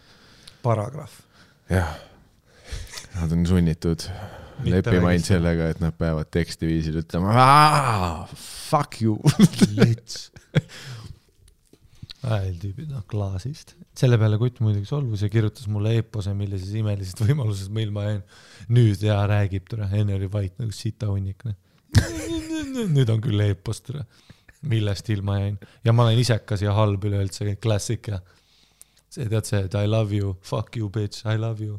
Paragrahv. Jah. Nad on sunnitud leppima ainult sellega, et nad peavad tekstiviisil ütlema fuck you. Lits. Tüübid, klaasist. Selle peale kutt muidugi solvus ja kirjutas mulle eepose, millises imelisest võimalusest meil ma jäin. Nüüd räägib tõra, enne oli vait nagu sita hunnikne. Nüüd on küll eepost, millest ilma jäin. Ja ma olen isekas ja halb üleüldse, klassik ja see tead see, et I love you, fuck you bitch, I love you.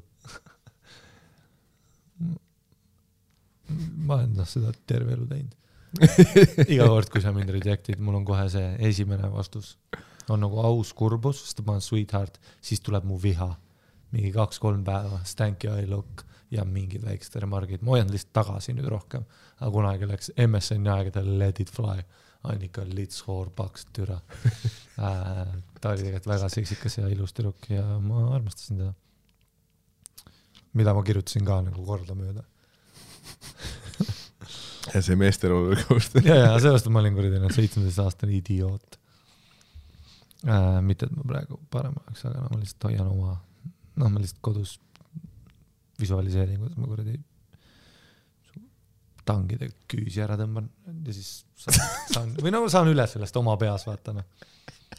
Ma olen seda terve elu teinud. Iga kord, kui sa mind rejectid, mul on kohe see esimene vastus. On nagu aus kurbus, sest ma olen sweetheart, siis tuleb mu viha. Mingi 2-3 päeva, stanky eye look ja mingid väiksed remargid. Ma hoian lihtsalt tagasi nüüd rohkem. Aga kunagi läks MSN aegadel let it fly. Annika lits hoor paks türa. Ta oli tegelikult väga seksikas ja ilus tüdruk ja ma armastasin teda. Mida ma kirjutasin ka nagu korda mööda. Ja see meesteroolu koostöö. Ja sellest ma olin kuradi 17-aastane idioot. Mitte, et ma praegu parem oleks, aga ma lihtsalt hoian oma, ma lihtsalt kodus visualiseerin, kuidas ma kuradi tangide küüsi ära tõmban ja siis saan üle sellest oma peas vaatama.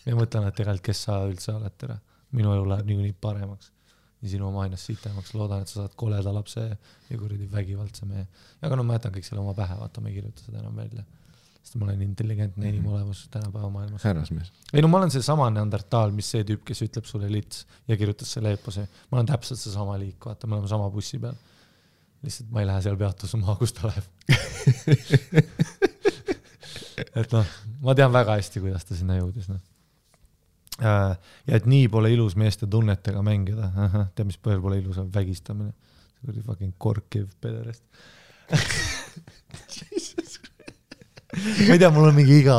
Ja mõtlen, et tegelikult kes sa üldse oled tere. Minu elu läheb nii paremaks. Ja sinu oma ainast sitemaks. Loodan, et sa saad koleda lapse ja kuradi vägivaldse mehe. Ja aga ma jätan kõik selle oma pähe, vaata, ma ei kirjuta seda enam välja. Sest ma olen intelligentne inimolevus tänapäeva maailmas. Härrasmees. Ei no ma olen see sama neandertaal, mis see tüüp, kes ütleb sulle lits ja kirjutas selle eepose. Ma olen täpselt see sama liik, vaata, me oleme sama bussi peal. Lihtsalt ma ei lähe seal peatusuma, kus ta läheb. Et ma tean väga hästi, kuidas ta sinna jõudis. Ja et nii pole ilus meeste tunnetega mängida. Tead, mis põhjal pole ilus on vägistamine. See oli fucking korkiv pederest. Ma ei tea, mul on mingi iga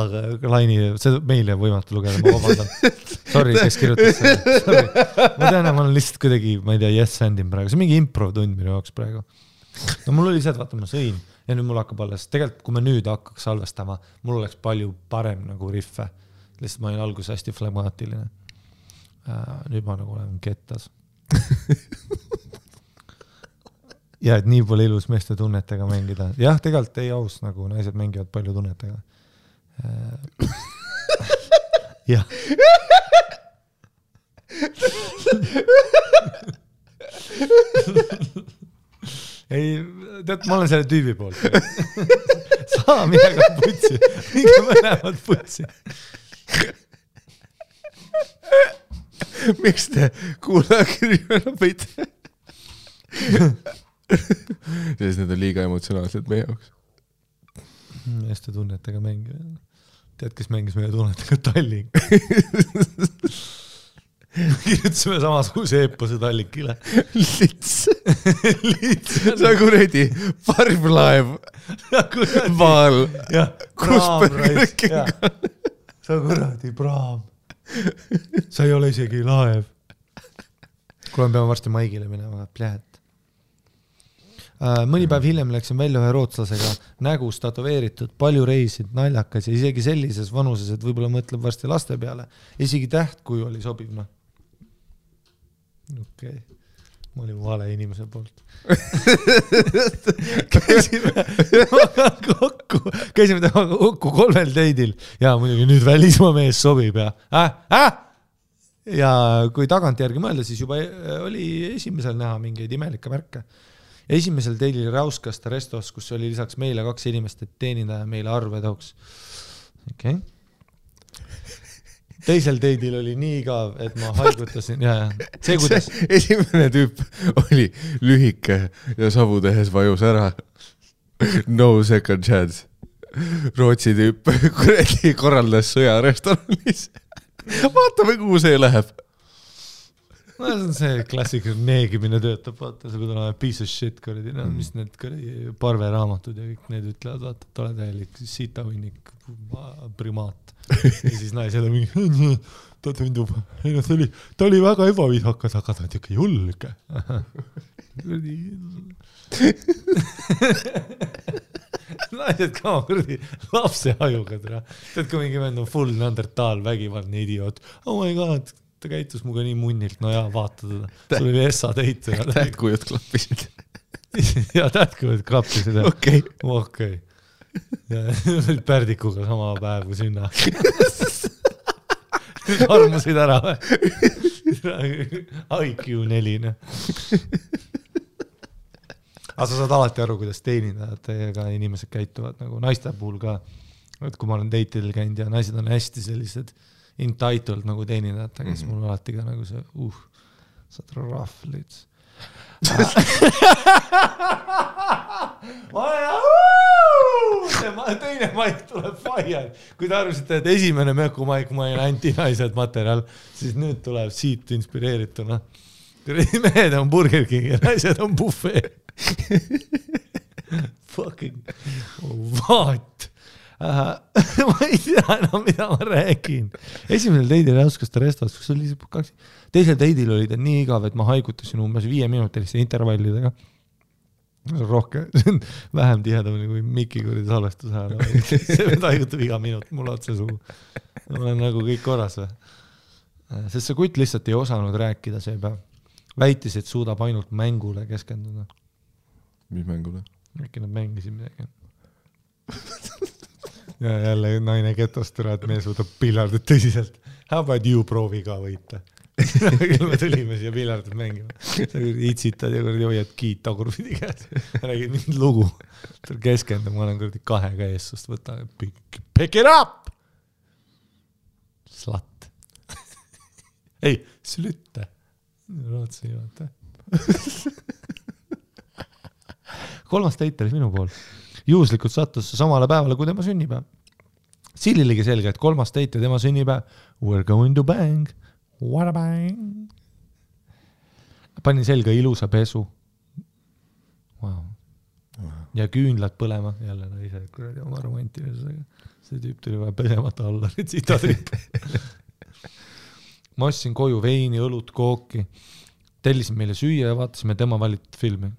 laini, see meile võimatu lugeda, ma vabandan. Sorry, kes kirjutas seda. Sorry. Ma tean, ma olen lihtsalt kuidagi, ma ei tea, yes-sandin praegu. See on mingi improv tund minu jaoks praegu. No mul oli see, et vaata, ma sõin ja nüüd mul hakkab alles. Tegelikult, kui me nüüd hakkaks salvestama, mul oleks palju parem nagu riffe. Lihtsalt ma olin alguses hästi flegmaatiline. Nüüd ma nagu olen kettas. Ja et nii pole ilus meeste tunnetega mängida. Jah, tegelikult ei aus, nagu naised mängivad palju tunnetega. Jah. Ei, tead, ma olen selle tüübi poolt. Saa midagi putsi. Minge mõlemad putsi. Miks te kuulakirjana võite? Sest need on liiga emotsionaalsed meie jaoks. Meeste tunnetega mängida. Tead, kes mängis meie tunnetega Tallink? Kirjutasime samasuguse eepose Tallinkile. Lits. Sa kuredi parvlaev. Vaal. Kus põrgkinga? Sa kuradi praam. Sa ei ole isegi laev. Kuule, peame varsti Maigile minema. Pläät. Mõni päev hiljem läksin välja ühe rootslasega, nägus tatoveeritud, palju reisid, naljakas ja isegi sellises vanuses, et võib-olla mõtleb varsti laste peale. Isegi tähtkuju oli sobiv. Okay. ma olin vale inimese poolt. käisime temaga kokku 3 date'il ja muidugi nüüd välismaa mees sobib ja ja kui tagantjärgi mõelda, siis juba oli esimesel näha mingeid imelikke märke. Esimesel date'il rauskas ta restos, kus oli lisaks meile 2 inimest, et teenindaja meile arve tooks. Okay. Teisel date'il oli nii igav, et ma haigutasin ja see kuidas esimene tüüp oli lühike ja savu tehes vajus ära. No second chance. Rootsi tüüp kuradi korraldas sõja restoranis. Vaatame, kuhu see läheb. No see on see klassika neegimine töötab, vaata, see kui piece of shit, kuradi, no, mis need kuradi parveraamatud ja kõik need ütlevad, vaata, et ole täielik sitahunnik primaat. Ja siis naised on mingi, ta tundub, ei no ta oli väga ebaviisakas, aga ta on ikka julge. Naised ka kuradi lapse ajuga, tead kui mingi vend on full Neandertal, vägivaldne idioot. Oh my god, ta käitus muga nii munnilt, no jaa, vaata teda. Sul oli essa teit. Tähtkujud klappisid. Ja tähtkujud klappisid. Okei. Ja olid pärdikuga sama päev kui sünna. Armusid ära või? IQ 4. Aga sa saad alati aru, kuidas teenindajad inimesed käituvad nagu naiste puhul ka. Et kui ma olen date'il käinud ja naised on hästi sellised entitled nagu teenindajad, siis mul alati ka nagu see, saad rahvlid. Teine maik tuleb fire. Kui te arvasite, et esimene mökumaik ma olin antinaised materjal, siis nüüd tuleb siit inspireerituna. Mehed on Burger King ja naised on buffet. Fucking what? Ma ei tea enam, mida ma räägin. Esimesel date'il auskas ta restos, kus oli 2. Teisel date'il oli ta nii igav, et ma haigutasin umbes 5 minutiliste intervallidega. Rohkem, vähem tihedamini kui Mikki kuridi salvestus ajal. See haigutab iga minut mul otse suhu. Ma olen nagu kõik korras või. Sest see kutt lihtsalt ei osanud rääkida see päev. Väitis, et suudab ainult mängule keskenduda. Mis mängule? Äkki nad mängisid midagi. Ja jälle naine ketostura, et me suudab piljardit tõsiselt. How about you proovi ka võita? Me tulime siia piljardit mängima. Sa itsitad ja hoiad kiit tagurpidi käes. Räägid mind lugu. Keskendub, ma olen 2 eessust. Võta, pick it up! Slat. Ei, slütte. Rootsi juhata. 3. date oli minu pool. Juhuslikult sattus samale päevale kui tema sünnipäev. Sill oligi selge, et 3. date ja tema sünnipäev. We're going to bang. What a bang. Panin selga ilusa pesu. Wow. Ja küünlad põlema. Jälle naise kuradi oma romantilisusega. See tüüp tuli vaja pesemata alla. Tsitatriip. Ma ostsin koju veini, õlut, kooki. Tellisin meile süüa ja vaatasime tema valitud filmi.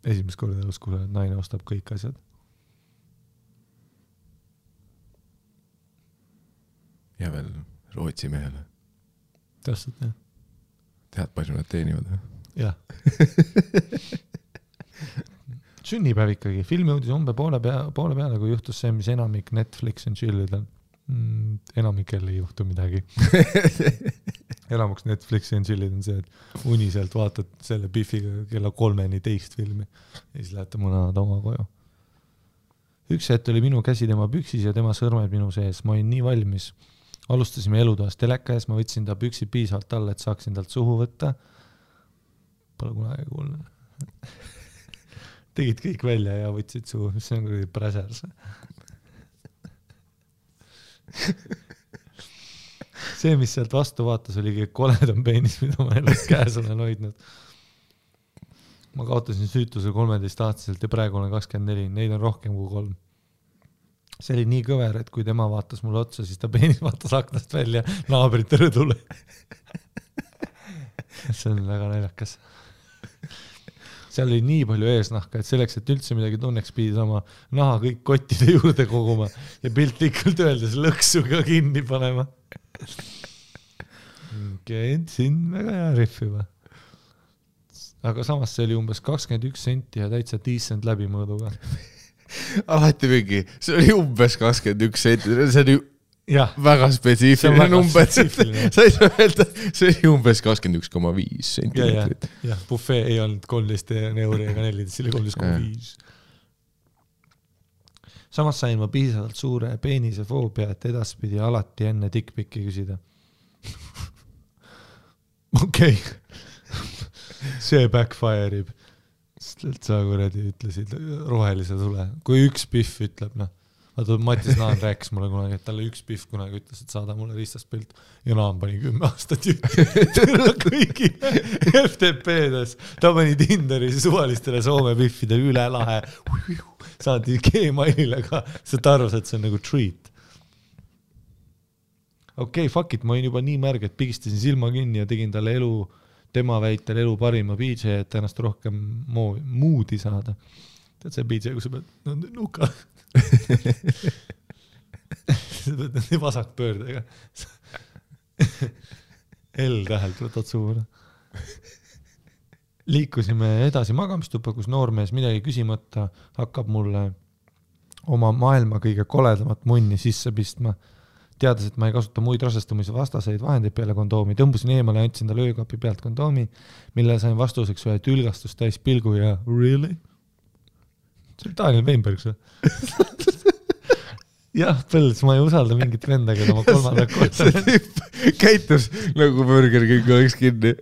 Esimest korda elus, kui naine ostab kõik asjad. Ja veel Rootsi mehele. Täpselt, jah. Tead, palju nad teenivad? Jah. Sünnipäev ikkagi. Filmi uudis poole peale, kui juhtus see, mis enamik Netflix and chillidel. Enamikel ei juhtu midagi. Elamuks Netflixi and chillid on see, et uniselt vaatad selle Biffiga kella 3-ni teist filmi ja siis lähete mõned oma koju. Üks hetk oli minu käsi tema püksis ja tema sõrmed minu sees. Ma olin nii valmis. Alustasime elutoast teleka ees, ma võtsin ta püksid piisavalt alla, et saaksin talt suhu võtta. Pole kunagi kuulnud. Tegid kõik välja ja võtsid suhu, mis see on kui präsers. See, mis sealt vastu vaatas, oligi koledam peenis, mida ma elus käes olen hoidnud. Ma kaotasin süütuse 13-aastaselt ja praegu olen 24. Neid on rohkem kui 3. See oli nii kõver, et kui tema vaatas mulle otsa, siis ta peenis vaatas aknast välja naabrite rõdule. See on väga naljakas. Seal oli nii palju eesnahka, et selleks, et üldse midagi tunneks, pidi sama naha kõik kottide juurde koguma ja piltlikult öeldes lõksu ka kinni panema. okei, siin väga hea riffi või. Aga samas see oli umbes 21 senti ja täitsa decent läbimõõduga. Alati mingi, see oli umbes 21 senti, see oli ja. Väga spetsiifiline number. Sa ei saa öelda, see oli umbes 21,5 sentimeetrit. Ja, buffet ei olnud 13 euri ega 14, see oli 13,5. Samas sain ma piisavalt suure peenise foobia, et edaspidi alati enne dickpicki küsida. Okei. See backfire'ib. Sest sa kuradi ütlesid rohelise tule. Kui üks Biff ütleb, vaata Matis Naan rääkis mulle kunagi, et talle üks Biff kunagi ütles, et saada mulle ristas pilt ja Naan pani 10 aastat juttu kõigi FTP-des. Ta pani Tinderis suvalistele Soome Biffidele üle lahe. Saadi Gmailile ka, sa arvas, et see on nagu treat. Okei, fuck it, ma olin juba nii märg, et pigistasin silma kinni ja tegin talle tema väitel elu parima BJ, et ennast rohkem moodi saada. Tead see BJ, kui sa pead nuka. Sa pead nii vasak pöördega. L-tähelt võtad suuna. Liikusime edasi magamistuppa, kus noormees midagi küsimata hakkab mulle oma maailma kõige koledamat munni sisse pistma. Teades, et ma ei kasuta muid rasestumise vastaseid vahendeid peale kondoomi, tõmbusin eemale ja andsin talle öökapi pealt kondoomi, mille sain vastuseks ühe tülgastust täis pilgu ja really? See oli Daniel Weinberg see. Jah, Põls, ma ei usalda mingit venda, keda ma kolmanda korda. See tüüp käitus nagu Burger King oleks kinni.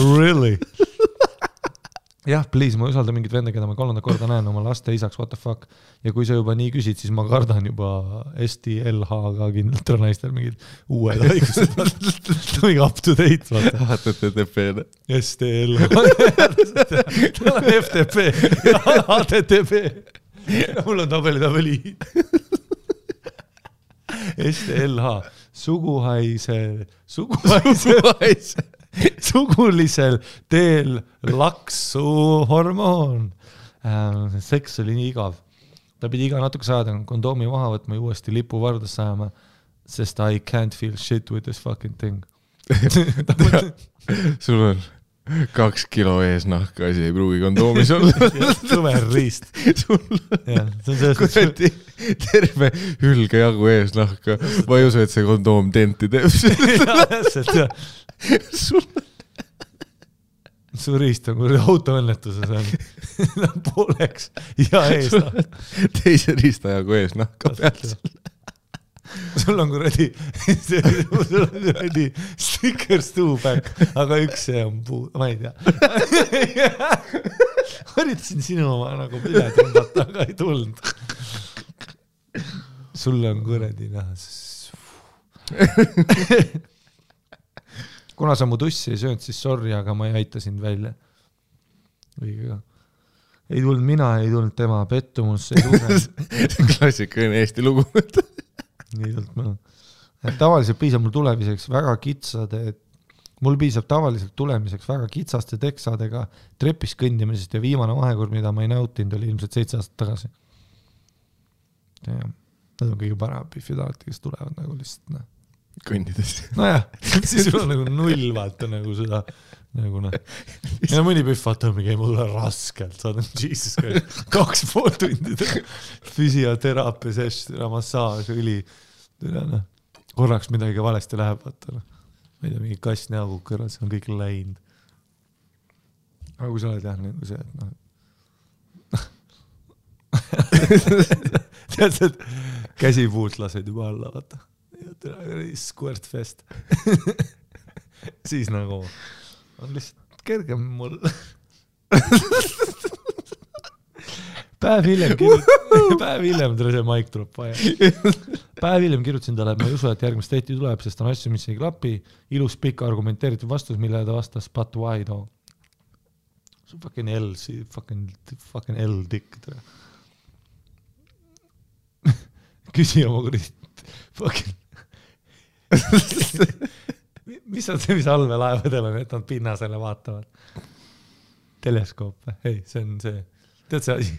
Really? Jah, please, ma ei usalda mingit venda, keda ma kolmanda korda näen oma laste isaks, what the fuck. Ja kui sa juba nii küsid, siis ma kardan juba STLH-ga kindlalt on naistel mingid uued haigused. Mingi up to date, vaata. HTTP-ne. STLH. Tal on FTP. HTTP. Mul on tabeli. STLH. Sugulisel teel laksu hormoon. Seks oli nii igav. Ta pidi iga natuke saada kondoomi maha võtma ja uuesti lipu vardas saama, sest I can't feel shit with this fucking thing. Sul on 2 kilo eesnahka, asi ei pruugi kondoomis olla. Suver riist. Kuradi terve hülge jagu eesnahka. Ma ei usu, et see kondoom denti teeb. Su riist on kuradi autoõnnetuses on pooleks ja eesnahka. Teise riistajagu eesnahka pealt. Sul on kuradi stickers two back, aga üks see on puu, ma ei tea. Haritasin sinu oma nagu üle tõmbata, aga ei tulnud. Sul on kuradi näha. Kuna sa mu tussi ei söönud, siis sorry, aga ma ei aita sind välja. Õigega. Ei tulnud mina, ei tulnud tema pettumus. Klassikaline Eesti lugu. Nii tulnud ma. Tavaliselt piisab mul tulemiseks väga kitsade, mul piisab tavaliselt tulemiseks väga kitsaste teksadega trepis kõndimisest ja viimane vahekord, mida ma ei nautinud, oli ilmselt 7 aastat tagasi. Ja, nad on kõige parem Biffi alati, kes tulevad nagu lihtsalt kõndides. Nojah, siis sul on nagu null vaata nagu seda nagu ja mõni Biff vaata mingi ei mulle raskelt saadab Jesus Christ 2,5 tundi füsioteraapia session, massaaž, õli korraks midagi valesti läheb vaata ma ei tea, mingi kass näogu kõrval, see on kõik läinud aga kui sa oled jah nagu see tead, et käsipuult lased juba alla vaata squirt fest siis nagu on lihtsalt kergem mul päev hiljem see maik tuleb vaja päev hiljem kirjutasin talle, et ma ei usu, et järgmist date'i tuleb, sest on asju, mis ei klapi ilus pikk argumenteeritud vastus, mille ta vastas but why though see fucking L fucking L dick küsi oma kurit fucking mis on see, mis allveelaevadel on, et nad pinnasele vaatavad? Teleskoop, ei, see on see, tead see asi?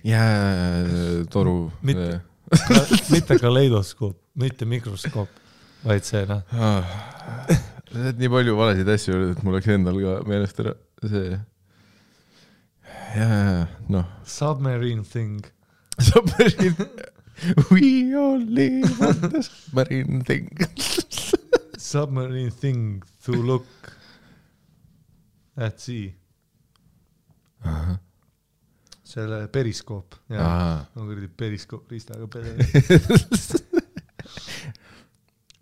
Toru. Mitte kaleidoskoop, mitte mikroskoop, vaid see noh. Nii palju valesid asju öeldud, et mul läks endal ka meelest ära see. Noh. Submarine thing. Submarine. We all live on the submarine thing. Submarine thing to look at sea. Selle periskoop. Periskoop riistaga pere.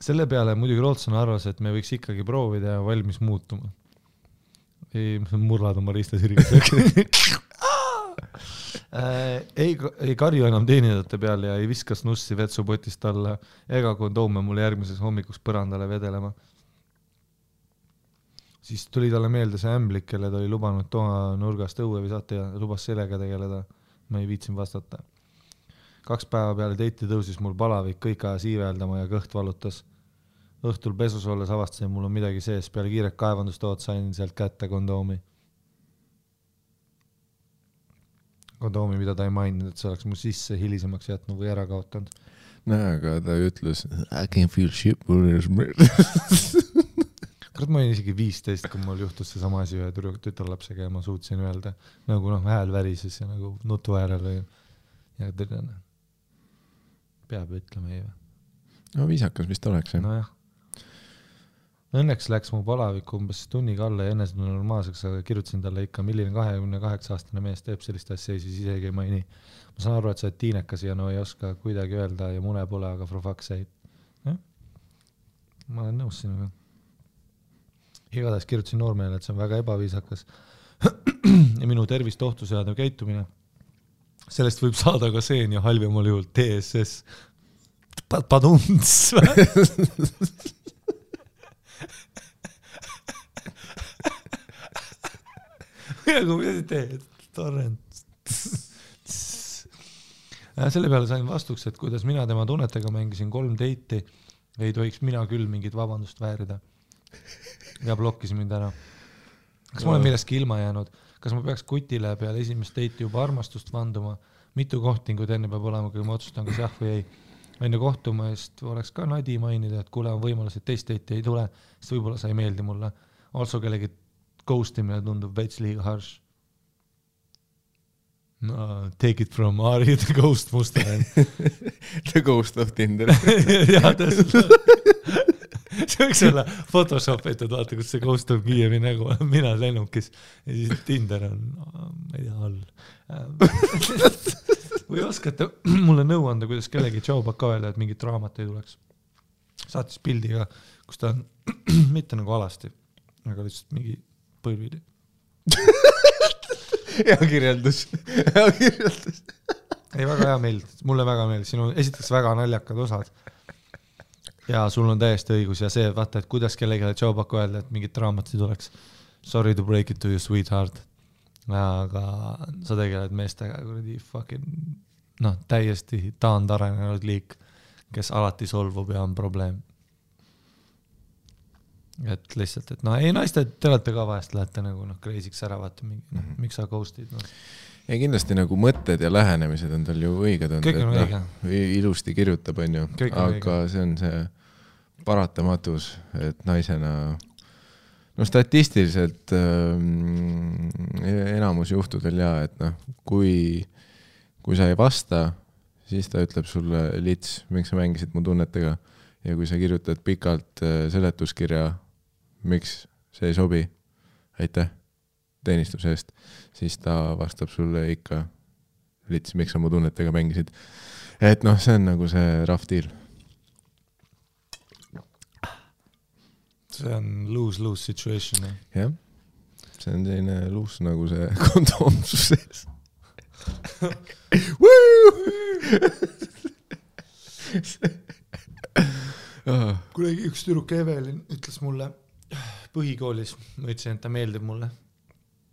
Selle peale muidugi Rootson arvas, et me võiks ikkagi proovida ja valmis muutuma. Ei murlad oma riistasiriga. ei karju enam teenindajate peale ja ei viskas nussi vetsupotist alla ega kondoome mulle järgmises hommikuks põrandale vedelema. Siis tuli talle meelde see ämblik, kelle ta oli lubanud toa nurgast õue visata ja lubas sellega tegeleda. Ma ei viitsin vastata. 2 päeva peale teiti tõusis mul palavik, kõik aja siiveldama ja kõht valutas. Õhtul pesus olles avastasin, mul on midagi sees. Peale kiiret kaevandustood sain sealt kätte kondoomi. Kondoomi, mida ta ei maininud, et see oleks mu sisse hilisemaks jätnud või ära kaotanud. Aga ta ütles, I can feel shit. Kurat, ma olin isegi 15, kui mul juhtus see sama asi ühe tütarlapsega ja ma suutsin öelda, nagu hääl värises ja nagu nutu äärel või. Ja peab ütlema ei või. No viisakas vist oleks. No jah. Õnneks läks mu palavik umbes tunniga alla ja enne seda normaalseks, aga kirjutasin talle ikka, milline 28-aastane mees teeb sellist asja, siis isegi ei maini. Ma saan aru, et sa oled tiinekas ja no ei oska kuidagi öelda ja mune pole, aga for fuck's sake. Ma olen nõus sinuga. Igatahes kirjutasin noormehele, et see on väga ebaviisakas ja minu tervist ohtu seadav käitumine. Sellest võib saada ka seen ja halvemal juhul TSS. Padunts. Aga mida teed? Torrent. Selle peale sain vastuks, et kuidas mina tema tunnetega mängisin 3 deiti, ei tohiks mina küll mingit vabandust väärida. Ja blokkis mind ära. Kas ma olen millestki ilma jäänud? Kas ma peaks kutile peale esimest deiti juba armastust vanduma? Mitu kohtingud enne peab olema, kui ma otsustan, kas jah või ei. Enne kohtumast oleks ka Nadi mainida, et kuule on võimalus, et teist deiti ei tule, sest võib-olla sa ei meeldi mulle. Also kellegi ghostimine tundub veits liiga harsh. No, take it from Ari, the ghost Mustanen. The ghost of Tinder. Jaa, täpselt. See võiks olla photoshopitud, vaata, kus see ghost of Kiievi nägu on mina lennukis ja siis Tinder on, ma ei tea, all. Või oskate mulle nõu anda, kuidas kellegi tšaubaka öelda, et mingit raamat ei tuleks. Saatis pildiga, kus ta on mitte nagu alasti, aga lihtsalt mingi põlvili. Hea kirjeldus. Ei, väga hea meeld. Mulle väga meeld. Sinu esiteks väga naljakad osad. Ja sul on täiesti õigus ja see, vaata, et kuidas kellegi tšaubaka öelda, et mingit raamat ei tuleks. Sorry to break it to you, sweetheart. Aga sa tegeled meestega kuradi fucking täiesti taandarenenud liik, kes alati solvub ja on probleem. Et lihtsalt, et ei naiste, te olete ka vahest lähete nagu kreisiks ära, vaata, miks sa ghostid? Ja kindlasti nagu mõtted ja lähenemised on tal ju õiged on. Kõik on õige. Ilusti kirjutab, on ju. Aga see on see paratamatus, et naisena statistiliselt enamus juhtudel et kui sa ei vasta, siis ta ütleb sulle lits, miks sa mängisid mu tunnetega ja kui sa kirjutad pikalt seletuskirja, miks see ei sobi, aitäh teenistuse eest, siis ta vastab sulle ikka lits, miks sa mu tunnetega mängisid. Et see on nagu see rough deal. See on lose-lose situation. Jah, see on selline loose nagu see kondoomsus sees. Kuidagi üks tüdruk Evelin ütles mulle põhikoolis, ma ütlesin, et ta meeldib mulle.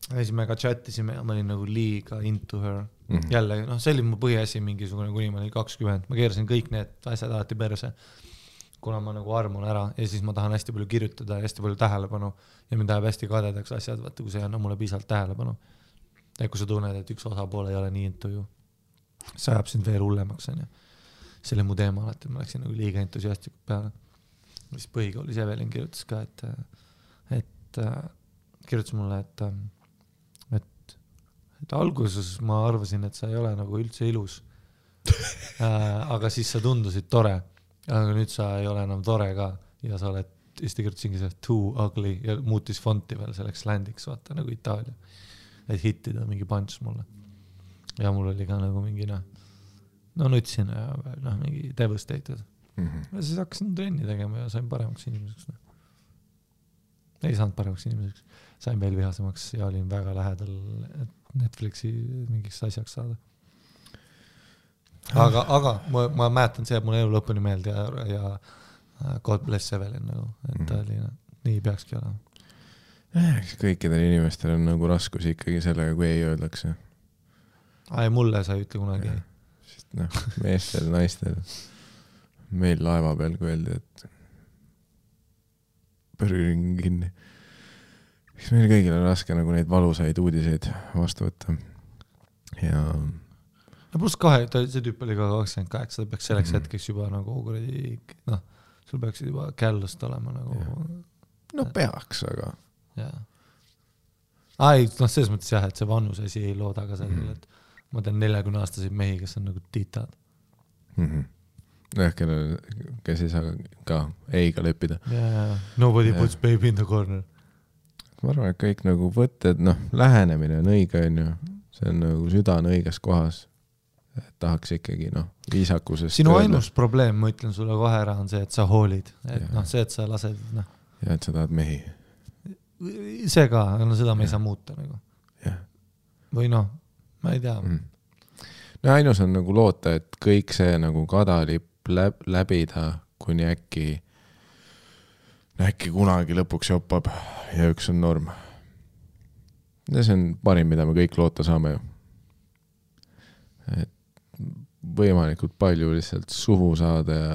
Ja siis me ka chattisime ja ma olin nagu liiga into her. Jälle, see oli mu põhiasi mingisugune, kuni ma olin 20. Ma keerasin kõik need asjad alati perse, kuna ma nagu armun ära ja siis ma tahan hästi palju kirjutada ja hästi palju tähelepanu ja mind läheb hästi kadedaks asjad, vaata, kui see on mulle piisavalt tähelepanu. Ja kui sa tunned, et üks osapoole ei ole nii into ju, see ajab sind veel hullemaks. See oli mu teema alati, ma läksin nagu liiga entusiastlikult peale. mis põhikoolis Evelin kirjutas ka, et kirjutas mulle, et alguses ma arvasin, et sa ei ole nagu üldse ilus. Aga siis sa tundusid tore, aga nüüd sa ei ole enam tore ka ja sa oled, siis ta kirjutas inglise too ugly ja muutis fonti veel selleks landiks, vaata nagu Itaalia, et hittida mingi punch mulle ja mul oli ka nagu mingi nutsin ja mingi devastated ja siis hakkasin trenni tegema ja sain paremaks inimeseks. Ei saanud paremaks inimeseks, sain veel vihasemaks ja olin väga lähedal Netflixi mingiks asjaks saada. Aga ma mäletan see, et mul elu lõpuni meelde ja God bless Evelin nagu, et ta oli nii peakski olema. Kõikidel inimestel on nagu raskus ikkagi sellega, kui ei öeldakse. Mulle sa ei ütle kunagi ei. Meestel, naistel. Meil laeva peal, kui öeldi, et põrgin kinni. Miks meil kõigil on raske nagu neid valusaid uudiseid vastu võtta. Ja pluss see tüüp oli ka 28, ta peaks selleks hetkeks juba nagu sul peaks juba källust olema nagu peaks, aga selles mõttes jah, et see vanus asi ei looda ka sellele, et ma tean 40-aastaseid mehi, kes on nagu tiitad. Kes ei saa ka eiga leppida. Nobody puts baby in the corner. Ma arvan, et kõik nagu võtted, lähenemine on õige, on ju. See on nagu süda on õiges kohas. Et tahaks ikkagi, viisakusest. Sinu ainus probleem, ma ütlen sulle kohe ära, on see, et sa hoolid. Et see, et sa lased, Ja et sa tahad mehi. See ka, seda me ei saa muuta nagu. Või ma ei tea. Ainus on nagu loota, et kõik see nagu kadalipp läbida, kuni äkki kunagi lõpuks joppab ja üks on norm. Ja see on parim, mida me kõik loota saame ju. Et võimalikult palju lihtsalt suhu saada ja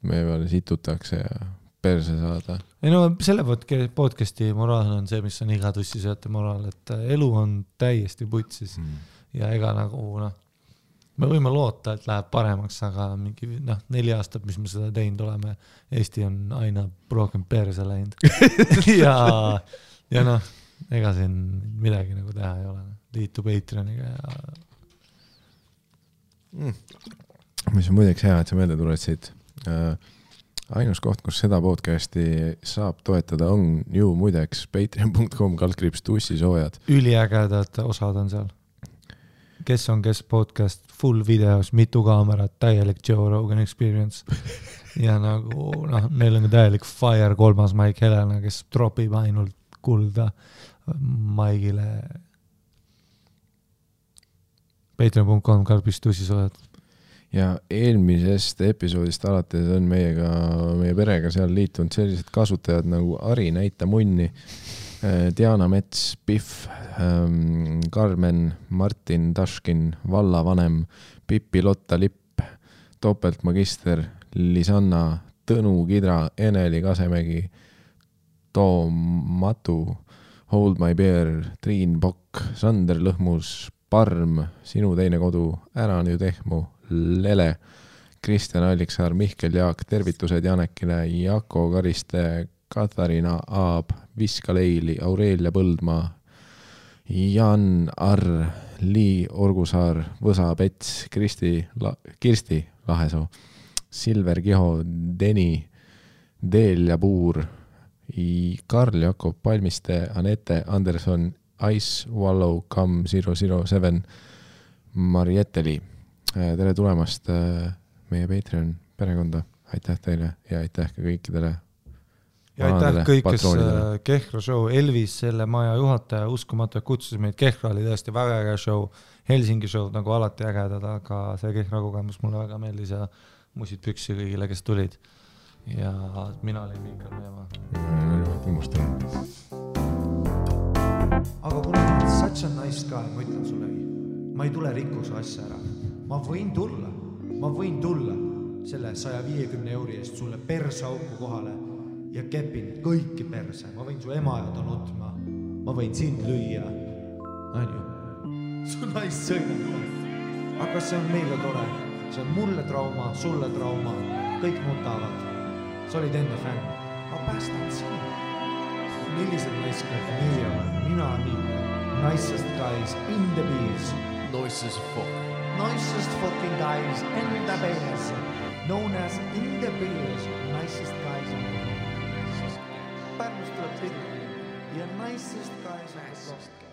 me peale situtakse ja perse saada. Selle podcasti moraal on see, mis on iga tussisööte moraal, et elu on täiesti putsis ja ega nagu me võime loota, et läheb paremaks, aga mingi 4 aastat, mis me seda teinud oleme, Eesti on aina rohkem perse läinud ja ega siin midagi nagu teha ei ole. Liitu Patreoniga ja mis on muideks hea, et sa meelde tuletasid. Ainus koht, kus seda podcasti saab toetada, on ju muideks patreon.com/tussisoojad. Üliägedad osad on seal. Kes on kes podcast, full videos, mitu kaamerat, täielik Joe Rogan experience. Ja nagu, meil on täielik Fire 3. Mike Helena, kes tropib ainult kulda Maigile. Patreon.com/tussisoojad. Ja eelmisest episoodist alates on meie perega seal liitunud sellised kasutajad nagu Ari Näita Munni, Diana Mets, Piff, Carmen, Martin Taškin, Vallavanem, Pippi Lotta Lipp, Topeltmagister, Lisanna, Tõnu Kidra, Eneli Kasemägi, Toom Matu, Hold My Bear, Triin Pokk, Sander Lõhmus, Parm, Sinu teine kodu, Ära nüüd ehmu, Lele, Kristjan Alliksaar, Mihkel Jaak, tervitused Janekile, Jako Kariste, Katariina Aab, Viska Leili, Aurelia Põldmaa, Jan Arr, Lii Orgusaar, Võsa Pets, Kirsti Lahesoo, Silver Kiho, Deni, Deelja Puur, Karl Jakob Palmiste, Anette Anderson, Ice Wallow Come 007, Marieteli. Tere tulemast meie Patreon perekonda. Aitäh teile ja aitäh ka kõikidele. Ja aitäh kõik, kes Kehra show, Elvis, selle maja juhataja, uskumatu, et kutsusid meid. Kehra oli tõesti väga äge show, Helsingi show nagu alati ägedad, aga see Kehra kogemus mulle väga meeldis ja musid püksi kõigile, kes tulid. Ja mina olin Mikkel Meemaa. Aga kuna ma olen such a nice guy, ma ütlen sullegi, ma ei tule rikkuse asja ära. Ma võin tulla selle 150 euri eest sulle persauku kohale ja kepin kõiki perse. Ma võin su ema ja nutma. Ma võin sind lüüa. Su naist sõina. Aga see on meile tore. See on mulle trauma, sulle trauma. kõik nutavad. Sa olid enne fänn. Ma päästan sinu. Millised naiskad nii on? Mina nii. Nicest guys in the beers. Nicest fuck. Nicest fucking guys in the beers. Known as in the beers. Nicest guys in the beers. Pärnust tuleb tüdruk. Ja nicest guys in the beers.